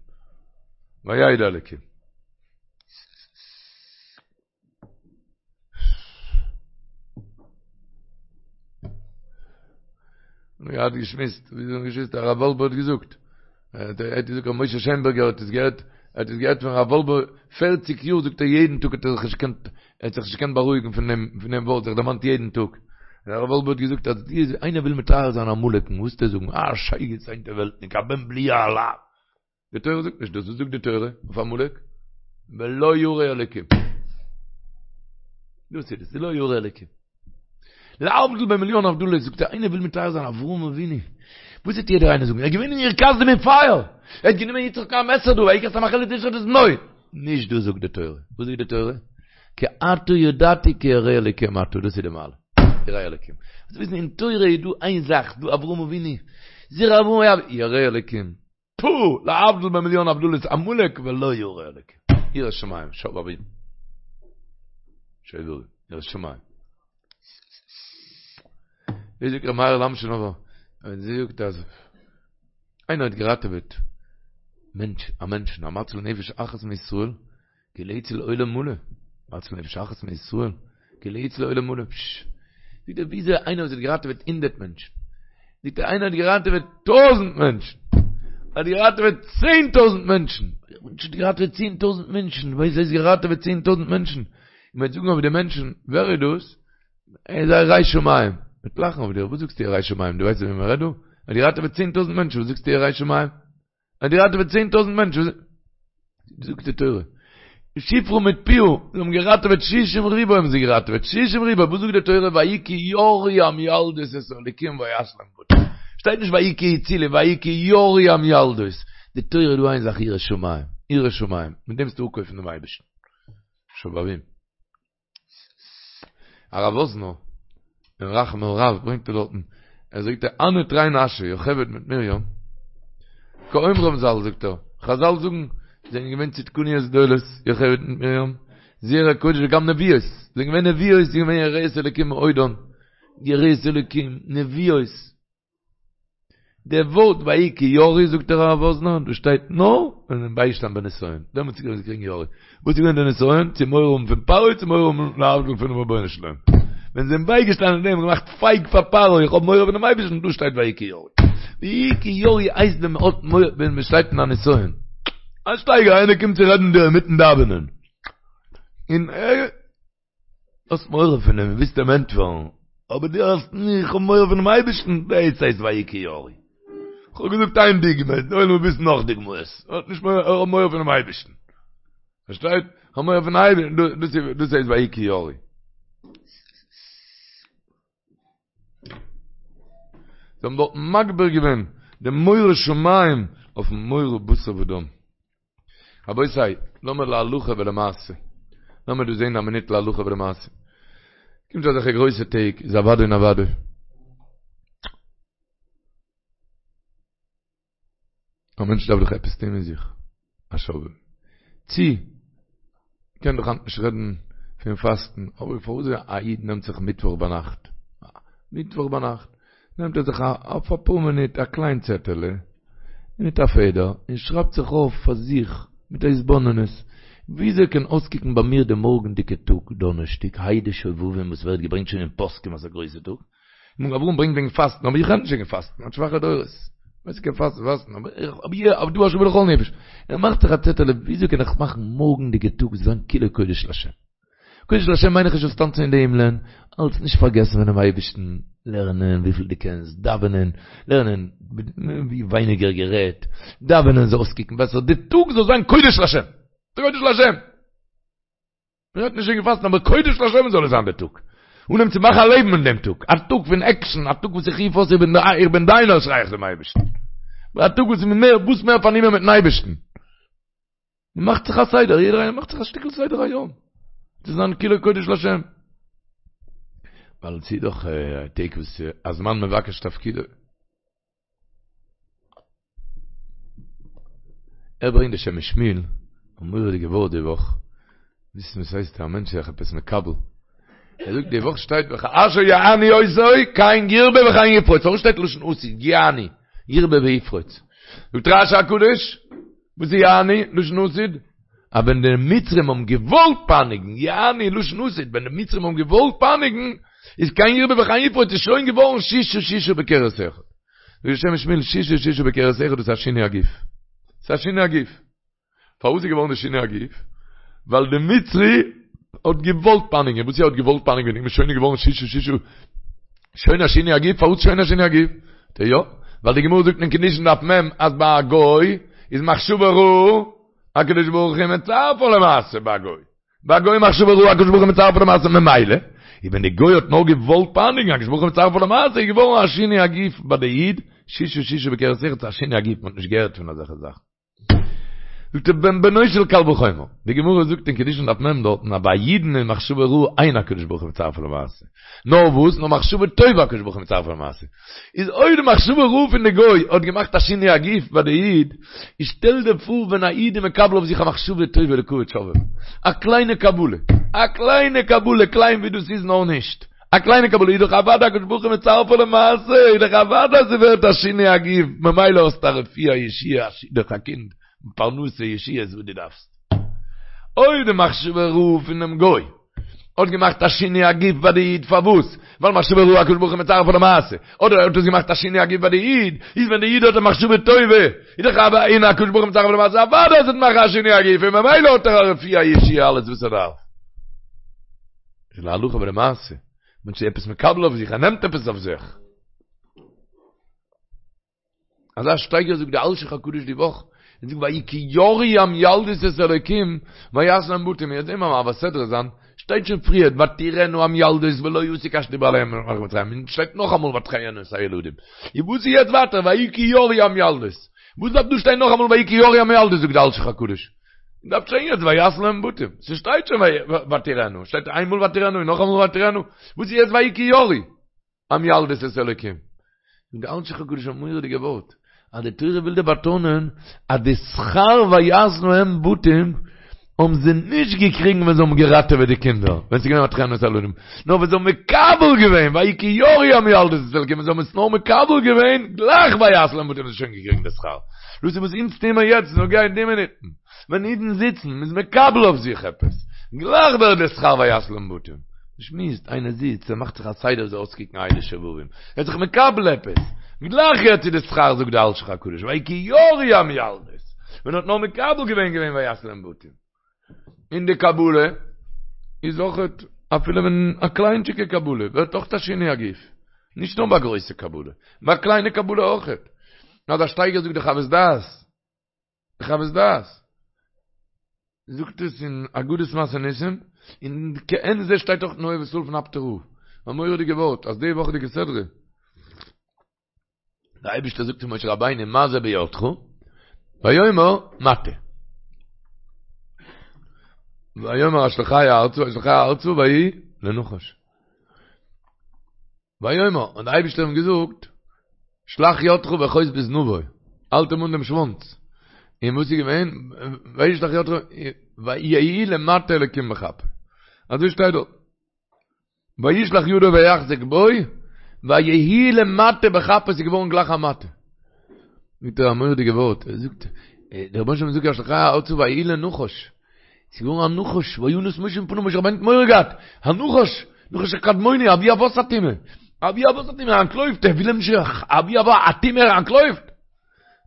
וידע אלקים. מיר האט געשמועסט, ווי זאגן געשמועסט, הרב וואלבע האט געזאגט, ער האט געזאגט ר' משה שיינבערגער האט עס געהערט, ער האט עס געהערט פון הרב וואלבע פערציג יאר זאגט ער יעדן טאג האט ער זיך נישט געקענט ער האט זיך נישט געקענט בארואיגן פון דעם פון דעם ווארט זיך דערמאנט יעדן טאג. הרב וואלבע האט געזאגט אז די איינער וויל מתאר זיין עמלק'ן וואס וועט ער זאגן א שייגעץ הינטערוועלטניק א בן בליעל א. די תורה זאגט נישט דאס, וואס זאגט די תורה אויף עמלק? ולא ירא אלקים. דאס איז עס, ולא ירא אלקים. להבדיל במיליאן הבדלות זאגט ער איינער וויל מתאר זיין אברהם אבינו וואס וועט יעדער איינער זאגן ער איז געווען אין אור כשדים אין פייער ער האט גענומען יצחק א מעסער דא ויקח את המאכלת לשחוט את בנו נישט דאס זאגט די תורה וואס זאגט די תורה כי עתה ידעתי כי ירא אלקים אתה דאס איז די מעלה ירא אלקים זאלסט וויסן אין תורה איז דא איין זאך דא אברהם אבינו זרע אברהם ירא אלקים פו! להבדיל במיליאן הבדלות עמלק ולא ירא אלקים. יראת שמים, שובבים. שובבים, יראת שמים. ווי זאגט ר' מאיר'ל אמשינאווער, ער זאגט אז איינער האט געראטעוועט מענטש, א מענטשן, המציל נפש אחת מישראל, כאילו הציל עולם מלא, המציל נפש אחת מישראל, כאילו הציל עולם מלא, פשש. זאגט ער, וויאזוי איינער וואס האט געראטעוועט הונדערט מענטשן, זאגט ער, איינער האט געראטעוועט טויזנט מענטשן, האט געראטעוועט צען טויזנט מענטשן, האט געראטעוועט צען טויזנט מענטשן, וואס הייסט געראטעוועט צען טויזנט מענטשן? מ'וועט זאגן אויף די מענטשן, ווער איז דאס? ער איז א ירא שמים. מ'וועט לאכן אויף דיר, וואס זאגסטו ירא שמים? דו ווייסט וועם מ'רעדט דא? ער האט געראטעוועט 10,000 מענטשן, וואס זאגסטו ירא שמים? ער האט געראטעוועט 10,000 מענטשן, זאגט די תורה, שפרה מיט פועה, זיי האבן געראטעוועט שישים ריבוא האבן זיי געראטעוועט, שישים ריבוא, וואס זאגט די תורה, ויהי כי יראו המילדות את האלוקים ויעש להם בתים, שטייט נישט ויהי כי הצילו, ויהי כי יראו המילדות, די תורה איז דא איין זאך יראת שמים, יראת שמים, מיט דעם וועסטו אפקויפן דעם אייבערשטן. שובבים. הרב וואזנער, אין רחם על רב ברענגט ער דארטן, ער זאגט הני תרי נשי, יוכבד מיט מרים, כאומרם ז"ל זאגט ער, חזל זאגן, זענען געווען צדקניות גדולות, יוכבד מיט מרים, זרע קודש וגם נביאות, זענען געווען נביאות, זענען געווען יראות אלוקים מאודן, יראות אלוקים, נביאות. דער ווארט ויהי כי יראו זאגט דער הרב וואזנער, דאס שטייט נאר ווען זיי זענען בייגעשטאנען בנסיון, דעמאלטס איז געווען קריגן יראו. וואס איז געווען דער נסיון? צו מורא האבן פון פרעה צו מורא האבן להבדיל פונעם רבונו של עולם. ווען זיי זענען בייגעשטאנען אין דעם און געמאכט פייג פאר פרעה, איך האב מורא פונעם אייבערשטן, דא שטייט ויהי כי יראו. ויהי כי יראו הייסט ווען מען האט מורא, ווען מען שטייט אין א נסיון. א שטייגער איינער קומט צו רעדן דיר אינמיטן דאווענען, און ער. האסט מורא פון אים, ווילסט אים ענטפערן, אבער דו האסט נישט, איך האב מורא פונעם אייבערשטן, דאס הייסט ויהי כי יראו. איך האב געזאגט איין דוגמא, די עולם וויל וויסן נאך דוגמאות, האט נישט מורא, איך האב מורא פונעם אייבערשטן. פארשטייט? איך האב מורא פון אייבערשטן, דאס איז, דאס הייסט ויהי כי יראו. זיי האבן דארט מגביר געווען די מורא שמים אויפן מורא בשר ודם. רבותי, לאמיר להלכה ולמעשה. לאמיר דא זען א מינוט להלכה ולמעשה. קומט אזעלכע גרויסע טעג, איז אוודאי און אוודאי. א מענטש דארף דאך עפעס טון מיט זיך. א שובבי"ם. צי, מ'קען דאך היינט נישט רעדן פון פאסטן, אבער פארוואס א איד נעמט זיך מיטוואך ביינאכט, מיטוואך ביינאכט, נעמט ער זיך אויף אפאר מינוט א קליין צעטעלע מיט א פעדער און שרייבט זיך אויף פאר זיך מיט א התבוננות, וויאזוי קען אויסקוקן ביי מיר די מארגנדיגע טאג דאנערשטאג ה' דשובבים וואס ווערט געברענגט שוין אין פוסקים אז א גרויסע טאג, מגן אברהם ברענגט וועגן פאסטן אבער איך רעד נישט וועגן פאסטן, האט שוואכע דורות, ווער ס'קען פאסטן פאסטן, אבער אבער דא השוה לכל נפש, ער מאכט זיך א צעטעלע וויאזוי קען איך מאכן מארגנדיגע טאג זאל זיין כולו קודש לשם. קודש לשם מיין איך נישט זאלסט טאנצן אין די הימלען, אלץ נישט פארגעסן פונעם אייבערשטן, לערנען וויפיל דו קענסט, דאווענען, לערנען ווי ווייניגער גערעדט, דאווענען זאל אויסקוקן בעסער, די טאג זאל זיין קודש לשם, קודש לשם! מען רעדט נישט וועגן פאסטן, אבער קודש לשם זאל עס זיין די טאג, אנהייבן צו מאכן א לעבן אין דעם טאג, א טאג פון עקשן, א טאג וואס איך רוף אויס איך בין דיינער שריי איך צום אייבערשטן, א טאג וואס איז מער וואס מער פארנומען מיטן אייבערשטן. מען מאכט זיך א סדר, יעדער איינער מאכט זיך א שטיקל סדר היום, צו זיין כולו קודש לשם. ווייל ס'איז דאך טעג וואס הזמן מבקש תפקידו. ער ברענגט די שם משמואל, א מורא'דיגע ווארט די וואך, וויסן וואס הייסט א מענטש זיך עפעס מקבל. ער זאגט די וואך שטייט וכאשר יענו אותו כן ירבה וכן יפרוץ, פארוואס שטייט לשון עתיד יענו ירבה ויפרוץ? זאגט רש"י הקדוש, וואס איז יענו, לשון עתיד? אז ווען די מצרים האבן געוואלט פייניגן, יענו לשון עתיד, ווען די מצרים האבן געוואלט פייניגן, איז כן ירבה וכן יפרוץ איז שוין געווארן ששה ששה בכרס אחד. זאגט די שם משמואל ששה ששה בכרס אחד דאס איז א שינוי הגוף. ס'איז א שינוי הגוף. פארוואס איז געווארן די שינוי הגוף? ווייל די מצרי האט געוואלט פייניגן, וואס ער האט געוואלט פייניגן איז שוין געווארן ששה ששה שוין א שינוי הגוף, פארוואס שוין א שינוי הגוף? די יא, ווייל די גמרא זאגט אין קידושין דף מ' אז ביי א גוי איז מחשבה רעה, הקדוש ברוך הוא מצרפה למעשה ביי א גוי. ביי א גוי מחשבה רעה הקדוש ברוך הוא מצרפה למעשה ממילא, איז ווען די גוי האט נאר געוואלט פייניגן הקדוש ברוך הוא מצרפה למעשה איז געווארן א שינוי הגוף ביי די איד, ששה ששה בכרס אחד א שינוי הגוף מען האט נישט געהערט פון אזעלכע זאכן. זאגט ער בן בנו של קל וחומר, די גמרא זאגט אין קידושין דף מ' דארטן אז ביי א אידן איז מחשבה רעה אין הקדוש ברוך הוא מצרפה למעשה, נאר וואס? נאר מחשבה טובה הקדוש ברוך הוא מצרפה למעשה. איז אויב די מחשבה רעה פון די גוי האט געמאכט א שינוי הגוף ביי די איד, איז שטעל דיר פאר ווען א איד איז מקבל אויף זיך א מחשבה טובה לכבוד שובבים, א קליינע קבלה, א קליינע קבלה, קליין ווי דאס איז נאר נישט, א קליינע קבלה איז דאך אוודאי הקדוש ברוך הוא מצרפה למעשה, איז דאך אוודאי אז ס'ווערט א שינוי הגוף, ממילא האסטו א רפואה, א ישועה, א שידוך, א קינד, פרנסה, ישועות וואס דו דארפסט. אויב די מחשבה רעה פונעם גוי האט געמאכט א שינוי הגוף ביי די איד פארוואס? ווייל מחשבה רעה הקדוש ברוך הוא מצרפה למעשה, אדער האט עס געמאכט א שינוי הגוף ביי די איד, איז ווען די איד האט א מחשבה טובה, איז דאך אוודאי אין הקדוש ברוך הוא מצרפה למעשה אוודאי אז עס וועט מאכן א שינוי הגוף און ממילא האט ער א רפואה א ישועה אלעס וואס ער דארף. ס'איז להלכה ולמעשה. מענטש איז עפעס מקבל אויף זיך, ער נעמט עפעס אויף זיך. אזא שטייגער זאגט די אלשיך הקדוש די וואך, ער זאגט ויהי כי יראו המילדות את האלוקים ויעשו להם בתים, מיר זעהן ביים מעביר סדרה זיין, שטייט שוין פריער ותראינה המילדות ולא יעשו כאשר דיבר אליהם מלך מצרים, און שטייט נאכאמאל ותחיין את הילדים, און וואס איז יעצט ווייטער ויהי כי יראו המילדות? וואס דארף דא שטיין נאכאמאל ויהי כי יראו המילדות זאגט די אלשיך הקדוש? דארף שטיין יעצט ויעשו להם בתים, ס'שטייט שוין ותראינה, שטייט איינמאל ותראינה און נאכאמאל ותראינה, וואס איז יעצט ויהי כי יראו? המילדות את האלוקים. זאגט די אלשיך הקדוש א מורא'דיגע ווארט, אז די תורה וויל דיר באטאנען אז די שכר ויעשו להם בתים האבן זיי נישט געקריגן ווען זיי האבן געראטעוועט די קינדער, ווען ס'איז געווען ותחיין את הילדים, נאר ווען זיי האבן מקבל געווען, ויהי כי יראו המילדות את האלוקים, ווען זיי האבן עס נאר מקבל געווען, גלייך ויעשו להם בתים האבן זיי שוין געקריגן די שכר. דאס איז וואס אונז טוען מיר יעצט, נוגע אין די מינוטן. ווען אידן זיצן, מ'איז מקבל אויף זיך עפעס, גלייך ווערט דער שכר ויעשו להם בתים. מ'שמועסט, איינער זיצט, ער מאכט זיך א סדר זאל אויסקוקן הייליג שובבים, ער איז זיך מקבל עפעס, גלייך יעצט איז די שכר זאגט דער אלשיך הקדוש, ויהי כי יראו המילדות, ווען ער האט נאר מקבל געווען געווען ויעשו להם בתים. און די קבלה איז אויכעט, אפילו ווען א קליינטשיגע קבלה, ווערט אויך א שינוי הגוף, נישט נאר ביי גרויסע קבלה, ביי א קליינע קבלה אויכעט. אזא שטייגער זאגט די חוות דעת, די חוות דעת זאגט עס אין אגדות מעשה ניסים, און כעין זה שטייט אויך אין אוהב ישראל פון אפטער רב, א מורא'דיגע ווארט, אז די וואכעדיגע סדרה, דער אייבערשטער זאגט צו משה רבינו מה זה בידך, ויאמר מטה. ויאמר השליכהו ארצה, וישליכהו ארצה ויהי לנחש. ויאמר, און דער אייבערשטער האט אים געזאגט, שלח ידך ואחוז בזנבו, האלט אים אן דעם שוואנץ. און וואס איז געווען? וישלח ידו, ויהי למטה אלקים בכפו. אזוי שטייט דארט. וישלח ידו ויחזק בו, ויהי למטה בכפו, עס איז געווארן גלייך א מטה. זאגט ער א מורא'דיגע ווארט, ער זאגט, דער רבונו של עולם זאגט השליכהו ארצה ויהי לנחש. ס'איז געווארן א נחש, וינס משה מפניו, משה רבינו האט מורא געהאט, א נחש, נחש הקדמוני, אבי אבות הטומאה, אבי אבות הטומאה, ער אנטלויפט, ער וויל אים נישט, אבי אבות הטומאה, ער אנטלויפט.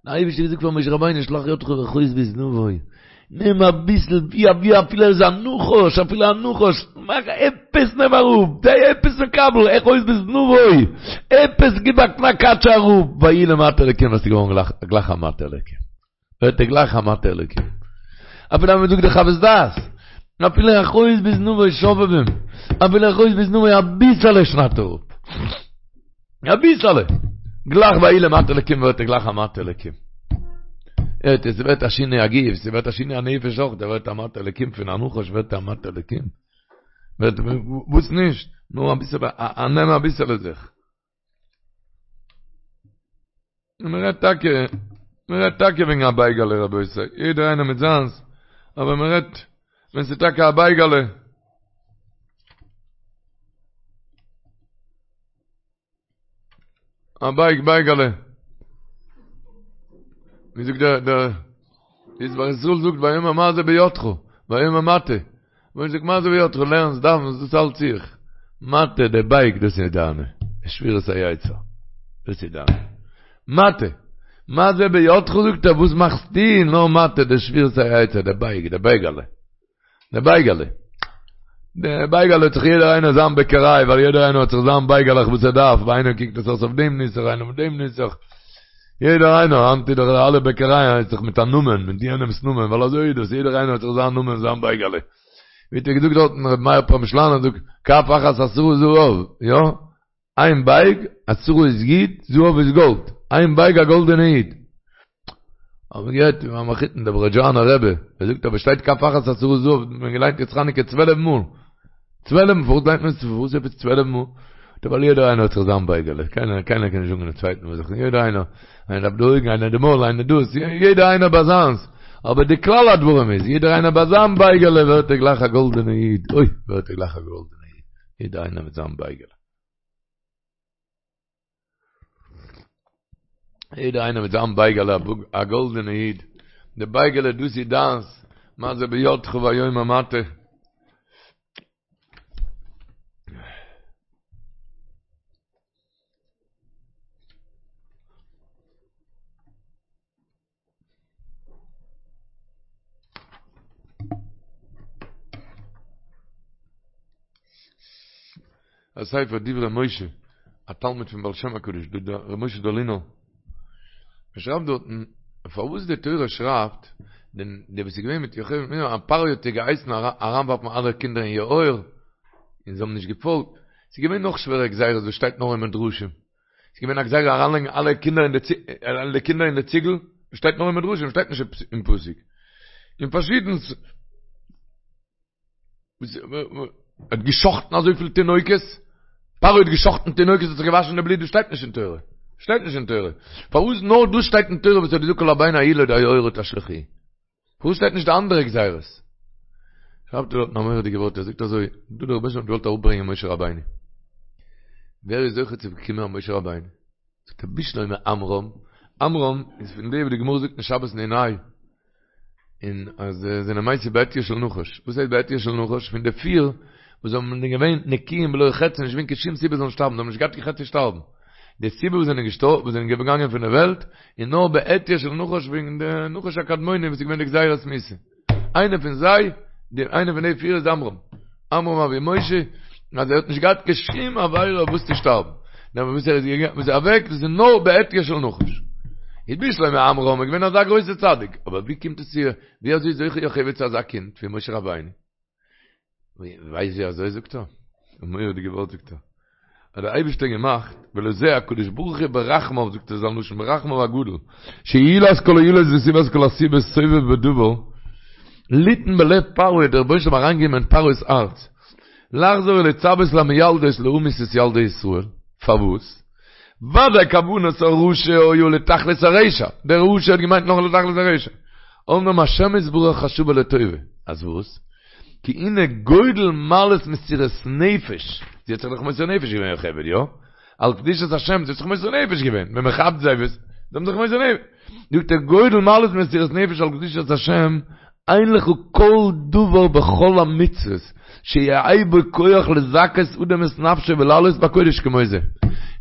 דער אייבערשטער האט געזאגט פאר משה רבינו, שלח ידך ואחוז בזנבו, נעם אביסל, ווי אבי אפילו ער איז א נחש, אפילו א נחש, מאך עפעס נעם אראפ, זיי עפעס מקבל, אחוז בזנבו, עפעס גיב א קנאק אראפ, ויהי למטה אלוקים, עס איז געווארן גלייך א מטה אלוקים. ווערט ער גלייך א מטה אלוקים. אפילו אז מען זאגט די חוות דעת, אפילו אחוז בזנבו שובבים, אפילו אחוז בזנבו אביסעלע שניידט ער אפ. אביסעלע. גלייך ויהי למטה אלוקים ווערט ער גלייך א מטה אלוקים. הערט איר, ס'ווערט א שינוי הגוף, ס'ווערט א שינוי הנפש אויך, דער ווערט א מטה אלוקים פון א נחש ווערט א מטה אלוקים. ווערט וואס נישט? נאר אביסעלע, א נעם אביסעלע זיך. און מען רעדט טאקע, מען רעדט טאקע וועגן א בייגעלע רבותי, יעדער איינער מיט זיינס, אבער מען רעדט ווען ס'איז טאקע א בייגעלע. א בייג בייגעלע. ווי זאגט דער דער ישמח ישראל זאגט ויאמר מה זה בידך, ויאמר מטה. ווען זאגט מה זה בידך לערנסט דאווענסט דאס האלט זיך מטה די בייג דאס איז דיינע שבירת היצר דאס איז דיינע מטה מה זה בידך זאגט ער וואס מאכסטו נאר מטה די שבירת היצר די בייג די בייגעלע די בייגעלע די בייגעלע האט זיך יעדער איינער זיין בעקעריי ווייל יעדער איינער האט זיך זיין בייגעלעך וואס ער דארף ביי איינעם קוקט עס אויס אויף דעם נוסח איינער אויף דעם נוסח יעדער איינער, היינט איז דאך אלע בעקערייען הייסט דאך מיט א נאמען, מיט יענעמס נאמען, ווייל אזוי איז דאס, יעדער איינער האט זיך זיין נאמען, זיין בייגעלע. ווי האט ער געזאגט דארטן, רבי מאיר פרעמישלאנער זאגט, כף אחת עשרה זהב, יא? איין בייג, עשרה איז יוד, זהב איז גאלד, איין בייג א גאלדענע יוד. האט מען געהערט פון מיין מחותן דער ברעזשאנער רבי, ער זאגט אבער שטייט כף אחת עשרה זהב, האט מען געליינט יעצט חנוכה צוועלף מאל. צוועלף מאל, פארוואס ליינט מען עס פארוואס עפעס צוועלף מאל? ווייל יעדער איינער האט זיך זיין בייגעלע, קיינער קיינער קען נישט זאגן דעם צווייטן וואס זיך, יעדער איינער, איינער דארף די אויגן, איינער די מויל, איינער דאס, יעדער איינער ביי זיינס, אבער די כלל הדברים איז, יעדער איינער ביי זיין בייגעלע ווערט ער גלייך א גאלדענע איד, אוי ווערט ער גלייך א גאלדענע איד, יעדער איינער מיט זיין בייגעלע. יעדער איינער מיט זיין בייגעלע, א גאלדענע איד, די בייגעלע דאס איז דיינס, מה זה בידך ויאמר מטה. א ספר דברי משה, א תלמיד פון בעל שם הקדוש, ר' משה דאלינער, ער שרייבט דארטן פארוואס די תורה שרייבט דען די וואס איז געווען מיט יוכבד מרים אז פרעה האט איר געהייסן אריינווארפן אלע קינדער אין יאור און זיי האבן נישט געפאלגט, ס'איז געווען נאך שווערע גזירות וואס שטייט נאר אין מדרשים, ס'איז געווען א גזירה אריינלייגן אלע קינדער אין די קינדער אין די ציגל, שטייט נאר אין מדרשים שטייט נישט אין פסוק, און פארשידענס. ער האט געשחטן אזויפיל תינוקות, פרעה האט געשחטן תינוקות האט זיך געוואשן די בלוט, דאס שטייט נישט אין תורה, שטייט נישט אין תורה, פארוואס נאר דאס שטייט אין תורה וואס ער האט געזאגט כל הבן הילוד היאורה תשליכוהו, פארוואס שטייט נישט די אנדערע גזירות? שרייבט ער דארטן א מורא'דיגע ווארט, ער זאגט אזוי, דא דער רבוש"ע האט געוואלט אראפברענגען משה רבינו, ווער איז זוכה צו באקומען א משה רבינו? זאגט ער בשלמא עמרם, עמרם איז פון די וואס די גמרא זאגט אין שבת נ"ה, און אז זיי זענען מתו בעטיו של נחש, וואס הייסט בעטיו של נחש? פון די פיר וואס זענען געווען נקיים בלא חטא, נישט געווען קיין שום סיבה זאלן שטארבן, זיי האבן נישט געהאט קיין חטא צו שטארבן, די סיבה וואס זענען געשטארבן, וואס זענען געגאנגען פון די וועלט, איז נאר בעטיו של נחש וועגן די נחש הקדמוני וואס איז געווען די גזירת מיתה. איינער פון זיי, די איינער פון די פיר איז עמרם. עמרם אבי משה, אז ער האט נישט געהאט קיין שום עבירה אויף וואס צו שטארבן. נאר וואס ער איז געגאנגען, וואס איז אוועק, דאס איז נאר בעטיו של נחש. איז בשלמא עמרם איז געווען אזא גרויסע צדיק, אבער ווי קומט עס צו, ווי אזוי איז זוכה יוכבד צו אזא קינד ווי משה רבינו? ווייסט ווי אזוי זאגט ער? א מורא'דיגע ווארט זאגט ער. האט דער אייבערשטער געמאכט, ולזה הקדוש ברוך הוא ברחמיו, זאגט ער זיין לשון, ברחמיו הגדול, שעילת כל העילות וסיבת כל הסיבות סובב בדבר, ליתן בלב פרעה, דער רבונו של עולם אריינגעגעבן אין פרעה'ס הארץ, לחזור ולצוות למילדות להמית את ילדי ישראל, פארוואס? ודאי כוונת הרשע היה לתכלית הרשע, דער רשע האט געמיינט נאר לתכלית הרשע, אמנם השם יתברך חשבה לטובה, אז וואס? כי הנה גודל מעלת מסירת נפש, זי האט זיך דאך מוסר נפש געווען יוכבד, יא? על קדושת השם, זי האט זיך מוסר נפש געווען, ווען מען כאפט זיי וואס, זיי האבן זיך מוסר נפש, זאגט ער גודל מעלת מסירת נפש על קדושת השם, אין לך כל דבר בכל המצוות שיהא בו כח לזכות אדם את נפשו ולעלות בקודש כמו זה.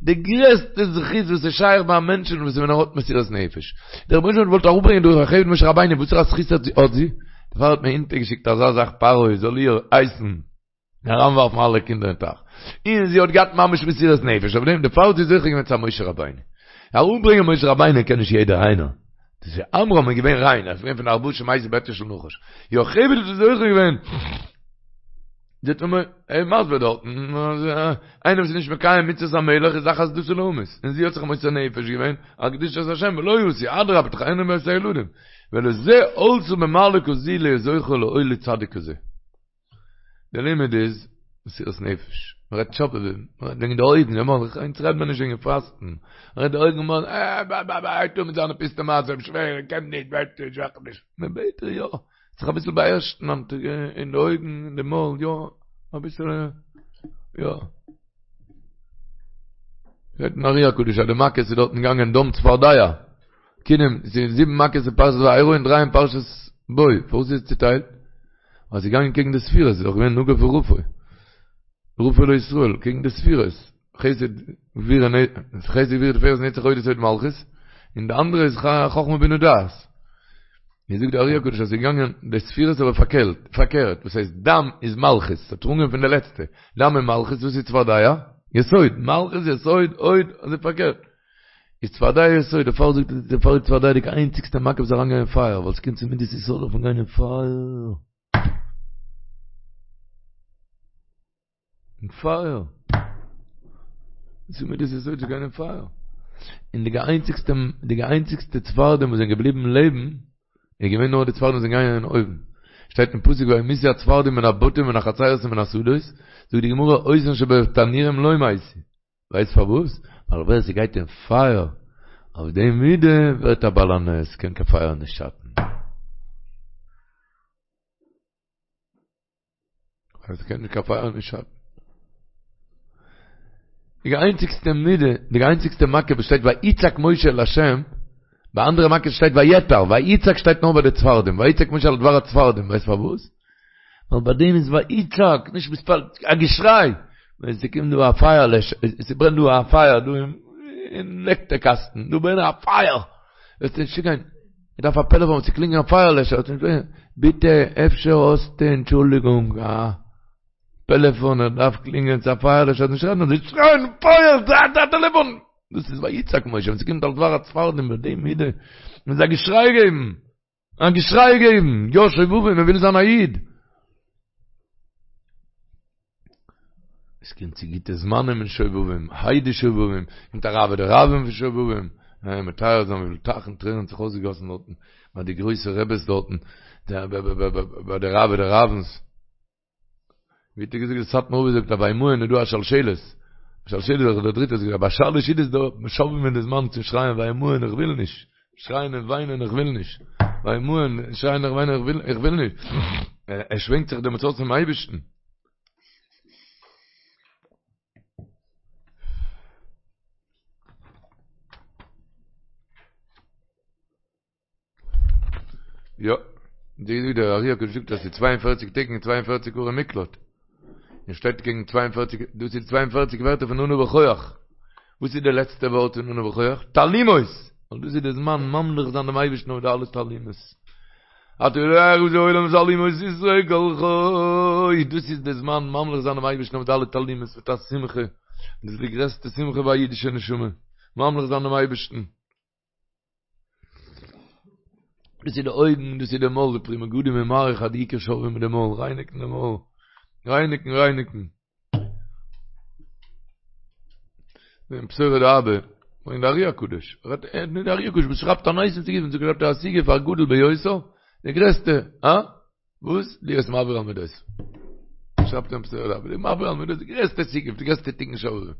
די גרעסטע זכות וואס איז שייך ביי א מענטשן וואס איז ווען ער האט מסירת נפש. דער רבונו של עולם האט געוואלט אראפברענגען דורך יוכבד משה רבינו, וואסערע זכות האט זי? דערפאר האט מען אונטערגעשיקט אזא זאך פרעה זאל איר הייסן אריינווארפן אלע קינדער אין טייך, און זי האט געהאט ממש מסירת נפש אויף דעם, דערפאר האט זי זוכה געווען צו א משה רבינו. אראפברענגען משה רבינו קען נישט יעדער איינער. דאס איז עמרם איז געווען ריין, ער איז געווען פון ארבעה שמתו בעטיו של נחש. יוכבד האט זוכה געווען. זאגט ער מיר, ער איז מסביר דארטן, אז איינער וואס איז נישט מקיים מצוות המלך איז אחת דתו להמית, און זי האט זיך מוסר נפש געווען על קדושת השם ולא עשו, אדרבה תחיינה את הילדים, ולזה עלתה במעלה כזו להיות זוכה להוליד צדיק כזה. די לימוד איז מסירת נפש, מען רעדט שובבים, מען רעדט וועגן די אויגן, אונז רעדט מען נישט וועגן פאסטן, מען רעדט די אויגן, אה, בא בא בא, הייבט אן מיט זיינע פיסטע מעשים, שווער, ער קען נישט, בעט נישט, וועך נישט, מען בעט דיר יא. זיך אביסל באהערשן אין די אויגן, אין די מויל, יא, אביסל, יא. זאגט אין ארי הקדוש אז די מכות איז דארטן געגאנגען דם צפרדע, כינים, ס'איז זיבן מכות אין פרשת וארא און דריי אין פרשת בא, פארוואס איז עס צוטיילט? ווייל ס'איז געגאנגען קעגן די ספירות, ס'איז דאך געווען נגוף ורפוא, רפוא לישראל, קעגן די ספירות. חסד גבורה חסד גבורה תפארת נצח הוד יסוד מלכות, און די אנדערע איז חכמה בינה דעת. ווי זאגט די ארי הקדוש אז ס'איז געגאנגען די ספירות אבער פארקערט, פארקערט, וואס הייסט דם איז מלכות, ס'האט אנגעהויבן פון די לעצטע, דם איז מלכות, וואס איז צפרדע? יסוד, מלכות יסוד הוד, אזוי פארקערט. איז צפרדע יסוד, דערפאר זאגט ער דערפאר איז צפרדע די איינציגסטע מכה וואס איז אריינגעגאנגען אין פייער, ווייל ס'קומט צו מידת יסוד דארף מען גיין אין פייער. אין פייער. צו מידת יסוד צו גיין אין פייער. און די איינציגסטע, די איינציגסטע צפרדעים וואס זענען געבליבן לעבן, איז געווען נאר די צפרדעים וואס זענען געגאנגען אין אויוון. שטייט אין פסוק וימותו הצפרדעים מן הבתים ומן החצרות ומן השדות, זאגט די גמרא אותן שבתנורים לא מתו. ווייסט פארוואס? ווייל ווער ס'גייט אין פייער אויף די מידה ווערט א בעל הנס, קען קיין פייער נישט שאטן. אז קען נישט קיין פייער נישט שאטן. די איינציגסטע מידה, די איינציגסטע מכה וואס שטייט ויצעק משה אל השם, ביי אנדערע מכות שטייט ויעתר, ויצעק שטייט נאר ביי די צפרדעים, ויצעק משה על דבר הצפרדעים, ווייסט פארוואס? ווייל ביי דעם איז ויצעק, נישט מתפלל, א געשריי, ווען ס'קומט דא א פייער לעשער, ס'ברענט דא א פייער דא אין לעקטער קאסטן, דא ברענט א פייער, וועסטו נישט צוגיין. איך דארף א פעלעפאן צו קלינגען א פייער לעשער, ביטע אפשר האסטו אנטשולדיגונג א. פעלעפאן ער דארף קלינגען צו א פייערלעשער נישט רעדן אזוי שרייען פייער א טעלעפאן! דאס איז ויצעק משה ווען ס'קומט על דבר הצפרדעים ביי די מידה מוז א געשריי געבן! א געשריי געבן! יא שובבים מען וויל זיין א איד! עס קומט צו גוטע זמנים אין שובבים, היידי שובבים, קומט א רעוא דרעוין פון שובבים, מטהר זיין וויפיל טייכן טרערן האט זיך אויסגעגאסן דארטן, ביי די גרויסע רעבעס דארטן, ביי די רעוא דרעוין'ס. ווי האט ער געזאגט, די סאטמאר רב זאגט אז ביי וימאן איז דא א שלשלת, שלשלת איז דער דריטער, זאגט ער ביי שלש סעודות דא שובבים איז די זמן צו שרייען וימאן איך וויל נישט, שרייען און וויינען איך וויל נישט, וימאן שרייען און וויינען איך וויל איך וויל נישט, ער שווענקט זיך דעמאלטס אויס צום אייבערשטן. יא, די ווי דער ארי הקדוש זאגט אז ס'איז 42 טעג און 42 ערי מקלט. און שטייט קעגן 42, דאס איז 42 ווערטער פון אנא בכח. וואס איז די לעצטע ווארט פון אנא בכח? תעלומות! ווייל דאס איז די זמן ממליך זיין דעם אייבערשטן אויף די אלע תעלומות. אתה יודע איך העולם תעלומות סתרי כל חי. דאס איז די זמן ממליך זיין דעם אייבערשטן אויף די אלע תעלומות מיט א שמחה. דאס איז די גרעסטע שמחה ביי א אידישע נשמה. ממליך זיין דעם אייבערשטן. דאס איז די אויגן, דאס איז די מויל, די פרי מגדים איז מאריך אז די עיקר שובבים מיט די מויל, רייניקן די מויל, רייניקן, רייניקן. אין פתורא דאבא, אין די ארי הקדוש, רעדט ער, די ארי הקדוש וואס שרייבט א נייעס אין סיגוף, שרייבט ער א סיגוף הגדול ביותר, די גרעסטע, הא? וואס? להיות מעביר על מידות. שרייבט אין פתורא דאבא, די מעביר על מידות, די גרעסטע סיגוף, די גרעסטע תיקון שובבים.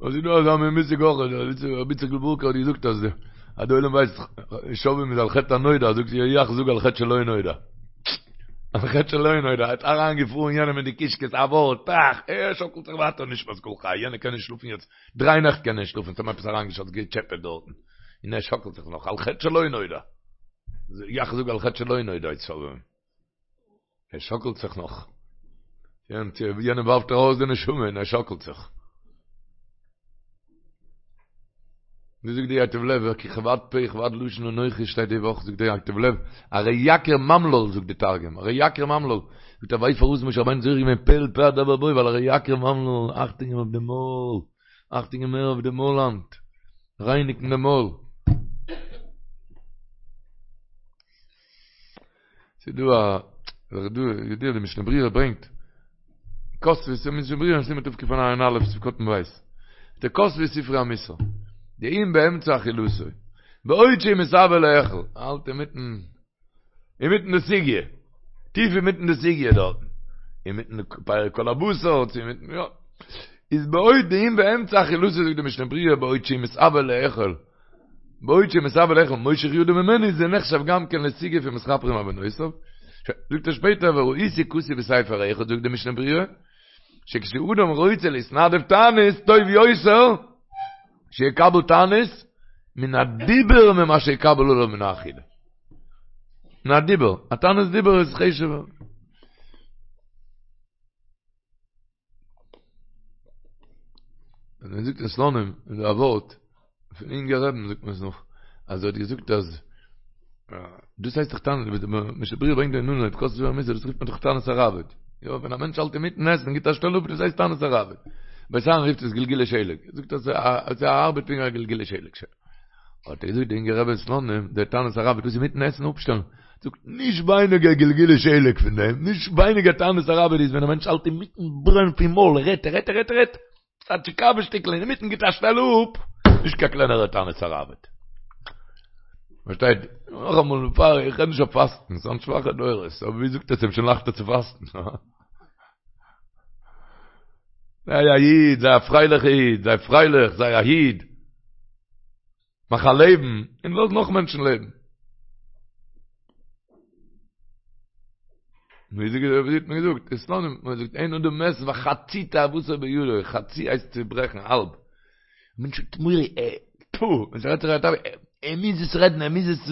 און ס'איז דא אזא מין מושג אויך, רבי איציק'ל ווארקער האט געזאגט אז אז די עולם ווייסט שובבים איז על חטא הנודע, זאגט ער יאך זאג על חטא שלא נודע. על חטא שלא נודע, האט אריינגעפארן יענעם אין די קישקעס א ווארט, טראך, ער שאקלט זיך ווייטער נשמת כל חי, יענער קען נישט שלאפן יעצט, דריי נעכט קען ער נישט שלאפן, ס'האט אים עפעס אריינגעשאצט געטשעפעט דארטן, און ער שאקלט זיך נאך, על חטא שלא נודע. יאך זאג על חטא שלא נודע איז שובבים. ער שאקלט זיך נאך. יענעם ווארפט ער ארויס די נשמה און ער שאקלט זיך. ווי זאגט די ייטב לב, כי כבד פה וכבד לשון אנכי שטייט די וואך זאגט די ייטב לב, ארי יקיר ממלל זאגט די תרגום, ארי יקיר ממלל, זאגט ער ווייסט פארוואס משה רבינו זוכה געווען פה אל פה אדבר בו ווייל ארי יקיר ממלל, אכטונג געבן אויף די מויל. אכטונג געבן מער אויף די מויל היינט, רייניגן די מויל. ס'איז דא א, דא, ידוע די משנה ברורה ברענגט, כתבו, ס'איז משנה ברורה אין סימן תקע"א, סעיף קטן ב', די כתבו ספרי המוסר, דאם באמצע אכילתו, בעוד שהוא מתאוה לאכול, האלט אינמיטן אינמיטן די סוגיא, טיף אינמיטן די סוגיא דארטן, אינמיטן די פרק כל הבשר, צו אינמיטן, יא, איז בעוד דאם באמצע אכילתו זאגט די משנה ברורה בעוד שהוא מתאוה לאכול, בעוד שהוא מתאוה לאכול מושך ידו ממנו זה נחשב גם כן לסיגוף ומתכפרים עוונותיו, זאגט ער שפעטער וראיתי כתוב בספר אחד זאגט די משנה ברורה, שכשאדם רוצה להתנדב תענית טוב יותר שיקבל תענית מן הדיבור ממה שיקבל עליו מן האכילה. מן הדיבור. א תענית דיבור איז חשוב'ער. ווען מען זאגט אין סלאנים איז דא א ווארט פון אינגער רבי'ן זאגט מען עס נאך אז ער האט געזאגט אז דאס הייסט דאך תענית ווי די משנה ברורה ברענגט אין אנהויב כתבו ספרי המוסר דאס רופט מען דאך תענית הראב"ד יא ווען א מענטש האלט אינמיטן עסן גיט א שטעל אפ דאס הייסט תענית הראב"ד בית אהרן רופט עס גלגולי שלג זאגט אז עס ארבעט פונקט ווי א גלגולי שלג האט ער געזאגט די אינגער רבי אין סלאנים דער תענית הראב"ד דאס אינמיטן עסן אפשטעלן זאגט נישט ווייניגער גלגולי שלג פון דעם נישט ווייניגער תענית הראב"ד איז ווען א מענטש האלט אינמיטן ברען פון מויל ער רעדט ער רעדט ער רעדט ער רעדט א טשיקאווע שטיקל אינמיטן גיט א שטעל אפ, נישט קיין קלענערע תענית הראב"ד. פארשטייט? נאכאמאל בעפאר איך רעד נישט אויף פאסטן, ס'זענען שוואכע דורות, אבער ווי זאגט עס שוין לייכטער צו פאסטן. זיי א איד, זיי א פרייליכע איד, זיי פרייליך, זיי א איד. מאך א לעבן, און לאז נאך מענטשן לעבן. ווי זאגט ווי האט מען געזאגט? אין סלאנים האט מען געזאגט אין אדם מת וחצי תאוותו בידו, חצי הייסט צוברעכן האלב. מענטש האט מורא, ער, טפו, ווען ס'רעדט זיך א תאווה, ער מוז עס רעדן, ער מוז עס,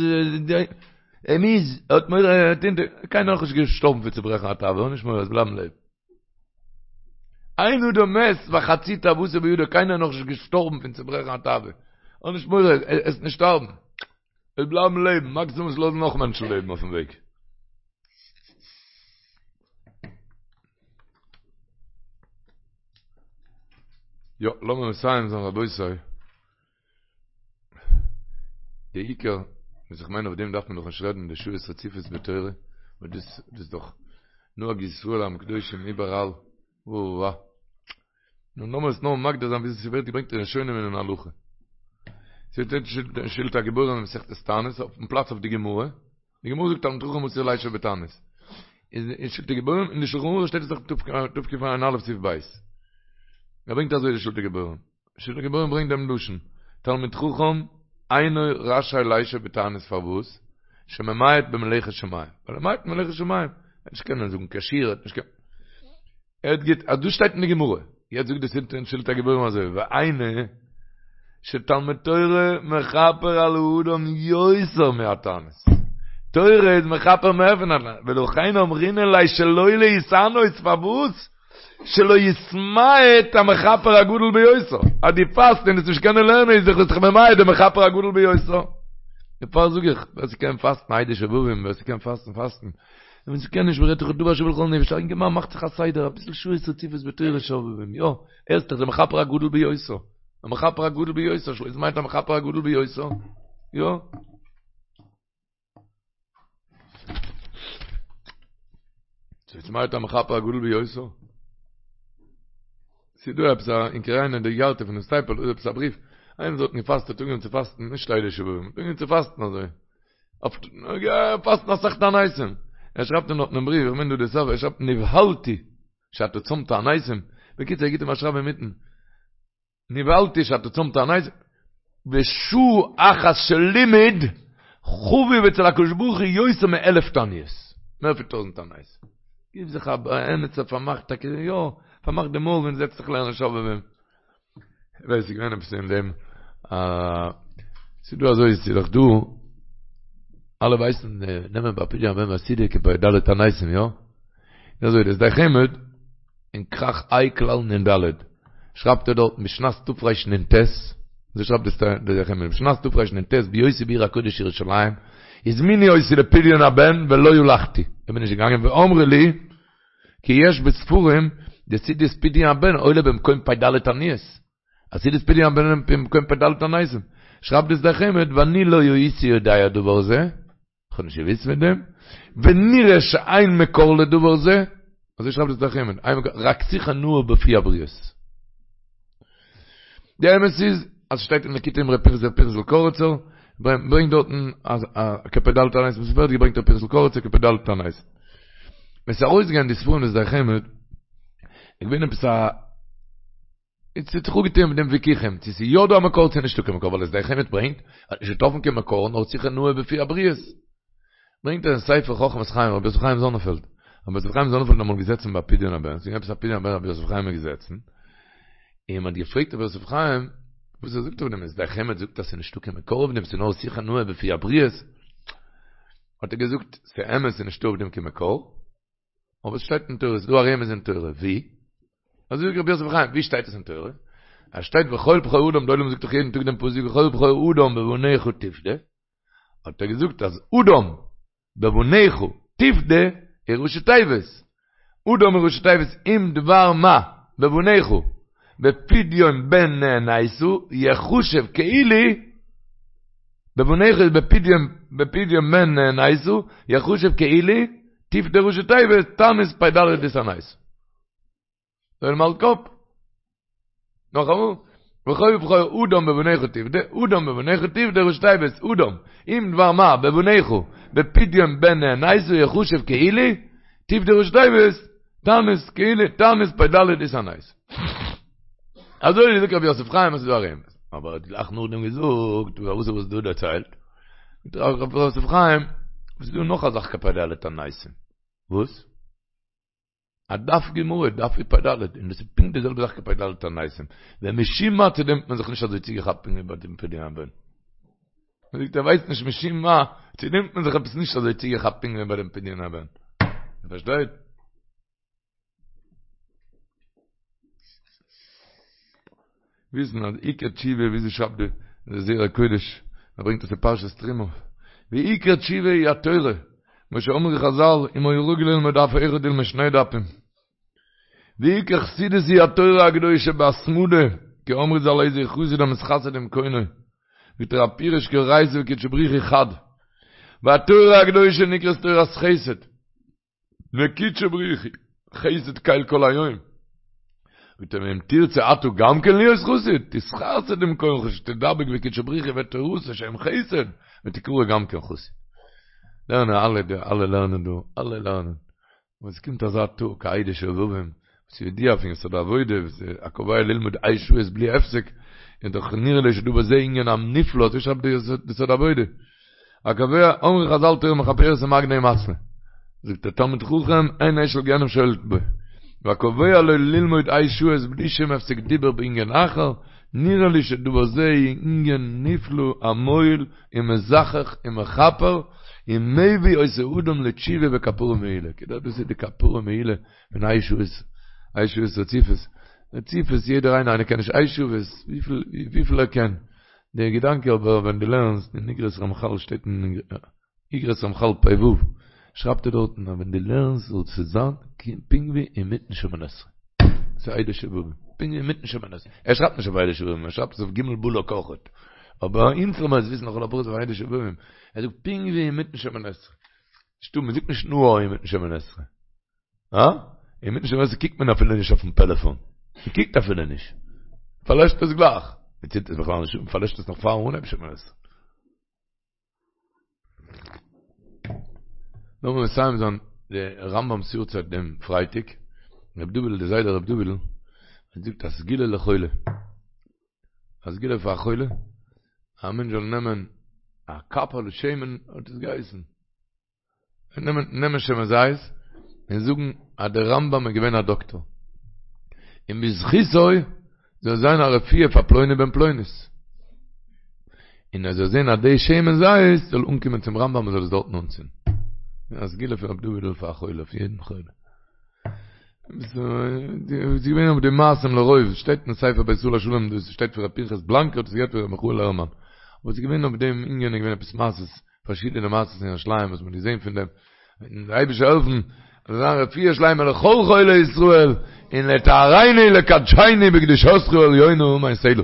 ער מוז, ער האט מורא, ער האט אונטער, קיינער נאכנישט געשטארבן פון צוברעכן א תאווה, האב נישט מורא, וועסט בלייבן לעבן. אין אדם מת וחצי תאוותו בידו, קיינער איז נאכנישט געשטארבן פון צוברעכן א תאווה, האב נישט מורא, וועסט נישט שטארבן, וועסט בלייבן לעבן, מאקסימום וועסט לאזן נאך מענטשן לעבן אויפן וועג. יא, לאמיר מסיים זיין רבותי. די עיקר, וואס איך מיין אויף דעם דארף מען דאך נישט רעדן, די שעות רציפות בתורה, ווייל דאס איז דאך נוהג ישראל עם קדושים איבעראל, וואו. נו לאמיר עס נאר מגדיר זיין וויאזוי ס'ווערט געברענגט אין ראשונים און אין הלכה. ס'שטייט אין שלטי הגיבורים אין מסכת תענית אויפן פלאץ אויף די גמרא, די גמרא זאגט תלמיד חכם אסור לישב בתענית. איז אין שלטי גיבורים אין די שלחן ערוך שטייט עס דאך תקע"א סעיף ב'. ער ברענגט אזוי די שלטי גיבורים. שלטי גיבורים ברענגט דעם לשון, תלמיד חכם אינו רשאי לישב בתענית פארוואס? שממעט במלאכת שמים. ווייל ער ממעט במלאכת שמים. ער וועט נישט קענען זאגן קיין שיעור, ער וועט נישט קענען. ער האט גוט, אז דאס שטייט אין די גמרא, יעצט זאגט די שלטי הגיבורים אזוי, והיינו שתלמוד תורה מכפר על האדם יותר מהתענית, תורה איז מכפר מער פון א תענית, ולכן אמרינן ליה שלא להתענות, פארוואס? שלא יתמעט המכפר הגדול ביותר, אז דו פאסט און וועסט נישט קענען לערנען איז דאך ביסט דאך ממעט די מכפר הגדול ביותר. דערפאר זאג איך, ווער ס'קען פאסטן אלו שובבים, ווער ס'קען פאסטן פאסטן, און ווען ס'קען נישט מ'רעדט דאך דבר השוה לכל נפש, א אינגערמאן מאכט זיך א סדר, אביסל שעות רציפות בתורה שובבים, יא, ער איז דאך דער מכפר הגדול ביותר, המכפר הגדול ביותר, שלא יתמעט המכפר הגדול ביותר, יא. שלא יתמעט המכפר הגדול ביותר. ס'איז דא עפעס א, אין קריינא דאיגרתא פונעם סטייפלער איז עפעס א בריוו, איינער וואס האט געפאסט האט אנגעהויבן צו פאסטן נישט אלו שובבים, האט אנגעהויבן צו פאסטן אזוי. פאסטן אסאך תעניתים. ער שרייבט אים דארט אין בריוו, איך מיין דא די סוף, ער שרייבט נבהלתי שאתה צם תעניתים. בקיצור ער גיבט אים א שרייב אינמיטן, נבהלתי שאתה צם תעניתים, ושעה אחת של לימוד חביב אצל הקדוש ברוך הוא יותר מאלף תעניות. מער פון טויזענט תעניות. גיב זיך א עמיצער פארמאכט טאקע יא, פארמאך די מויל און זעץ זיך לערנען שובבים. ווייס איך געווען עפעס אין דעם ס'איז דא אזוי ס'איז דאך דא אלע ווייסן נעמען ביי פדיון הבן ביי סעודה כפ"ד תעניתים יא? איז אזוי דער שדי חמד אין כרך ה' כלל נ"ד שרייבט ער דארט בשנת תרנ"ט אזוי שרייבט דער שדי חמד בשנת תרנ"ט בהיותי בעיר הקודש ירושלים הזמינו אותי לפדיון הבן ולא הלכתי איך בין נישט געגאנגען ואמרו לי כי יש בספרים דסעודת פדיון הבן עולה במקום פ"ד תעניות. אז סעודת פדיון הבן עולה במקום פ"ד תעניתים. שרייבט די שדי חמד ואני לא הייתי יודע דבר זה, איך האב נישט געוואוסט פון דעם, ונראה שאין מקור לדבר זה, אזוי שרייבט די שדי חמד, רק שיחה נאה בפי הבריות. די אמת איז אז שטייט אין ליקוטי אמרי פנחס ר' פנחס'ל קאריצער, ברענגט דארטן אז כפ"ד תעניתים, עס ווערט געברענגט ר' פנחס'ל קאריצער כפ"ד תעניתים. ווען ס'איז ארויסגעגאנגען די ספרים די שדי חמד, איז געווען עפעס א, עס האט זיך אפגעטוען מיט דעם וויכוחים, צו ס'איז יא דא א מקור צו נישטא קיין מקור, ווייל די שדי חמד ברענגט, האט נישט געטראפן קיין מקור נאר שיחה נאה בפי הבריות. ברענגט ער אין ספר חכמת חיים רבי יוסף חיים זאנענפעלד, רבי יוסף חיים זאנענפעלד איז אמאל געזעצן ביי פדיון הבן, ס'איז געווען עפעס א פדיון הבן רבי יוסף חיים איז געזעצן, און מ'האט געפרעגט רבי יוסף חיים וואס ער זאגט אויף דעם, שדי חמד זאגט אז ס'איז נישטא קיין מקור אויף דעם, ס'איז נאר שיחה נאה בפי הבריות, האט ער געזאגט, ס'איז אמת ס'איז נישטא אויף דעם קיין מקור, אבער עס שטייט אין תורה, ס'איז דא א רמז אין תורה, ווי? אזוי זאגט רבי יוסף חיים, ווי שטייט עס אין תורה? עס שטייט וכל בכור אדם, די עולם זאגט דאך יעדן טאג דעם פסוק וכל בכור אדם בבניך תפדה, האט ער געזאגט אז אדם בבניך תפדה איז ראשי תיבות, אדם איז ראשי תיבות אם דבר מה בבניך בפדיון בן נאנסת יחשב כאילו בבניך איז בפדיון בפדיון בן נאנסת יחשב כאילו תפדה ראשי תיבות תענית פ"ד דהתענית. זאל אים האלט קאפ. נאכאמאל, וכל בכור אדם בבניך תפדה, אדם בבניך תפדה ראשי תיבות, אדם, אם דבר מה בבניך, בפדיון בן נאנסת יחשב כאילו, תפדה ראשי תיבות, תענית כאילו, תענית פ"ד דהתענית. אזוי זאגט רבי יוסף חיים אז ס'איז דא א רמז. אבער ער האט גלייך נאכדעם געזאגט, וואס האסטו דא דערציילט? זאגט רבי יוסף חיים, ס'איז דא נאך א זאך כפ"ד תעניתים. וואס? א דף גמרא, דף איז פ"ד, און דאס איז פונקט די זעלבע זאך כפ"ד תעניתים. ומשום מה צו דעם האט מען זיך נישט אזוי צוגעכאפט פונקט ווי ביי דעם פדיון הבן. מען זאגט ער ווייסט נישט משום מה, צו דעם האט מען זיך עפעס נישט אזוי צוגעכאפט פונקט ווי ביי דעם פדיון הבן. איר פארשטייט? וויסן אז עיקר תשובה ווי אזוי שרייבט די זרע קודש, ער ברענגט עס אין פרשת תרומה, ועיקר תשובה היא התורה, כמו שאמרו חזל, אם היה רגיל ללמוד דף אחד ילמוד שני דפים. ועיקר חסידות היא התורה הקדושה בהתמדה. כי אמרו ז"ל איזהו חסיד המתחסד עם קונו, זאגט ער הפירוש כי אורייתא וקודשא בריך הוא חד, והתורה הקדושה נקראת תורת חסד, וקודשא בריך הוא חסד קל כל היום. זאגט ער ואם תרצה אתה גם כן להיות חסיד, תתחסד עם קונך שתדבק בקודשא בריך הוא ותורתו שהם חסד, ותקרא גם כן חסיד. לערנען אלע דא, אלע לערנען דא, אלע לערנען. און עס קומט אזא טאג, ה' דשובבים, וואס איז ידוע פון יסוד העבודה, וואס איז הקובע ללמוד ה' שעות בלי הפסק, איז דאך נראה לי שדא בזה ענין הנפלא, אזוי שרייבט די יסוד העבודה. הקובע, אמרו חזל תורה מכפרת ומגנה ומצלה. זאגט דער תלמיד חכם, אין אש של גיהנם שולט בו. והקובע לו ללמוד ה' שעות בלי שום הפסק דיבור בענין אחר, נראה לי שדבר זה ענין נפלא המועיל ומזכך ומכפר, ומביא אותו אדם לתשובה וכפרה מעולה. כדי דאס איז די כפרה מעולה פון ה' שעות, ה' שעות רציפות. רציפות יעדער איינער, איינער קען נישט ה' שעות, וויפיל ער קען. דער געדאנק אבער ווען דו לערנסט אין אגרות רמחל שטייט אין אגרות רמחל פ ו שרייבט ער דארטן אז ווען דו לערנסט זאל עס זיין פונקט ווי אינמיטן שמונה עשרה. ס'איז ה' דשובבים. פונקט ווי אינמיטן שמונה עשרה. ער שרייבט נישט אויף ה' דשובבים, ער שרייבט עס אויף ג' בלק אויכעט. אבער אונז זאל מען עס וויסן לכל הפחות אויף ה' דשובבים. ער זאגט פונקט ווי אינמיטן שמונה עשרה. נישטא, מ'זאגט נישט נאר אינמיטן שמונה עשרה. הא? אינמיטן שמונה עשרה קוקט מען אפילו נישט אויפן פעלעפאן. מ'קוקט אפילו נישט. מ'פארלעשט עס גלייך. מ'צינדט עס בכלל נישט אן, מ'פארלעשט עס נאך פארן אנהייבן שמונה עשרה. לאמיר מסיים זיין די רמבם'ס יארצייט דעם פרייטאג. ר' דוד'ל, די זיידע ר' דוד'ל, האט געזאגט א סגולה לחולה. א סגולה פאר א חולה, א מענטש זאל נעמען א קאפעלע שמן, האט עס געהייסן. נעמען נעמען שמן זית און זאגן אז דער רמבם איז געווען א דאקטאר און בזכותו זאל זיין א רפואה פאר פלוני בן פלונית און ער זאל זען אז די שמן זית זאל אנקומען צום רמבם און זאל עס דארטן אנצינדן. א סגולה פון רבי דוד'ל פאר א חולה, אויף יעדן חולה. ס'איז געווען אויף די מעשים לרוב, שטייט אין ספר בית ישראל השלם, דאס שטייט פון רבי פנחס בלאנקע, האט עס געהערט פון רבי מיכאל הערמאן. אבער ס'איז געווען אויף דעם ענין איז געווען עפעס מעשות פארשידענע מעשות אין ירושלים וואס מ'האט געזען פון דעם, און דער אייבערשטער זאל העלפן אז זאל זיין רפואה שלימה לכל חולי ישראל, און לטהרנו לקדשנו בקדושתך העליונה אמן סלה.